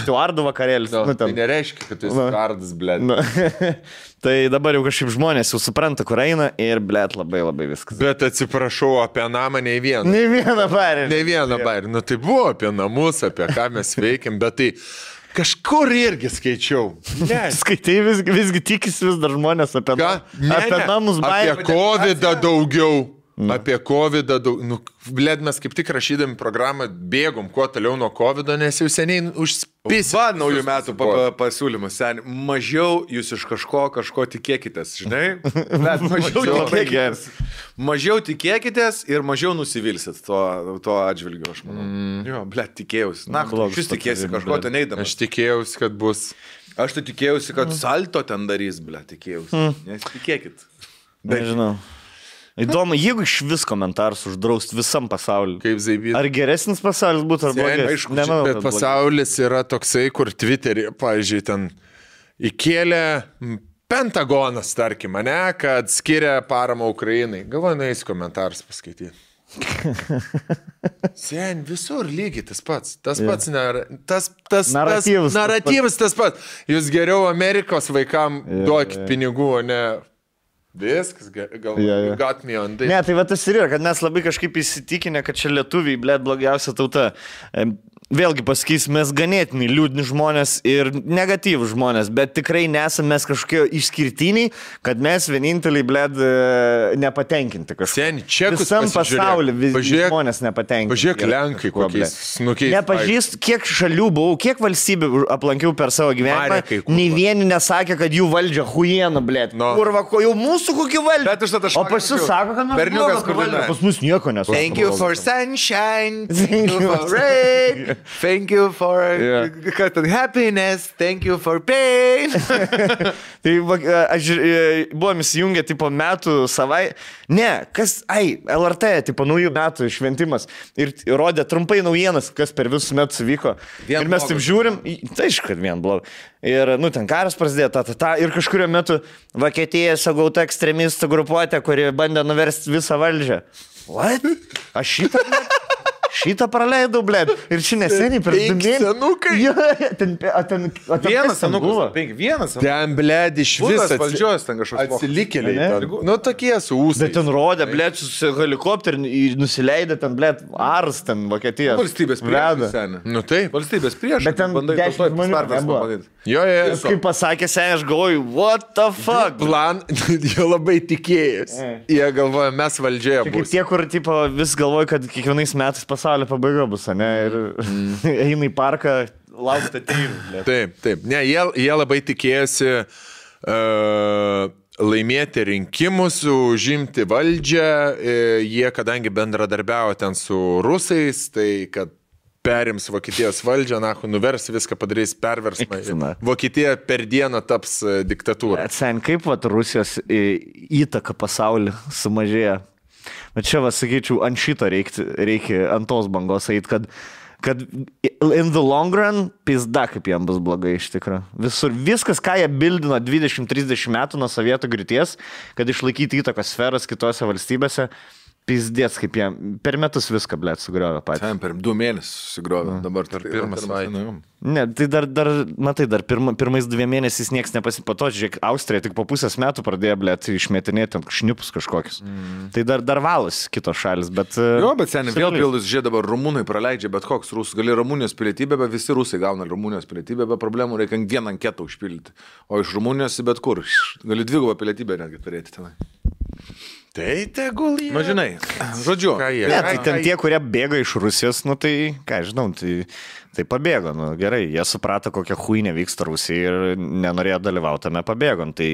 Stuardų vakarėlis. Tai nereiškia, kad tu esi Stuardas, blėt. Tai dabar jau kažkaip žmonės jau supranta, kur eina ir, blėt, labai viskas. Bet atsiprašau, apie namą nei vieną. Nei vieną bairį. Tai buvo apie namus, apie ką mes veikiam, bet tai kažkur irgi skaičiau. Skaitai visgi tikisi vis dar žmonės apie namus bairį. Apie COVID daugiau. Apie COVID, blėd, mes kaip tik rašydami programą bėgom kuo toliau nuo COVID, nes jau seniai užspėsim. Va, naujų metų pasiūlymas, seniai. Mažiau jūs iš kažko tikėkitės, žinai? Mažiau tikėkitės ir mažiau nusivilsit to atžvilgiu, aš manau. Jo, blėd, tikėjausi. Na, šis tikėsi kažko ten eidamas. Aš tikėjausi, kad bus. Aš tai tikėjausi, kad salto ten darys, blėd, tikėjausi. Nes tikėkit. Nežinau. Įdomu, jeigu iš vis komentarus uždraust visam pasauliu. Kaip zaibys. Ar geresnis pasaulis būtų, ar blogesnis? Nemanau, bet pasaulis yra toksai, kur Twitter'e, pavyzdžiui, ten įkėlė Pentagonas, tarkim, ne, kad skiria paramą Ukrainai. Galvoju, nueis komentarus paskaityti. Sen, visur lygiai tas pats. Tas pats naratyvas tas pats. Jūs geriau Amerikos vaikam duokit pinigų, o ne... Viskas, gal got me on this. Ne, tai va tas ir yra, kad mes labai kažkaip įsitikinę, kad čia lietuviai, blėt, blogiausia tauta. Vėlgi pasakys, mes ganėtinai liūdni žmonės ir negatyvų žmonės, bet tikrai nesame mes kažkokie išskirtiniai, kad mes vieninteliai, blėd, nepatenkinti kažką. Sen, čekus visam pasaulyje žmonės nepatenkinti. Pažiūrėk, Lenkai kokiais snukiais. Nepažįst, kiek šalių buvau, kiek valstybių aplankiau per savo gyvenimą, nei vieni nesakė, kad jų valdžia huiena, blėd. Kurva, jau mūsų kokį valdžia. O pas jūs sako, kad mes valdžia. Pas mus nieko nesako. Thank you for sunshine, thank you for rain. Thank you for happiness, thank you for pain. Tai buvom įsijungę, tipo, metų savai. Ne, LRT, tipo, naujų metų šventimas. Ir rodė trumpai naujienas, kas per visus metus vyko. Ir mes taip žiūrim, tai aišku, kad vien blogai. Ir, ten karas prasidėjo, ir kažkurio metu Vokietija sagauta ekstremistų grupuotė, kuri bandė nuversti visą valdžią. What? Aš šitą praleidau, blėd. Ir čia neseniai per 2 mėnesius. Senukai. Vienas senukas. 5 Ten, blėd, iš viso valdžios ten kažkoks. Atsilikėliai. Tokie su ūsais. Bet ten rodė, blėd, su helikopteriu nusileidė ten, blėd, Ars ten Vokietijos. Valstybės prieš. Taip. Valstybės prieš. Bet ten 10 žmonių nebuvo. Jo. Kaip pasakė seniai, aš galvoju, what the fuck? Plan, jie labai tikėjosi. Jie galvoja, mes valdžioje būsime. Kaip tie, kur tipo, vis galvoja, kad kiekvienais metais pasaulio pabaiga bus, ne? Ir eina į parką, laukti ateivų. Taip. Ne, jie labai tikėjosi laimėti rinkimus, užimti valdžią, jie kadangi bendradarbiavo ten su rusais, tai kad perims Vokietijos valdžią, nuvers viską, padarys perversmą. Vokietija per dieną taps diktatūra. Sen, kaip Rusijos įtaka pasaulį sumažėja? Bet čia, sakyčiau, ant šito reikia ant tos bangos eiti, kad in the long run, pizda, kaip jam bus blogai iš tikrųjų. Viskas, ką jie bildino 20-30 metų nuo sovietų griūties, kad išlaikyti įtakos sferas kitose valstybėse, pizdės, kaip jie per metus viską, blėt, sugriovė patys. Ten per 2 mėnesius sugriovė, dabar per pirmą savaitę. Ne, tai dar pirmais 2 mėnesiais nieks nepasipato, žiūrėk, Austrija tik po pusės metų pradėjo, blėt, išmetinėti ant šnipus kažkokius. Tai dar valos kitos šalis, bet... Jo, bet seniai, vėl pildus, žiūrėk, dabar rumūnai praleidžia, bet koks rusas, gali Rumunijos pilietybę, bet visi rusai gauna Rumunijos pilietybę, be problemų reikia vieną anketą užpildyti. O iš Rumunijos bet kur, gali 2 pilietybę netgi turėti tenai. Tai tegul jie. Na, žinai, žodžiu. Tai ten tie, kurie bėga iš Rusijos, tai, ką žinau, tai pabėgo. Gerai, jie suprato, kokia huinė vyksta Rusija ir nenorėjo dalyvauti tame pabėgon. Tai,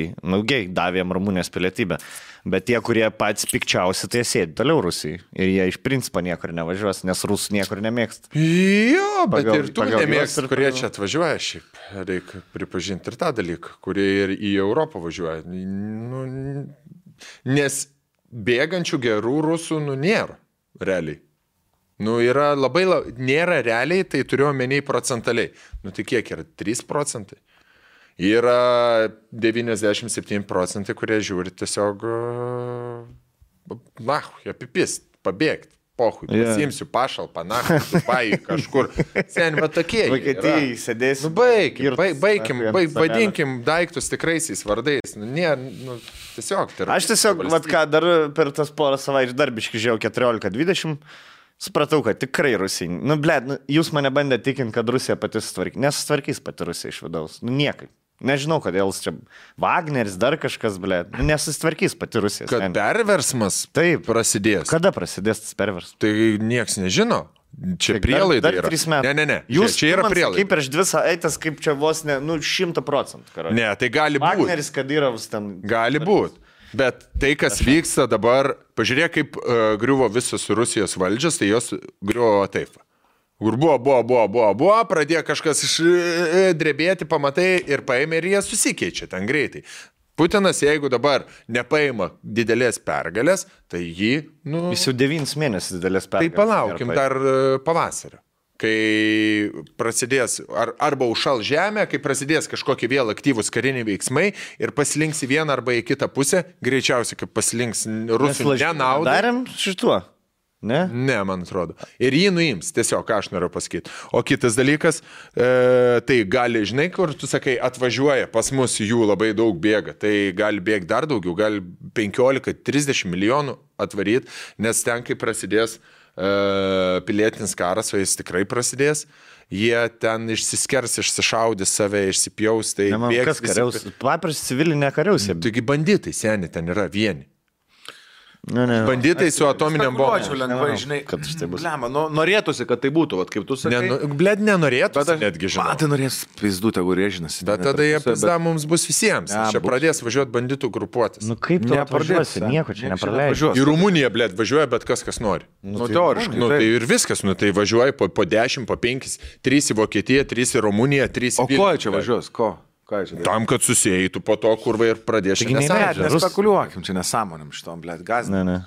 gei, davėm Rumunijos pilietybę. Bet tie, kurie patys pikčiausi, tai sėdi toliau Rusijai. Ir jie iš principo niekur nevažiuos, nes rusų niekur nemėgsta. Jo, bet ir tu nemėgsti, kurie čia atvažiuoja šiaip. Reikia pripažinti ir tą dalyką, kurie ir į Europą važiuoja. Nes bėgančių gerų rusų, nėra realiai. Yra nėra realiai, tai turiu omeny procentaliai. Tai kiek yra? 3%. Yra 97%, kurie žiūri tiesiog, apipist, pabėgti. Pohui, pasimsiu pašalpą, Dubai, kažkur. Sen, va tokie. Vokietijai sėdėsiu. Vadinkim daiktus tikraisiais vardais. Tiesiog. Aš tiesiog, dar per tas porą savaičių darbiškai žiūrėjau 14-20, supratau, kad tikrai Rusija. Jūs mane bandė tikinti, kad Rusija pati sutvarkys. Nesutvarkys pati Rusija iš vidaus. Niekai. Nežinau, kodėl čia Wagneris, dar kažkas, nesusitvarkys pati Rusija. Kad perversmas prasidės. Kada prasidės tas perversmas? Tai nieks nežino. Čia prielaida yra. Dar 3 metų. Ne. Jūs čia yra prielaida. Kaip prieš 2 savaites, kaip čia vos 100%. Ne, tai gali būti. Wagneris, Kadyrovas ten. Gali būti. Bet tai, kas vyksta dabar, pažiūrėk, kaip griuvo visos Rusijos valdžios, tai jos griuvo taip. Kur buvo, pradėjo kažkas drebėti, pamatai ir paėmė ir jie susikeičia ten greitai. Putinas, jeigu dabar nepaima didelės pergalės, tai jį... Jis jau 9 mėnesius didelės pergalės. Tai palaukim dar pavasario, kai prasidės arba užšal žemė, kai prasidės kažkokie vėl aktyvūs kariniai veiksmai ir pasilinks į vieną arba į kitą pusę, greičiausiai, kaip pasilinks rusų nenaudai. Darėm šituo. Ne? Ne, man atrodo. Ir jį nuims, tiesiog, ką aš noriu pasakyti. O kitas dalykas, tai gali, žinai, kur tu sakai, atvažiuoja, pas mus jų labai daug bėga, tai gali bėgti dar daugiau, gali 15-30 milijonų atvaryti, nes ten, kai prasidės pilietinis karas, o jis tikrai prasidės, jie ten išsiskers, išsišaudys save, išsipjaus, tai bėgs. Kas kariaus? Papras civilinė kariaus. Taigi banditai, seni, ten yra vieni. Banditai su atominiam bombom. Ačiū lengvai, žinai, kad tai bus. Norėtųsi, kad tai būtų, kaip tu sakai. Nenorėtųsi, netgi žinau. Tai norės pizdu, tegu rėžinasi. Bet tada jie pizda mums bus visiems. Čia pradės važiuoti banditų grupuotis. Kaip tu nepradėsi, nieko čia nepraleidži. Į Rumuniją, važiuoja bet kas nori. Teoriškai. Tai ir viskas, tai važiuoja po 10, po 5, 3 į Vokietiją, 3 į Rumuniją, 3 į Vilnių. O ko čia važiuos, ko? Tam, kad susijėtų po to kurvai ir pradėšė nesąmonėm. Nespekuliuokim, čia nesąmonėm šitom, gazdinam.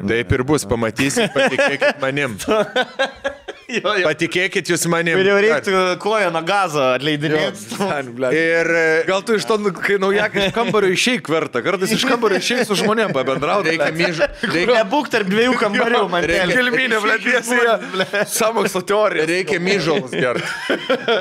Taip ir bus, pamatysit, patikėkit manim. Patikėkit jūs manim. Ir jau reiktų koją nuo gazo atleidinėti. Ir gal tu iš to, kai naujakai iš kambario išeik verta, kartais iš kambario išeik su žmonėm pabendrauti. Reikia būk tarp 2 kambarių, man reikia. Kelminė, blėtiesija, samokslo teorija. Reikia myžalus gerti.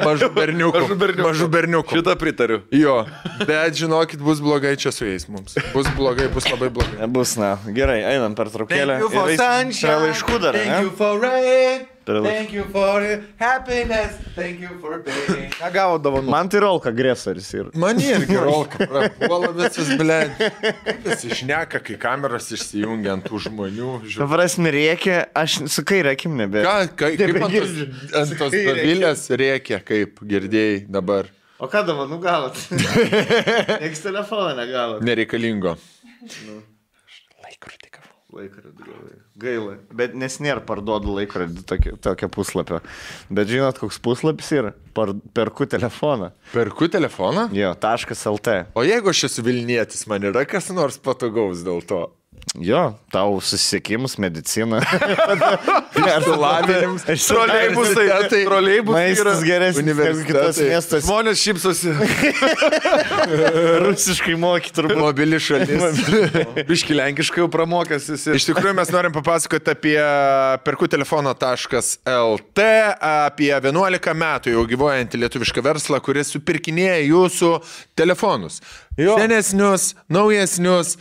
Mažų berniukų. Šitą pritariu. Jo, bet žinokit, bus blogai čia su jais mums. Bus blogai, bus labai blogai. Bus, gerai, einam per traukėlę. Thank you for sunshine. Laiškų dar, Thank you for rain. Thank you for happiness. Thank you for being. Ką gavo dovanų? Man tai rolka agresoris ir. Man irgi rolka. Prapuola visas, blėd. Kaip jis išneka, kai kameras išsijungia ant tų žmonių. Prasme, rėkia, aš su kairė akim nebe. Kaip ant tos davilės rėkia, kaip girdėjai dabar. O ką dovanų gavot? Niekas telefoną negavot. Nereikalingo. Laikrodį gavau. Gaila. Bet nes nėra parduodu laikrodį tokio puslapio. Bet žinot, koks puslapis yra? Perku telefoną. Perku telefoną? Jo, .lt. O jeigu aš esu Vilnietis, man yra kas nors patogaus dėl to? Jo, tau susisiekimus, medicina. Lavinimus. Troleibusai. Maistas geresnis negu kitas miestas. Žmonės šypsosi. Rusiškai moky turbūt. Mobili šalis. Biški lenkiškai jau pramokęs esi. Iš tikrųjų mes norim papasakoti apie perkutelefono.lt, apie 11 metų jau gyvuojantį lietuvišką verslą, kuris supirkinėja jūsų telefonus. Jo. Senesnius, naujesnius,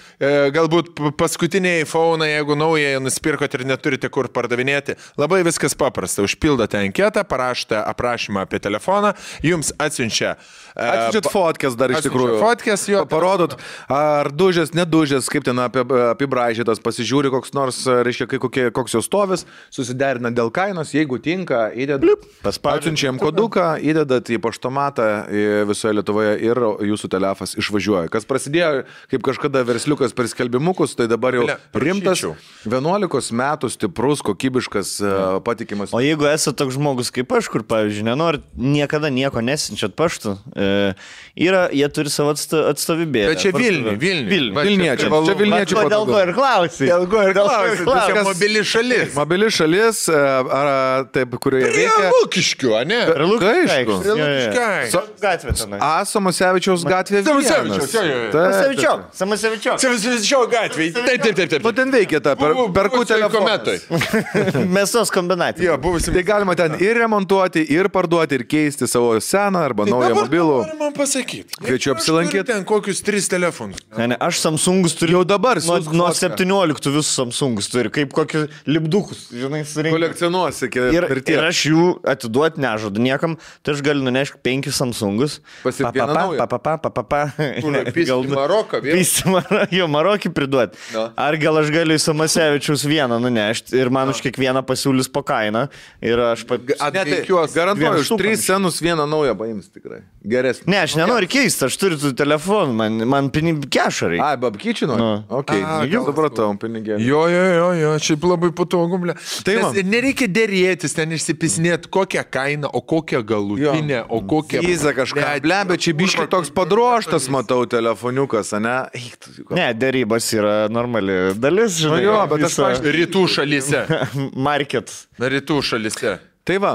galbūt paskutiniai iPhone, jeigu naują nusipirkot ir neturite kur pardavinėti. Labai viskas paprasta. Užpildote anketą, parašote aprašymą apie telefoną, jums atsiunčia... Atsiunčiat fotkės dar iš tikrųjų. Fotkės, jo. Parodot, ar dužės, nedužės, kaip ten apibraižytas, pasižiūri koks nors, reiškia, koks jo stovis, susiderina dėl kainos, jeigu tinka, atsiunčiam koduką, įdedat į paštomatą visoje Lietuvoje ir jūsų telefas išvažiuoja. Kas prasidėjo, kaip kažkada versliukas per skelbimukus, tai dabar jau rimtas, 11 metų stiprus, kokybiškas, patikimas. O jeigu esate toks žmogus kaip aš, kur, pavyzdžiui, nenorit niekada nieko nesinčiat paštu, jie turi savo atstovybėlę. Bet čia Vilniečiai. Čia Vilniečiai. Dėl ko ir klausai. Čia mobili šalis. Mobili šalis, taip, kurioje veikia. Lukiškių, a ne? Lukiškių. Gatvė tenai. Samusevičiaus gatvė. Samusevičiaus gatvė. Taip. Nu ten veikia ta perku telefonai. Mėsos kombinatai. Tai galima ten ir remontuoti, ir parduoti, ir keisti savo seną arba naują mobilų. Noriu man pasakyti. Kviečiu apsilankyti. Ten kokius 3 telefonus. Ne, aš Samsungus turiu. Jau dabar. Nuo 17 visus Samsungus turiu. Kaip kokius lipdukus, žinai, surinkti. Kolekcionuosi. Ir aš jų atiduoti nežadu niekam. Tai aš galiu nunešti 5 Samsungus. Pisti Maroką. Jo, Marokį priduoti. Ar gal aš galiu į Samasevičiaus vieną nunešti ir man už kiekvieną pasiūlys po kainą. Ir aš garantuoju, už 3 senus vieną naują paims tikrai. Geresnį. Ne, aš nenoriu keisti, aš turiu tų telefonų, man pinigų kešarai. Ai, babkyčino? Ok, supratau, pinigėlį. Jo, šiaip labai patogu, ble. Tai nereikia dėrėtis, ten išsipisinėti kokią kainą, o kokią galutinę, o kokią... Įza kažką, ble, bet čia biškai toks padroštas, matau, telefoniukas, ne? Ne, dėrybos yra normali dalis, žinai. Jo, bet aš rytų šalyse. Market. Rytų šalyse. Tai va,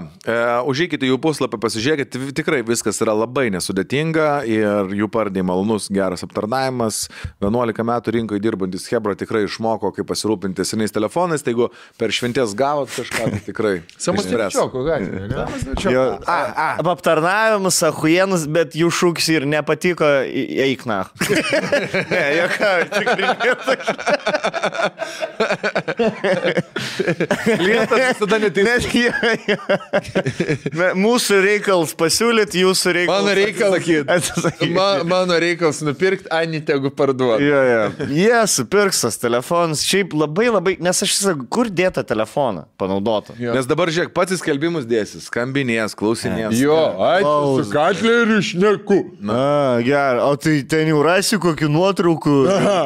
užeikite jų puslapį, pasižiūrėkite, tikrai viskas yra labai nesudėtinga ir jų pardai malonus, geras aptarnavimas. 11 metų rinkoje dirbantis Hebra tikrai išmoko, kaip pasirūpinti senais telefonais, tai jeigu per šventės gavot kažką, tai tikrai. Samusevičioko gatvė, ne? Aptarnavimas, ahujenus, bet jų šūkis ir nepatiko, eik na. Ne, joką, Klientas visada neteisė. Mūsų reikals pasiūlyti, jūsų reikals Mano reikals nupirkti, Ani tegu parduoti. Jie supirks tas telefonas. Šiaip labai, nes aš sakau, kur dėta telefoną panaudotą. Nes dabar žiūrėk, pats įskelbimus dėsis, skambinės, klausinės. Jo, su katleriu šneku. Gerai, o tai ten jau rasi kokį nuotraukų,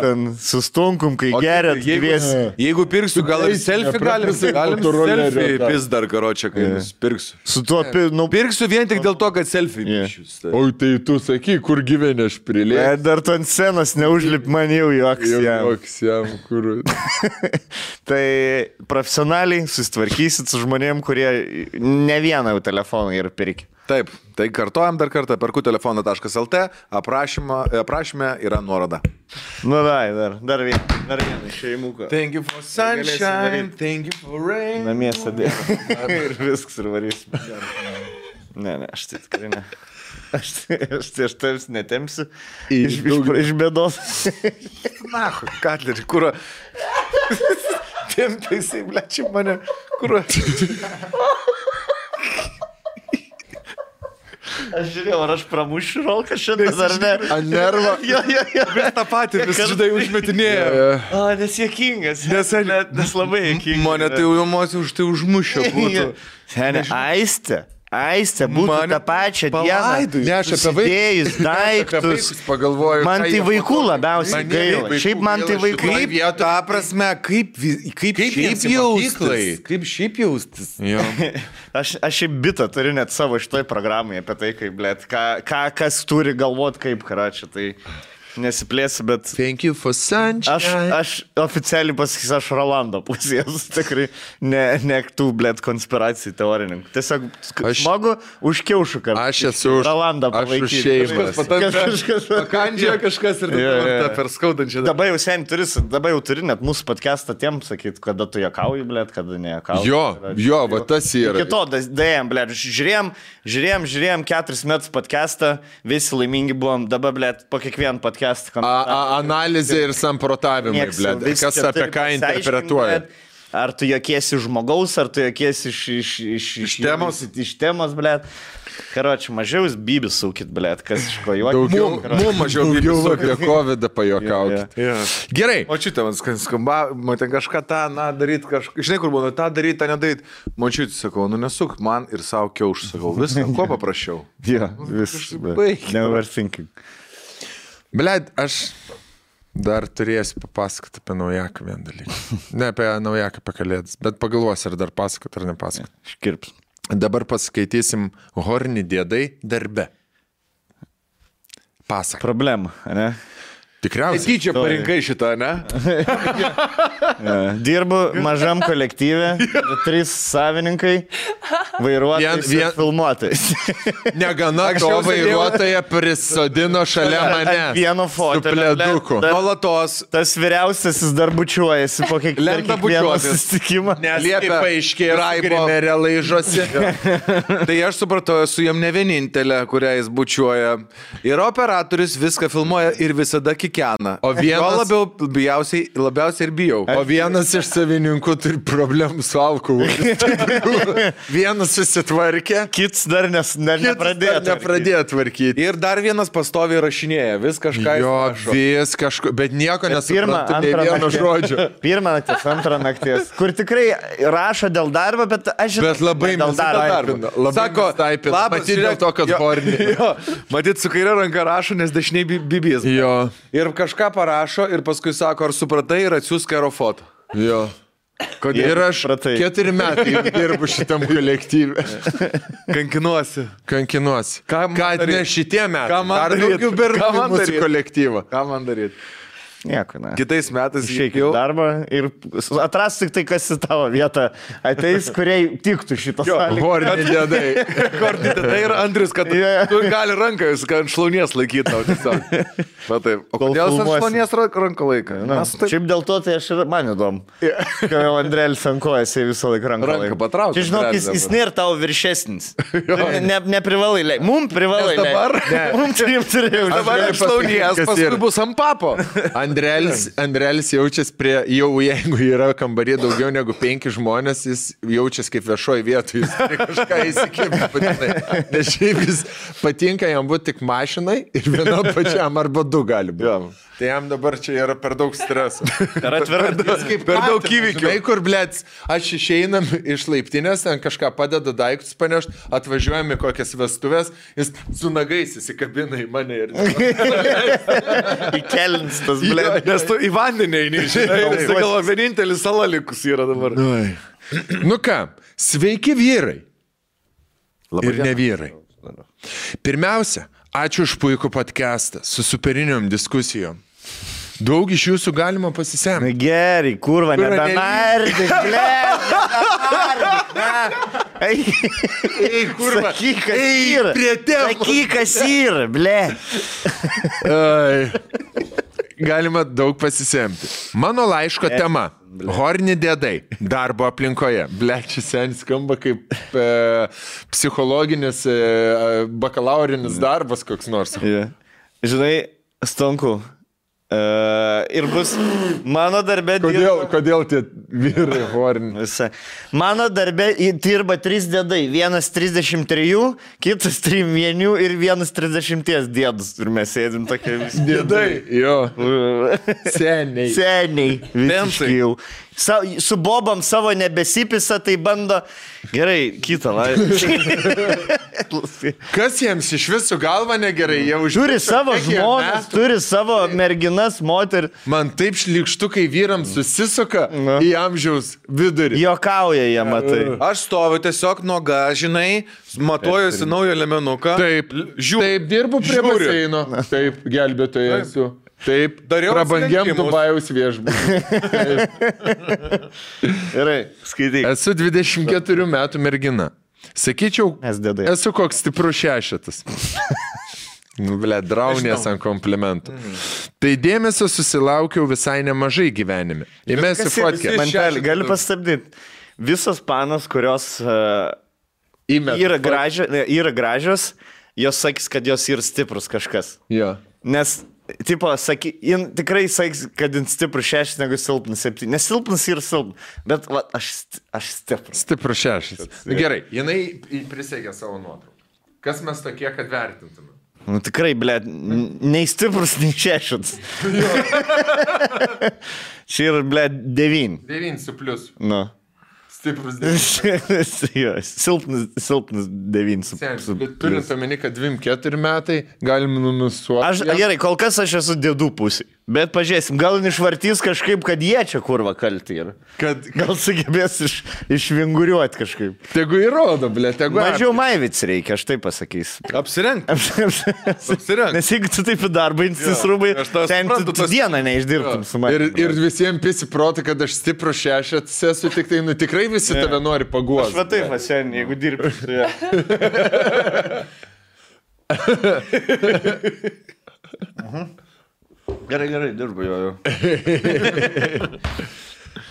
ten su stonkum, kai gerėt, kviesi. Jeigu pirksiu, gal ir selfie galim selfie pis dar karočią, kai pirksiu. Su tuo pirksiu vien tik dėl to, kad selfie pišius. O tai tu saky, kur gyveni aš prilėsiu. Dar tu ant scenos neužlip, man jau joks jam. Tai profesionaliai susitvarkysit su žmonėm, kurie ne vieną jau telefoną yra pirkę. Taip, tai kartojam dar kartą, perkutelefono.lt, aprašyme yra nuoroda. Nu dar vieną šeimuką. Thank you for sunshine, thank you for rain. Namie sadė. Ir viskas ir varysim. Ne, aš tai tikrai ne. Aš tavs netemsiu iš bėdos. Na, Katlerį, kur... Tempia jisai, blečiai mane, kur... Aš žiūrėjau, ar aš pramušiu rolką šiandien ar ne. Ant nervo. Jo. Vis tą patį, vis žydai užmetinėjo. Nes juokingas. Nes labai juokingas. Mane tai jau emocijų už tai užmušio būtų. Seniai, Aistė Aistė būtų tą pačią dieną. Ne, aš apie vaikus. Daiktus. Pagalvoju. Man tai vaikų labiausiai gaila. Šiaip man tai vaikų. Ta prasme, kaip šiaip jaustis. Aš šiaip bitą turiu net savo šitoj programai apie tai, kaip, blėt, kas turi galvot kaip, karačia, tai nesiplėsiu, bet... Thank you for sunshine. Aš oficialiai pasakysiu, aš Rolando pusės, tikrai ne tų, blėt, konspiracijų teorininkų. Tiesiog smagu už kiaušų, kad aš esu Rolandą Aš palaikyti. už šeimas. Pakandžioja kažkas ir tą per skaudančią. Dabar jau turi net mūsų podcastą tiem sakyti, kada tu juokauji, blėt, kada nejuokauji. Jo, va tas yra. Iki to, dėjom, blėt, žiūrėjom 4 metus podcastą, visi laimingi buvom, dabar, blėt, po kiekvieną podcastą. Analizė ir samprotavimai, blėt. Kas apie ką interpretuoja. Ar tu jokiesi žmogaus, ar tu jokiesi iš temos, blėt. Karoči, mažiau bybis sūkit, blėt, kas iš ko juokit. Mums mažiau bybis sūkit. Apie COVID pajuokaukit. Gerai. O čia man skamba, man ten kažką tą, daryt, žinai, kur buvo, tą daryt, tą nedaryt. Man čia, sakau, nesuk man ir savo kiaušų, sakau, viską, ko paprašiau. Never thinking. Blet, aš dar turėsiu papasakoti apie naujaką vieną dalyką. Ne apie naujaką, apie kalėdas, bet pagalvosiu, ar dar pasakoti, ar nepasakoti. Škirps. Dabar paskaitysim Horni dėdai darbe. Pasak. Problema, ne? Tikriausiai. Tyčia parinkai šitą, ne? Dirbu mažam kolektyve, 3 savininkai, vairuotojais ir filmuotojais. Negana to vairuotoją prisodino šalia mane. Vieno fotelio. Nuolatos. Tas vyriausiasis dar bučiuojasi po kiekvieno susitikimo. Nes kaip paaiškėjo, Grimerė laižosi. Tai aš supratau, esu jam ne vienintelė, kurią jis bučiuoja. Ir operatorius viską filmuoja ir visada kikena. O vienas... labiausiai ir bijau. O vienas iš savininkų turi problemų su alkoholiu. Vienas susitvarkė. Kits dar nepradėjo tvarkyti. Ir dar vienas pastoviai rašinėja. Vis kažką vis kažko, bet nieko nesuprantu, nei vieno žodžio. Pirmą nakties, antrą nakties. Kur tikrai rašo dėl darbo, bet aš žinau. Bet labai dėl darbo. Sako, labas, dėl to, kad Horni. Matyt, su kairė ranka rašo, nes dešiniai bibijas. Jo. Ir kažką parašo ir paskui sako, ar supratai ir atsiųsk aerofotą. Jo. Kodėl? Ir aš 4 metai dirbu šitam kolektyvui. Kankinuosi. Kad ne šitie metai. Dar daugiau berniukų mūsų kolektyvą. Ką man daryti? Nieko, ne. Kitais metais išeikit darbą ir atras tik tai, kas į tavo vietą ateis, kuriai tiktų šitos sąlygos. Horni dėdai. Horni dėdai ir Andrius, kad tu gali ranką, jūs ant šlaunies laikyti tau tiesiog. O kodėl aš šlaunies ranką laiką? Šiaip dėl to, tai aš ir man įdomu. Kai jau Andrėlis ankojas, jie visą laiką ranką laiką. Ranką patraukti. Čia žinok, jis nėra tavo viršesnis. Neprivalai leik. Mums privalai leik. Mums turėjau. Dabar šlaunies, paskui bus ant papo. Andrelis jaučiasi jau jeigu yra kambarį daugiau negu 5 žmonės, jis jaučiasi kaip viešoji vietoje, jis turi kažką įsikibti patinai. Nes šiaip jis patinka jam būti tik mašinai ir vienam pačiam arba 2 gali būti. Tai jam dabar čia yra per daug streso. Per daug įvykių. Žinai, kur, blėts, aš išeinam iš laiptinės, ten kažką padeda daiktus panešti, atvažiuojam į kokias vestuvės, jis su nagais įsikabina į mane ir... Įkelins tas, blėt. Nes tu į vandenį eini, žinai, galvo, vienintelis sala likus yra dabar. Nu ką, sveiki vyrai. Ir ne vyrai. Pirmiausia, ačiū už puikų podcastą su superiniom diskusijom. Daug iš jūsų galima pasisemti. Gerai, kurva, nebenardik, blėt. Ei, kurva. Sakyk, kas yra. Sakyk, kas yra, blėt. Galima daug pasisemti. Mano laiško tema. Horni dėdai. Darbo aplinkoje. Blėt, čia senis skamba kaip psichologinis, bakalaurinis darbas koks nors. Žinai, Stonku, Ir bus mano darbė Kodėl tie vyrai horni? Mano darbė dirba 3 dėdai. Vienas 33, kitas 3 ir vienas 30 dėdus. Ir mes sėdim tokie visi. Dėdai, jo. Seniai. Seniai. Visiškai jau. Su bobam savo nebesipisa, tai bando... Gerai, kitą. Kas jiems iš visų galva negerai? Turi savo žmonas, turi savo merginas, moterį. Man taip šlikštukai vyrams susisuka į amžiaus vidurį. Jokauja jie, matai. Aš stoviu tiesiog nuoga, žinai, matuojuosi naują lemenuką. Taip, taip, dirbu prie baseino. Taip, gelbėtoja esu. Taip, prabangiam Dubajaus viešbutį. Gerai, skaityk. Esu 24 metų mergina. Sakyčiau, esu koks stiprus 6. Draunės ant komplimentų. Tai dėmesio susilaukiau visai nemažai gyvenime. Įmesiu fotkę. Mantelį, gali pastabdyti. Visos panos, kurios yra gražios, jos sakys, kad jos yra stiprus kažkas. Jo. Nes... Tipo, tikrai sakys, kad jin stiprus 6 negu silpnas 7. Nes silpnas yra silpnas, bet va, aš stiprus. Stiprus 6. Gerai, jinai prisėgė savo nuotrauką. Kas mes tokie, kad vertintume? Nu tikrai, blėt, nei stiprus, nei 6. Čia yra, blėt, 9. 9 su pliusu. Nu. Stiprus 9. Silpnas 9. Bet turint omeny, kad 24 metai galim numisuoti. Gerai, kol kas aš esu dėdų pusė. Bet pažiūrėsim, gal išvartys kažkaip, kad jie čia kurva kalti yra. Gal sugebės išvinguriuoti kažkaip. Tegu įrodo, blė, tegu. Mažiau maivic reikia, aš taip pasakysiu. Apsirenk. Nes jeigu tu taip į darbą insis rūbai, ten tu dieną neišdirbtum su manimi. Ir visiems pisi protą, kad aš stiprus 6 esu, tik tai, nu tikrai visi tave nori paguosti. Aš va taip, sen, jeigu dirbi. Gerai, dirbu jo.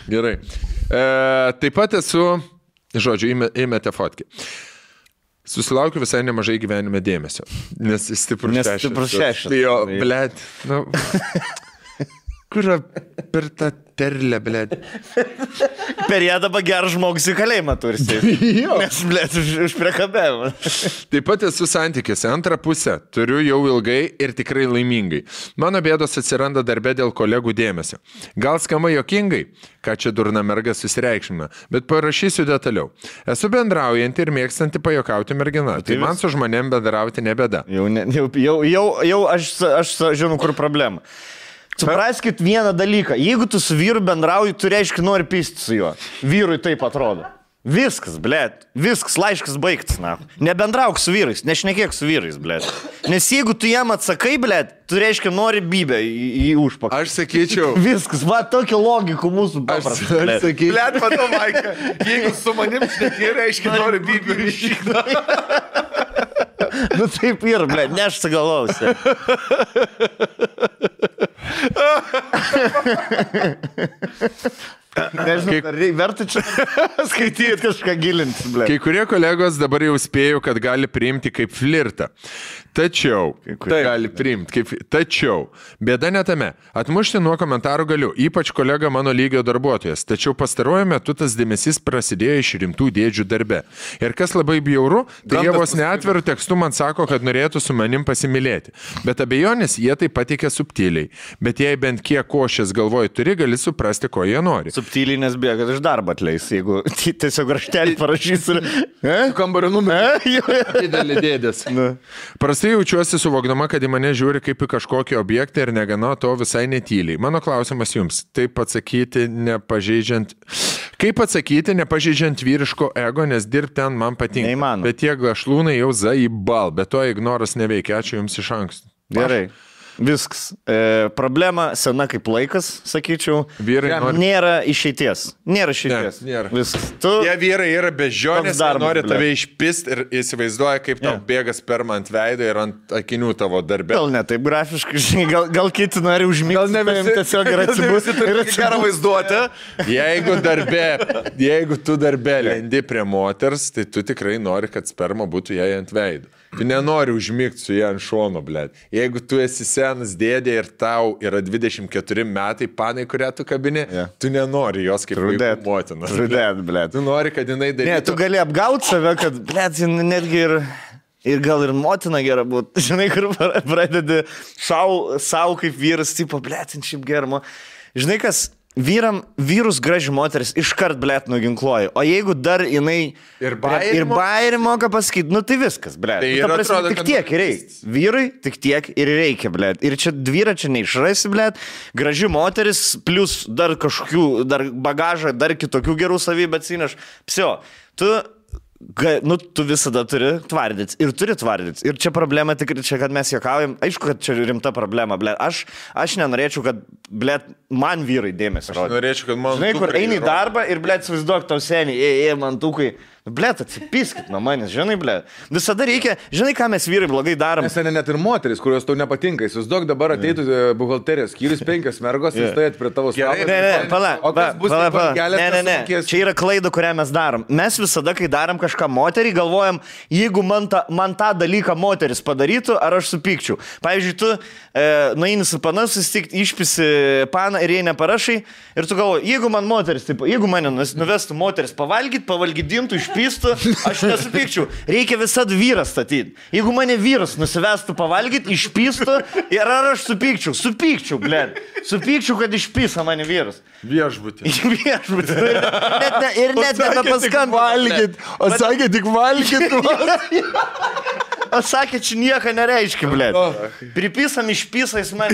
Gerai. Taip pat esu, žodžiu, įmėte fotkę. Susilaukiu visai nemažai gyvenime dėmesio. Nes stiprus 6. Tai jo, blėt, nu... Kur per tą terlę, blėt? Per ją dabar gerą žmogus į kalėjimą tursi. Nes, blėt, už priekabėjimą. Taip pat esu santykiuose. Antrą pusę turiu jau ilgai ir tikrai laimingai. Mano bėdos atsiranda darbe dėl kolegų dėmesio. Gal skamba jokingai, ką čia durna merga susireikšmina, bet parašysiu detaliau. Esu bendraujanti ir mėgstanti pajokauti mergina. Tai man su žmonėm bendrauti nebėda. Jau aš žinau, kur problema. Supraskit vieną dalyką. Jeigu tu su vyru bendrauji, tu reiškia nori pisti su juo. Vyrui taip atrodo. Viskas, blėt. Viskas, laiškas baigtas, na. Nebendrauk su vyrais, nešnekėk su vyrais, blėt. Nes jeigu tu jam atsakai, blėt, tu reiškia nori bybę į užpakalį. Aš sakyčiau. Viskas, va, tokia logika mūsų paprasta. Aš sakyčiau. Blėt, matau, Maika, jeigu su manim šnekė, reiškia nori bybę į šikną. Nu taip ir, blėt, nešta galvausi. Nežinau, verta čia skaityti kažką gilinti, blė. Kai kurie kolegos dabar jau spėjo, kad gali priimti kaip flirtą. Tačiau, bėda ne tame. Atmušti nuo komentarų galiu, ypač kolega mano lygio darbuotojas. Tačiau pastaruoju metu tas dėmesys prasidėjo iš rimtų dėdžių darbe. Ir kas labai bjauru, tai jie vos neatveru tekstu man sako, kad norėtų su manim pasimylėti. Bet abejonės jie tai pateikia subtiliai. Bet jei bent kiek košės galvoj turi, gali suprasti, ko jie nori. Subtiliai, nes bijo, kad iš darbo atleis, jeigu tiesiog raštelį parašys ir... Kambario numerį. Didelį dėdės. Prastai jaučiuosi suvokdama, kad į mane žiūri kaip į kažkokį objektą ir negana to visai netyliai. Mano klausimas jums, kaip atsakyti, nepažeidžiant vyriško ego, nes dirbti ten man patinka. Neįmanoma. Bet tie gašlūnai jau zaibal, bet to ignoras neveikia. Ačiū jums iš anksto. Gerai. Viskas. Problema sena kaip laikas, sakyčiau. Vyrai nėra išeities. Nėra išeities. Nėra. Viskas. Tie vyrai yra bežionės, nori tave išpist ir įsivaizduoja, kaip tau bėga sperma ant veido ir ant akinių tavo darbe. Gal ne taip grafiškai, žinai, gal kiti nori užmigti. Gal ne visi tiesiog yra atsibūsti. Ir gerą vaizduotę. Jeigu tu darbe lendi prie moters, tai tu tikrai nori, kad sperma būtų jai ant veido. Tu nenori užmigti su ją ant šono, blėt. Jeigu tu esi senas dėdė ir tau yra 24 metai, panai, kurią tu kabini, tu nenori jos kaip vaikų motinas. Blėt. Tu nori, kad jinai darytų. Ne, tu gali apgauti save, kad, blėt, netgi ir gal ir motina gera būtų. Žinai, kur pradedi savo kaip vyras, tipo, blėt, šiaip germo. Žinai, kas vyrus graži moteris iškart, blėt, nuginkluoja. O jeigu dar jinai ir bairį moka pasakyti, nu tai viskas, blėt. Tai nu, atrodo, tik tiek ir reikia. Vyrui tik tiek ir reikia, blėt. Ir čia vyrą čia neišrasi, blėt. Graži moteris, plus dar kažkokių, dar bagažą, dar kitokių gerų savybę atsineš. Psio, tu visada turi tvardyti ir turi tvardyti. Ir čia problema tikrai, čia, kad mes juokaujam, aišku, kad čia rimta problema, blėt. Aš nenorėčiau, kad, blėt, man vyrai dėmesį rodo. Aš norėčiau, kad man... Žinai, kur eini į darbą ir, blėt, suvaizduok tau seniai, man tukai. Blėt, atsipiskit nuo manęs, žinai, blėt. Visada reikia, žinai, ką mes vyrai blogai darom. Nes net ir moteris, kurios tau nepatinka. Įsivaizduok, dabar ateitų buhalterijos skyrius 5 mergos ir stovėt prie tavo stalo. Ne. Čia yra klaida, kurią mes darom. Mes visada, kai darom kažką moterį, galvojam, jeigu man tą dalyką moteris padarytų, ar aš supykčiau. Pavyzdžiui, tu nueini su pana susitikti, išpisi paną ir jai neparašai ir tu galvoji, jeigu man moteris, taip, jeigu mane nuvestų moteris pavalgydintų, išpistų, aš nesupykčiau. Reikia visada vyras statyti. Jeigu mane vyras nusivestų pavalgyti, išpistų ir ar aš supykčiau? Supykčiau, blėt. Supykčiau, kad išpisa mane vyras. Viešbutį. Ir net nebepaskambinti. O sakė tik valgyti. O sakė, čia nieko nereiškia, blėt. Pripisam išpisais man.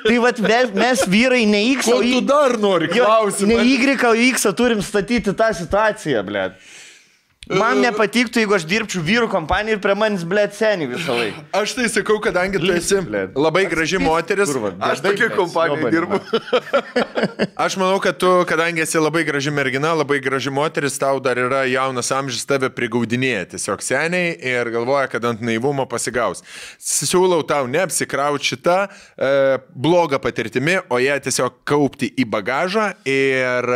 Tai vat mes vyrai ne X, o tu dar nori klausimą. Ne Y, o X turim statyti tą situaciją, blėt. Man nepatiktų, jeigu aš dirbčiau vyrų kompaniją ir prie manis, blėt, seniai visą laiką. Aš tai sakau, kadangi tu esi labai graži moteris. Aš tokia kompanija dirbu. Aš manau, kad tu, kadangi esi labai graži mergina, labai graži moteris, tau dar yra jaunas amžius, tave prigaudinėja tiesiog seniai ir galvoja, kad ant naivumo pasigaus. Siūlau tau neapsikrauti šitą blogą patirtimi, o ją tiesiog kaupti į bagažą ir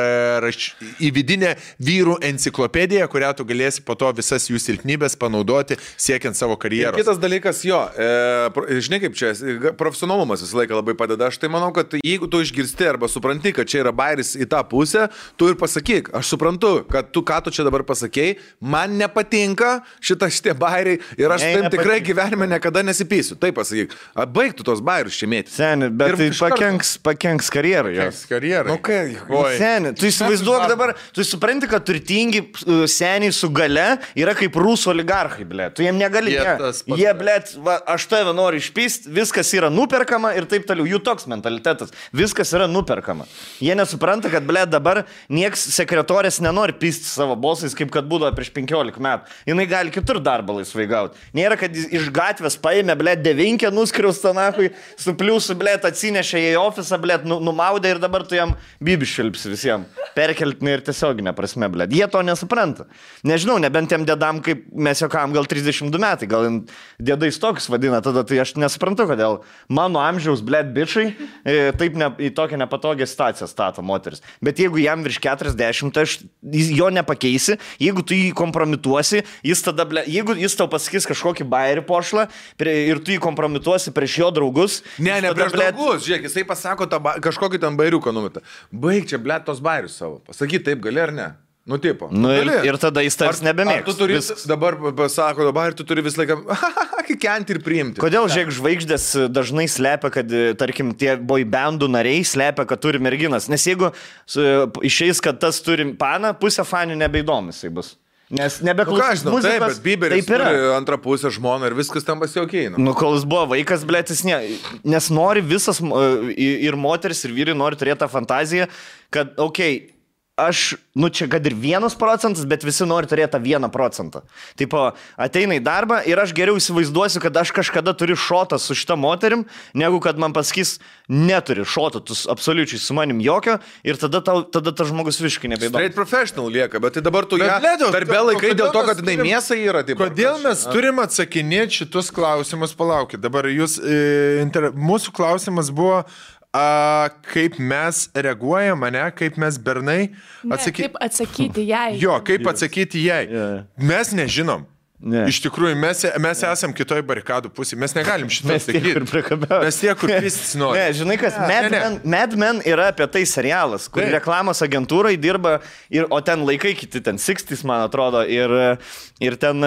į vidinę vyrų enciklopediją, kurią tu galėsi po to visas jų silpnybės panaudoti siekiant savo karjeros. Ir kitas dalykas, žinai kaip čia, profesionalumas visą laiką labai padeda. Aš tai manau, kad jeigu tu išgirsti arba supranti, kad čia yra bairis į tą pusę, tu ir pasakyk, aš suprantu, kad ką tu čia dabar pasakėjai, man nepatinka šitie bairiai ir aš taip tikrai gyvenime niekada nesipysiu. Taip pasakyk, baigtų tos bairius čia mėti. Seni, bet tai pakenks karjerai. Karjerai. Seni, tu įsivaizduok dabar, tu supranti, kad turtingi seniai su gale yra kaip rusų oligarchai, blėt. Tu jiem negali. Jie, blėt, aš tave noriu išpysti, viskas yra nuperkama ir taip toliau. Jų toks mentalitetas. Viskas yra nuperkama. Jie nesupranta, kad, blėt, dabar nieks sekretorės nenori pysti savo bosais, kaip kad būdavo prieš 15 metų. Jinai gali kitur darbą laisvai gauti. Nėra, kad iš gatvės paėmė, blėt, 9 nuskriaustą nachui, su pliusu, blėt, atsinešė į ofisą, blėt, numaudė ir dabar tu jam bibiš šilpsi visiems. Perkeltinai ir tiesioginė prasme, blėt. Jie to nesupranta. Nežinau, nebent tiem dėdam, kaip mes juokam, gal 32 metai, gal dėdais tokius vadina, tada tai aš nesuprantu, kodėl mano amžiaus, blėt, bičiai taip į tokią nepatogią situaciją stato moteris. Bet jeigu jam virš 40, tai jo nepakeisi, jeigu tu jį kompromituosi, jis tada, blėt, jeigu jis tau pasakys kažkokį bairį pošlą ir tu jį kompromituosi prieš jo draugus. Ne, prieš draugus, žiūrėk, jisai pasako kažkokį ten bairiuką numetą. Baig čia, blėt, tos bairius savo. Pasakyt taip gali ar ne? Nu, tipo. Nu, ir tada jis tarsi nebemėgs. Tu turi, dabar pasako, dabar tu turi visą laiką kikenti ir priimti. Kodėl, žiūrėk, žvaigždės dažnai slepia, kad, tarkim, tie boybandų nariai slepia, kad turi merginas. Nes jeigu išeis, kad tas turi paną, pusę fanių nebeįdomis jis bus. Nes nebeklausys muzikos. Taip, bet Bieberis turi antrą pusę žmoną ir viskas tam pasiaukiai. Nu, kol jis buvo vaikas, blėtis, nes nori visas, ir moteris, ir vyrai nori turėti tą fantaziją, kad, okei, aš, nu čia kad ir 1%, bet visi nori turėti tą 1%. Tipo, ateina į darbą ir aš geriau įsivaizduosiu, kad aš kažkada turiu šotą su šita moterim, negu kad man pasakys, neturi šoto, tu absoliučiai su manim jokio ir tada tas žmogus visiškai nebeįdomu. Straight professional lieka, bet tai dabar tu ją darbė laikai dėl to, kad jinai mėsa yra. Taip, kodėl mes turim atsakinėti šitus klausimus, palaukit. Dabar jūs, mūsų klausimas buvo, kaip mes reaguojam, ne, kaip mes bernai kaip atsakyti jai. Jo, kaip atsakyti jai. Mes nežinom. Ne. Iš tikrųjų, mes esam kitoj barikadų pusėje, mes negalim šitą sakyti. Mes tie, kur pistis nori. Ne, žinai kas, Mad Men yra apie tai serialas, kur reklamos agentūrai dirba, o ten laikai kiti, ten 60s, man atrodo, ir ten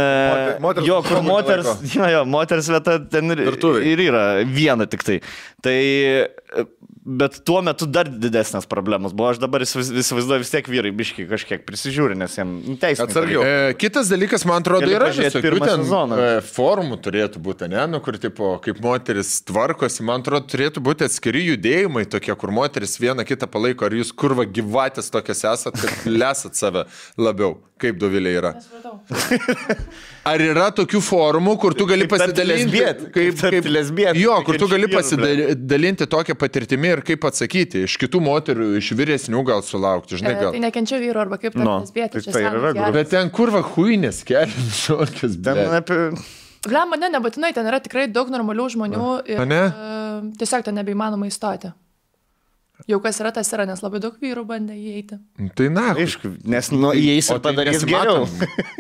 moters vieta ten ir yra viena tik tai. Tai, bet tuo metu dar didesnės problemos buvo, aš dabar įsivaizduoju vis tiek vyrai biški kažkiek prisižiūri, nes jiem teisiniai. Kitas dalykas, man atrodo, yra visokių ten formų turėtų būti, ne, nu, kur tipo, kaip moteris tvarkosi, man atrodo, turėtų būti atskiri judėjimai tokie, kur moteris vieną kitą palaiko, ar jūs kurva gyvatės tokias esat, kad lesat save labiau, kaip Dovilė yra. Ar yra tokių formų, kur tu gali pasidalinti, kaip lesbietė? Jo, kur tu gali pasidalinti tokią patirtimį ir kaip atsakyti, iš kitų moterų, iš vyresnių gal sulaukti, žinai gal. Tai nekenčia vyru arba kaip lesbietė. Bet ten kurva huinės kelias, šokas, Blemba, nebūtinai, ten yra tikrai daug normalių žmonių ir tiesiog ten nebeįmanoma įstoti. Jau kas yra, tas yra, nes labai daug vyrų bandė įeiti. Tai na, aišku, nes įeis ir padarys geriau.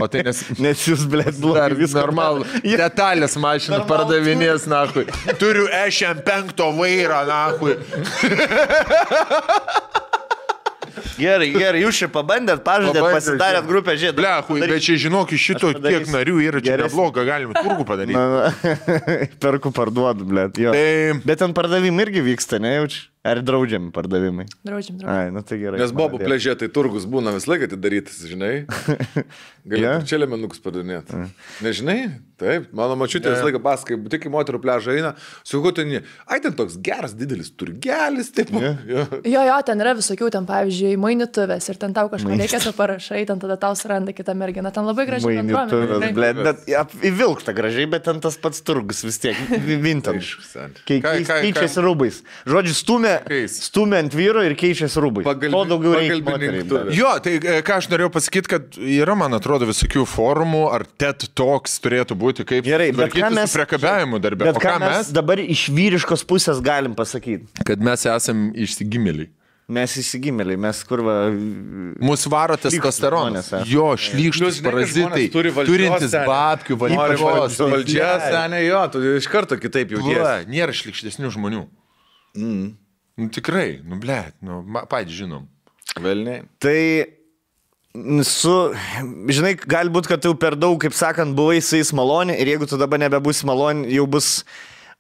O tai nes jūs, blėt, blogai viską. Normalu, detalės mašiną pardavinės, nahui. Turiu EŠM5 vairą, nahui. Gerai, jūs čia pabandėt, pažadėt, pasidarėt grupę žiedų. Blehui, bet čia žinok, iš šito tiek narių yra čia nebloga, galime turgų padaryti. Perku, parduodu, blėt, jo. Bet ten pardavimai irgi vyksta, nejaučiu? Ar draudžiami pardavimai? Draudžiami. Ai, nu tai gerai. Nes bobų pležė, tai turgus būna vis laiką atidarytas, žinai. Galėtų čia lemenukus pardavinėti. Nežinai? Taip, mano mačiutė vis laiką paskai, tik į moterų pležą eina, su kutinį, ten toks geras, didelis turgelis, taip. Jo, ten yra visokių, ten pavyzdžiui, mainituvės ir ten tau kažką reikia, tu parašai, ten tada tau suranda kitą merginą, ten labai gražiai bendruomenė. Bet įvilkta gražiai, bet ten tas pats turgus vis tiek, vintage. Keičiasi rūbais. Žodžiu, stumia ant vyro ir keičiasi rūbai. To daugiau reikia moteriai. Jo, tai ką aš norėjau pasakyti, kad yra, man atrodo, visokių forumų, ar TED Talks turėtų būti, kaip tvarkyti su priekabiavimu darbė. Bet ką mes dabar iš vyriškos pusės galim pasakyti? Kad mes esam išsigimėliai. Mes įsigimėliai, mes kurva... Mūsų varo testosteronas. Jo, šlykštus parazitai, turintis babkių, valdžia, senė, jo, tu iš karto kitaip jautiesi. Nėra šlykštesnių žmonių. Nu tikrai, blėt, patys žinom. Velniai. Tai žinai, galbūt, kad tu per daug, kaip sakant, buvai su jais maloni ir jeigu tu dabar nebebūsi maloni, jau bus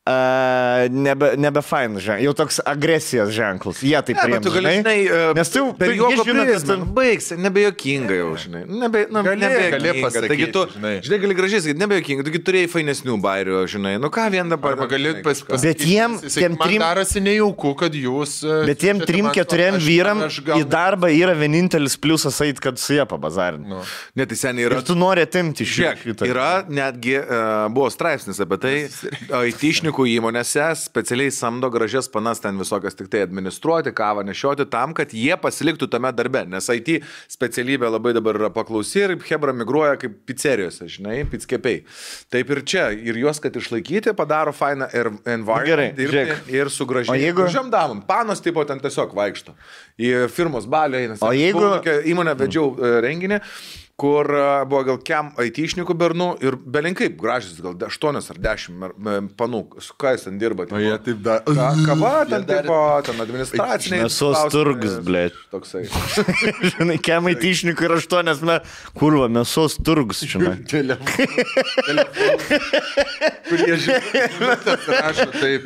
nebe fain ženklas, jau toks agresijos ženklas. Jie taip priėmė. Tu gali, žinai, nes tu per juoko prizmę baigsi, nebejokinga jau, žinai. Gali pasakyti, taigi tu, žinai, gali gražiai sakyti, nebejokinga, taigi turėjai fainesnių bairių, žinai. Nu ką vien dabar. Arba gali pasakyti. Bet jiem man darosi nejauku, kad jūs... Bet jiem 3-4 vyram į darbą yra vienintelis pliusas eit, kad su jie pabazarinti. Net tai seniai yra. Ir tu nori atimti iš jų. Yra netgi, buvo straipsnis apie tai, IT-šnikų įmonėse specialiai samdo gražias panas ten visokias tik tai administruoti, kavą nešioti tam, kad jie pasiliktų tame darbe, nes IT specialybė labai dabar yra paklausi ir hebra migruoja kaip pizzerijose, žinai, pizzkepiai. Taip ir čia, ir juos, kad išlaikyti, padaro fainą environment dirbti ir su gražiam damom. Panos tipo ten tiesiog vaikšto. Į firmos balių eina. O jeigu... Įmonę vedžiau renginį, kur buvo gal kem IT-šnikų bernų ir belinkaip gražis, gal 8 ar 10 panų, su ką jis ten dirba. O jie taip da... Kava, ten tipo, ten administraciniai. Mėsos turgus, blėt. Toksai. Žinai, kem IT-šnikų ir 8, kurva, mėsos turgus, žinai. Telefon. Kurie žinai, rašo taip.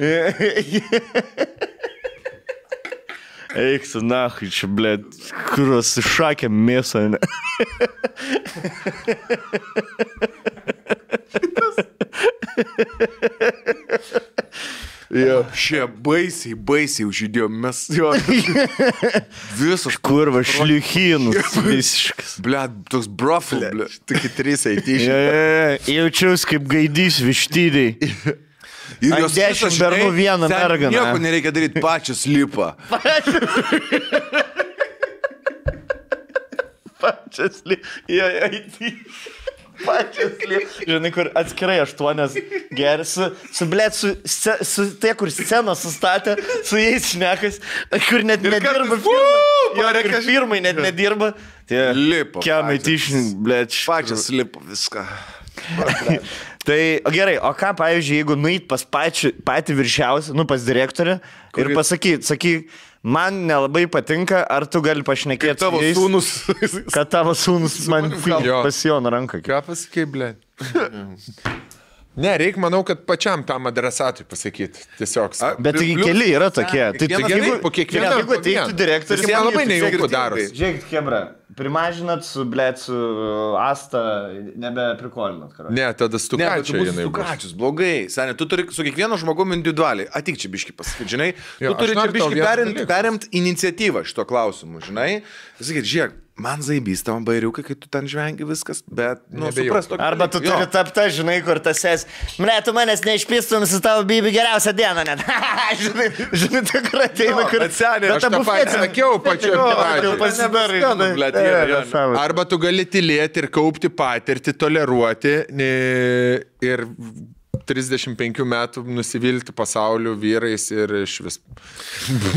Eik su nahui čia, blėt, kurios šakė mėsą, ne? Šie baisiai užžydėjo, mes jo. Visos kurva šliuchinus visiškas. Blėt, toks brofil, blėt. Tokie 3 IT-šnikai. Jaučiaus kaip gaidys vištydai. Ir jos 10 bernų vieną merganą. Nieko nereikia daryti, pačios lipa. Pačios lipa. Pačios lipa. Žinai, kur atskirai 8 gersi, su tie, kur sceną sustatė, su jais šnekas, kur net nedirba firmai. Kur firmai net nedirba. Lipa. Kiamai tyšin, blėt. Pačios lipa viską. Tai gerai, o ką, pavyzdžiui, jeigu nueit pas patį viršiausią, pas direktorį ir sakyk, man nelabai patinka, ar tu gali pašnekėti tavo sūnus. Kad tavo sūnus man pasijono ranką. Ką pasakai, ble? Ne, reikia, manau, kad pačiam tam adresatui pasakyti. Tiesiog. Bet keli yra tokie. Po kiekvieno. Jeigu teiktų direktorius, jie labai nejaukų daros. Žiūrėkit, Hebra, primažinat su Asta, nebeprikolinat. Ne, tada stukačiai. Stukačius, blogai. Seniai, tu turi su kiekvienu žmogumi individualiai. Atik čia biški pasakyti, žinai. Tu turi čia biški perimt iniciatyvą šito klausimu, žinai. Sakyt, žiūrėk. Man zaibys tam bairiukai, kai tu ten žvengi viskas, bet, supras tokį. Arba tu turi tapta, žinai, kur tas tu manęs neišpistum su tavo bibi geriausią dieną net. žinai, tikrai ateina, kur atsenė. Aš tą patį sakiau pačiu. Arba tu gali tylėti ir kaupti patirtį, toleruoti ir 35 metų nusivilti pasauliu vyrais ir iš vis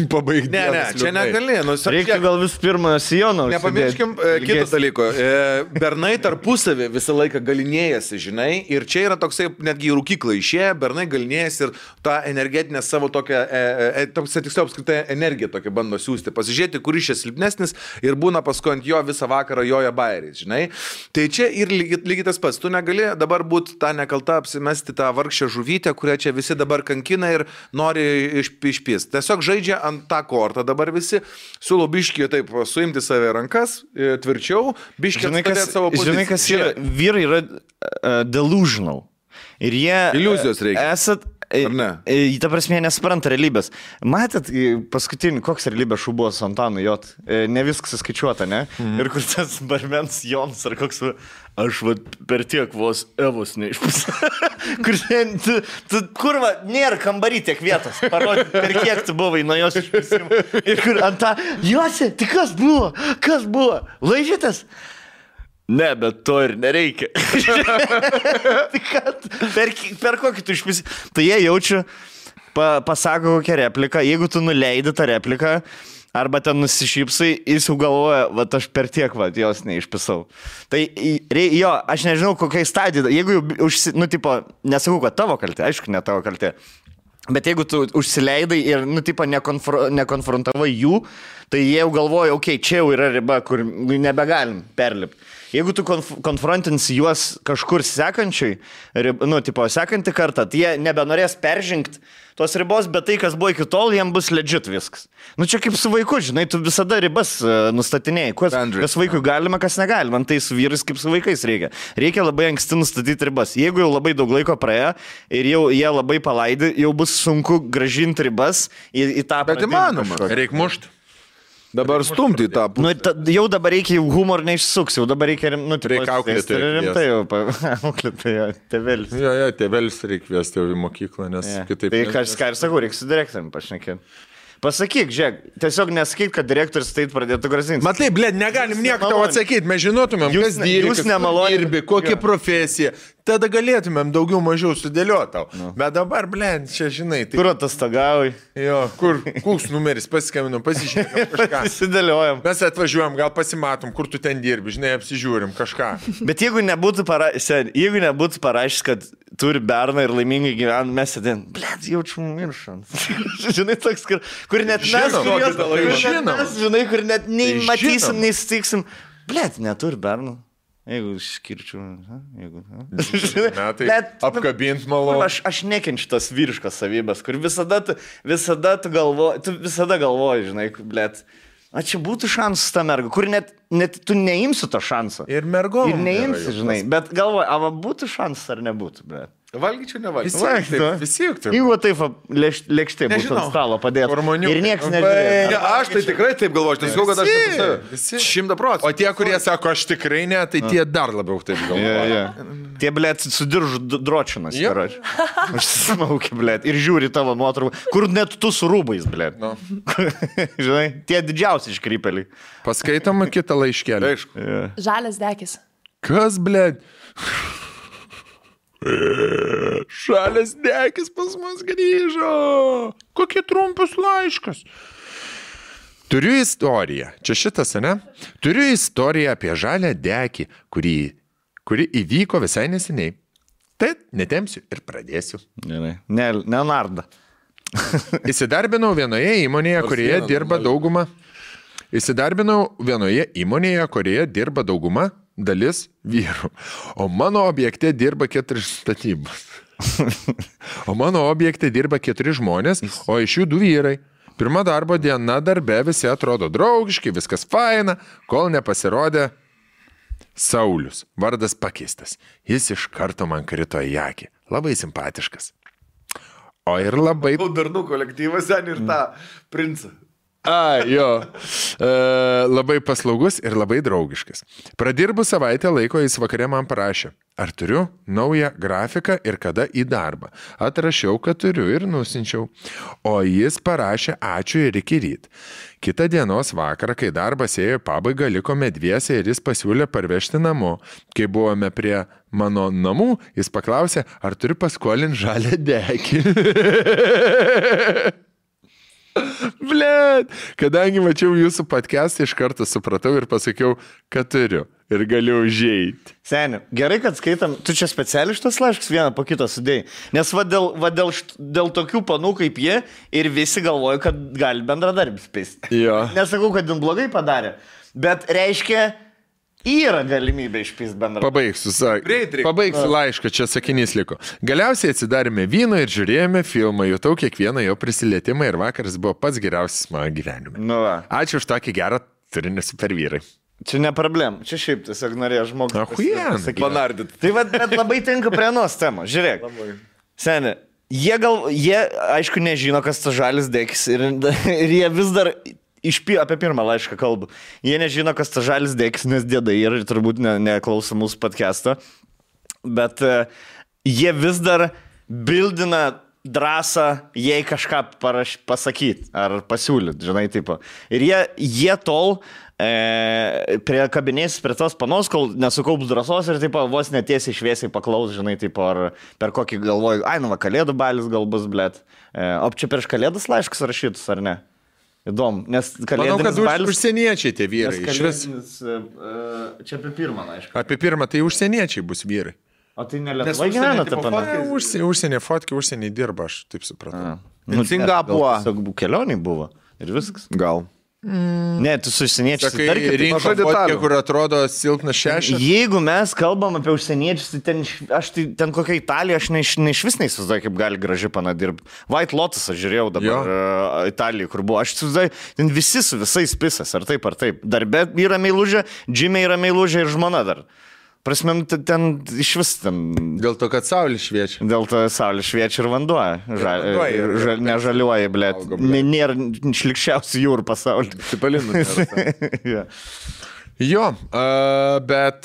pabaigti. Ne, čia negali. Reikia gal vis pirmą sijoną. Nepamirškim kito dalyko. Bernai tarpusavį visą laiką galinėjasi, žinai, ir čia yra toksai, netgi į rūkyklą išėję, bernai galinėjasi ir tą energetinę savo tokią, tiksliau apskritai energiją tokią bando siūsti, pasižiūrėti, kuris čia silpnesnis ir būna paskui ant jo visą vakarą joja bairiais, žinai. Tai čia ir lygiai tas pats. Tu negali dabar būti tą nekaltą apsimesti tą vargšę žuvytę, kurią čia visi dabar kankina ir nori išpist. Tiesiog žaidžia ant tą kortą dabar visi, siūlo biškį taip suimti save rankas, tvirčiau, biškį atstadėti savo poziciją. Žinai, kas yra, vyrai yra delusional. Ir jie... Iliuzijos reikia. Ar ne? Ta prasme, nespranta realybės. Matėt, paskutinį, koks realybės šou buvo su Antanu Jot? Ne viskas įskaičiuota, ne? Ir kur tas barmens Jonas ar koks... Aš per tiek vos Evos neišpusė. Kur nėra kambarį tiek vietos. Parodyti, per kiek tu buvai nuo jos išpusimo. Ir kur ant tą... Josi, tai kas buvo? Kas buvo? Laižytas? Ne, bet to ir nereikia. Per kokį tu išpisi. Tai jie jaučia, pasako kokią repliką. Jeigu tu nuleidi tą repliką, arba ten nusišypsai, jis jau galvoja, aš per tiek, jos neišpisau. Tai jo, aš nežinau, kokiai stadijai. Jeigu jau, nesakau, kad tavo kaltė, aišku, ne tavo kaltė. Bet jeigu tu užsileidai ir, nekonfrontavai jų, tai jie jau galvoja, čia jau yra riba, kur nebegalim perlipti. Jeigu tu konfrontinsi juos kažkur sekančiai, sekantį kartą, tai jie nebenorės peržengti tos ribos, bet tai, kas buvo iki tol, jiems bus legit viskas. Čia kaip su vaiku, žinai, tu visada ribas nustatinėjai. Kas vaikui galima, kas negalima. Tai su vyrais kaip su vaikais reikia. Reikia labai anksti nustatyti ribas. Jeigu jau labai daug laiko praėjo ir jau jie labai palaidi, jau bus sunku grąžinti ribas į tą... Bet įmanoma. Reikia mušti. Dabar stumti tą pusę. Jau dabar reikia humor neišsuks, jau dabar reikia auklėti. Rimtai jau auklėti, tėvelis. Jo, tėvelis reikia vesti jau į mokyklą, nes kitaip... Tai ką ir sakau, reikia su direktoriumi pašnekėti. Pasakyk, žiūrėk, tiesiog nesakyk, kad direktorius tai pradėtų grasinti. Matai, negalim nieko tau atsakyti, mes žinotumėm, kas dirbi, kokia profesija. Tada galėtumėm daugiau mažiau sudėlioti tau. Bet dabar, čia žinai. Tai... Kur atostogauji? Jo, koks numeris, pasiskambinam, pasižiūrėm kažką. Pasidėliojam. Mes atvažiuojam, gal pasimatom, kur tu ten dirbi, žinai, apsižiūrim kažką. Bet jeigu nebūtų parašęs, kad turi berną ir laimingai gyvena, mes sėdėm, jaučiu miršant. Žinai, toks, kur net mes, žinai, kur net nei matysim, nei sutiksim. Neturi berną. Jeigu išskirčiau, apkabint malonu. Aš nekenčiu tas vyriškas savybės, kur visada tu galvoji, žinai, čia būtų šansas ta merga, kur net tu neimsi to šansą. Ir mergom. Ir neimsi, žinai, bet galvoji, būtų šansas ar nebūtų, bet. Valgyčiau, nevalgyčiau. Visi juk taip. Jeigu taip lėkštė būtų ant stalo padėti. Ir niekas nežiūrėjo. Aš tai tikrai taip galvoju, tai sakau, kad aš 100%. O tie, kurie sako, aš tikrai ne, tai tie dar labiau taip galvoja. Tie, sudiržu dročinas, karoči. Aš smaukiu, ir žiūri tavo nuotrauką, kur net tu su rūbais, Žinai, tie didžiausi iškrypeliai. Paskaitom kitą laiškelį. Žalias dekis. Kas, Žalias dekis pas mus grįžo. Kokie trumpus laiškas. Turiu istoriją. Čia šitas, ne? Turiu istoriją apie žalią dekį, kuri įvyko visai neseniai. Tai netempsiu ir pradėsiu. Gerai. Nenarda. Įsidarbinau vienoje įmonėje, kurioje dirba dauguma dalis vyrų. O mano objekte dirba 4 statybos. O mano objekte dirba 4 žmonės, o iš jų 2 vyrai. Pirma darbo diena darbe visi atrodo draugiški, viskas faina, kol nepasirodė Saulius. Vardas pakeistas. Jis iš karto man krito į akį. Labai simpatiškas. O ir labai... Darnų kolektyvas ten ir tą princą. Jo. Labai paslaugus ir labai draugiškas. Pradirbu savaitę laiko, jis vakare man parašė, ar turiu naują grafiką ir kada į darbą. Atrašiau, kad turiu ir nusinčiau. O jis parašė ačiū ir iki ryt. Kitą dienos vakarą, kai darbas ėjo į pabaigą, likome dviese ir jis pasiūlė parvežti namo. Kai buvome prie mano namų, jis paklausė, ar turiu paskolinti žalią dekį. Blet, kadangi mačiau jūsų podcastą, iš karto supratau ir pasakiau, kad turiu ir galiu užeiti. Seniai, gerai, kad skaitam, tu čia specialiai šitas laiškas vieną po kito sudėjai, nes dėl tokių panų kaip jie ir visi galvoja, kad gali bendradarbis pisti. Nesakau, kad jin blogai padarė, bet reiškia, yra galimybė išpist bendrą. Pabaigsiu laišką, čia sakinys liko. Galiausiai atsidarėme vyno ir žiūrėjome filmą, jutau kiekvieną jo prisilietimą ir vakaras buvo pats geriausias mano gyvenime. Ačiū už tokį gerą turinį super vyrai. Čia ne problem, čia šiaip tiesiog norėjo žmogus panardyti. Tai bet labai tinka prie anos temos, žiūrėk. Seniai, jie aišku nežino, kas tas žalis dekis ir jie vis dar... Apie pirmą laišką kalbu. Jie nežino, kas ta žalis dėkis, nes dėdai ir turbūt neklauso mūsų podcast'o. Bet jie vis dar bildina drąsą, jei kažką pasakyti ar pasiūlyti, žinai, tipo. Ir jie tol kabinėsis prie tos panos, kol nesukaups drąsos ir tipo, vos netiesiai šviesiai paklaus, žinai, tipo, ar per kokį galvoju, kalėdų balis gal bus, blet. O čia prieš kalėdas laiškas rašytus, ar ne? Įdomu, nes kalėdinis balis... Manau, kad užsieniečiai tie vyrai. Čia apie pirmą, aišku. Apie pirmą, tai užsieniečiai bus vyrai. O tai ne Lietuvoje gyvena ta pana? Užsienė fotkiai, užsienė dirba, aš taip supratau. Singapūro. Kelioniai buvo ir viskas. Gal. Ne, tu su užsieniečiais. Sakai, rinko fotkę, kur atrodo silpnas šešas. Jeigu mes kalbam apie užsieniečius, tai ten kokia Italija, aš iš vis neįsivaizduoju, kaip gali graži pana dirbti. White Lotus aš žiūrėjau dabar Italijoje, kur buvo. Aš įsivaizduoju, ten visi su visais pisas, ar taip, ar taip. Darbe yra meilužė, džime yra meilužė ir žmona dar. Prasme, ten iš vis ten... Dėl to, kad saulė šviečia. Dėl to saulė šviečia ir vanduo. Nežaliuoja, blėt. Nėra šlikščiausių jūrų pasaulyje. Cipalinų. Jo, bet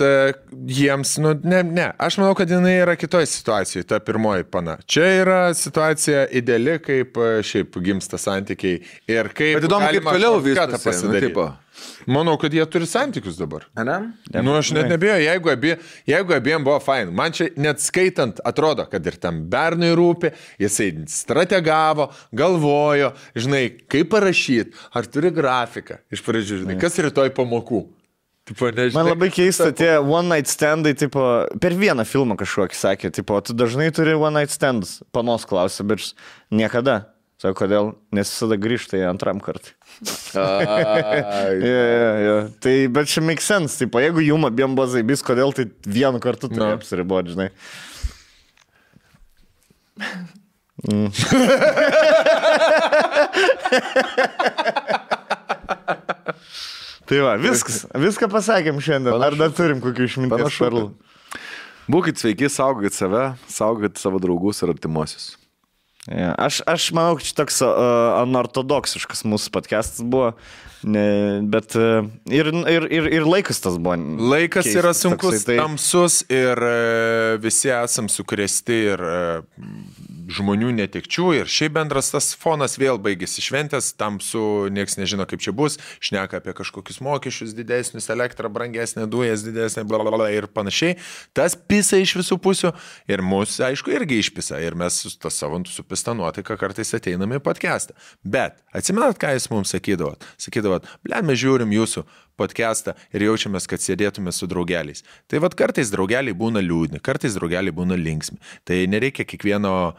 jiems, ne. Aš manau, kad jinai yra kitoje situacijoje, ta pirmoji pana. Čia yra situacija ideali, kaip šiaip gimsta santykiai. Ir kaip... Bet įdomu, kaip toliau viską pasidaryti. Manau, kad jie turi santykius dabar. Aš net nebėjau, jeigu abiem buvo fain. Man čia net skaitant atrodo, kad ir tam bernui rūpi, jisai strategavo, galvojo, žinai, kaip parašyti, ar turi grafiką iš pradžių, žinai, kas rytoj pamokų. Tipo, nežinai, man labai keista, tie one night standai, tipo, per vieną filmą kažkokį sakė, tipo, tu dažnai turi one night standus, panos klausė, bet niekada. Sako, kodėl? Nes visada grįžta į antram kartą. Tai, bet čia make sense, tipo, jeigu jum abiem buvo zaibys, kodėl tai vienu kartu turi apsiriboti, žinai. Tai va, viską pasakėm šiandien. Ar dar turim kokių išminties perlų? Būkit sveiki, saugokit save, saugokit savo draugus ir artimuosius. Aš manau, kad čia toks anortodoksiškas mūsų podcastas buvo, bet ir laikas tas buvo. Laikas keistas, yra sunkus, tamsus ir visi esam sukrėsti ir žmonių netekčių ir šiaip bendras tas fonas vėl baigėsi šventės, tamsu, nieks nežino kaip čia bus, šneka apie kažkokius mokesčius didesnius, elektrą brangesnė, dujas didesnė, blablabla ir panašiai. Tas pisa iš visų pusių ir mus, aišku, irgi išpisa ir mes tas savo supisa supista nuotaika kartais ateiname į podcastą. Bet atsimenat, ką jūs mums sakydavot? Sakydavot, mes žiūrim jūsų podcastą ir jaučiamės, kad sėdėtume su draugeliais. Tai vat kartais draugeliai būna liūdni, kartais draugeliai būna linksmi. Tai nereikia kiekvieno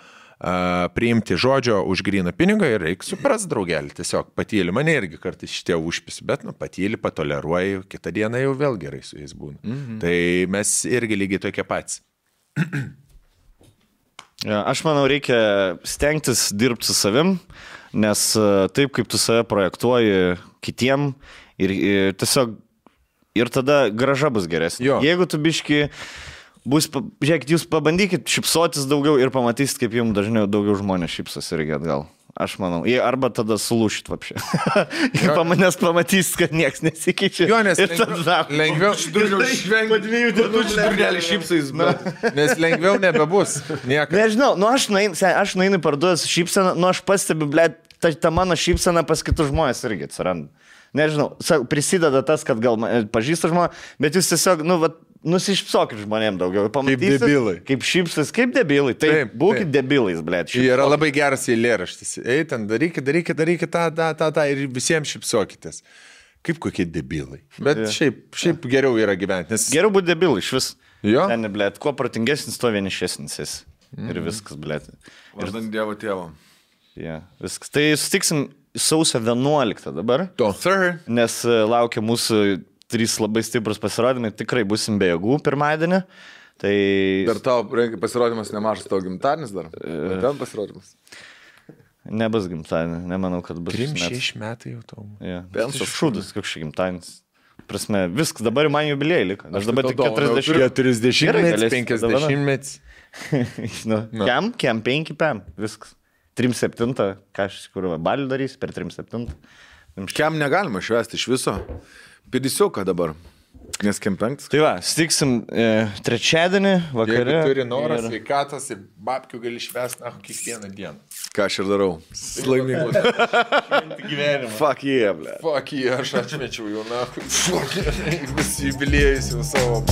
priimti žodžio už gryną pinigą ir reikia supras draugelį. Tiesiog patyli, mane irgi kartais šitie užpisi, bet patyli, patoleruoji, kitą dieną jau vėl gerai su jais būna. Tai mes irgi lygiai tokie patys. Aš manau, reikia stengtis dirbti su savim, nes taip, kaip tu save projektuoji kitiem ir tiesiog ir tada grąža bus geresnė. Jeigu tu biški žiūrėkit, jūs pabandykit šipsotis daugiau ir pamatysit, kaip jums dažniau daugiau žmonės šipsos irgi atgal. Aš manau. Arba tada sulūšit vapšė. Nes pamatysit, kad nieks nesikeičia. Jo, nes lengviau nes lengviau nebebus. Nežinau, aš nueinu parduodas šypseną, aš pastebiu, ta mano šypsena pas kitus žmonės irgi atsiranda. Nežinau, prisideda tas, kad gal pažįsta žmonės, bet jūs tiesiog, nusišpsokit žmonėm daugiau. Pamatysit, kaip debilai. Kaip šypsas, kaip debilai. Taip, būkit debilais, blėt. Yra labai geras eilėraštis. Ei, ten darykit tą ir visiems šypsokitės. Kaip kokie debilai. Bet šiaip geriau yra gyventi. Nes... Geriau būti debilai, iš vis. Jo. Ten, blėt, kuo protingesnis, tuo vienišesnis jis. Ir viskas, blėt. Vardant Dievo tėvo. Viskas. Tai sutiksim sausio 11 dabar. Nes laukia mūsų 3 labai stiprus pasirodymai, tikrai busim be jėgų pirmadienį. Tai... Dar tau pasirodymas nemažas, tavo gimtadienis dar? Ten pasirodymas? Nebus gimtadienį, nemanau, kad bus. 6 metai jau tau. Pensas šūdas, koks šį gimtadienis. Prasme, viskas, dabar man jubiliejai liko. Aš dabar tik 40 metais, 50 metais. Kem 5 pėm, viskas. 3-7, ką aš kur balių darys per 3-7. Kem negalima švęsti iš viso. Pidisiuką dabar, nes kem 5. Tai va, stiksim trečiadienį vakarė. Jeigu turi norą, sveikatos ir babkių gali švęsti kiekvieną dieną. Ką aš ir darau. Laimingus. Fuck yeah, ble. Fuck yeah, aš atmečiau jau, Fuck yeah. Visi jubiliejus jau savo.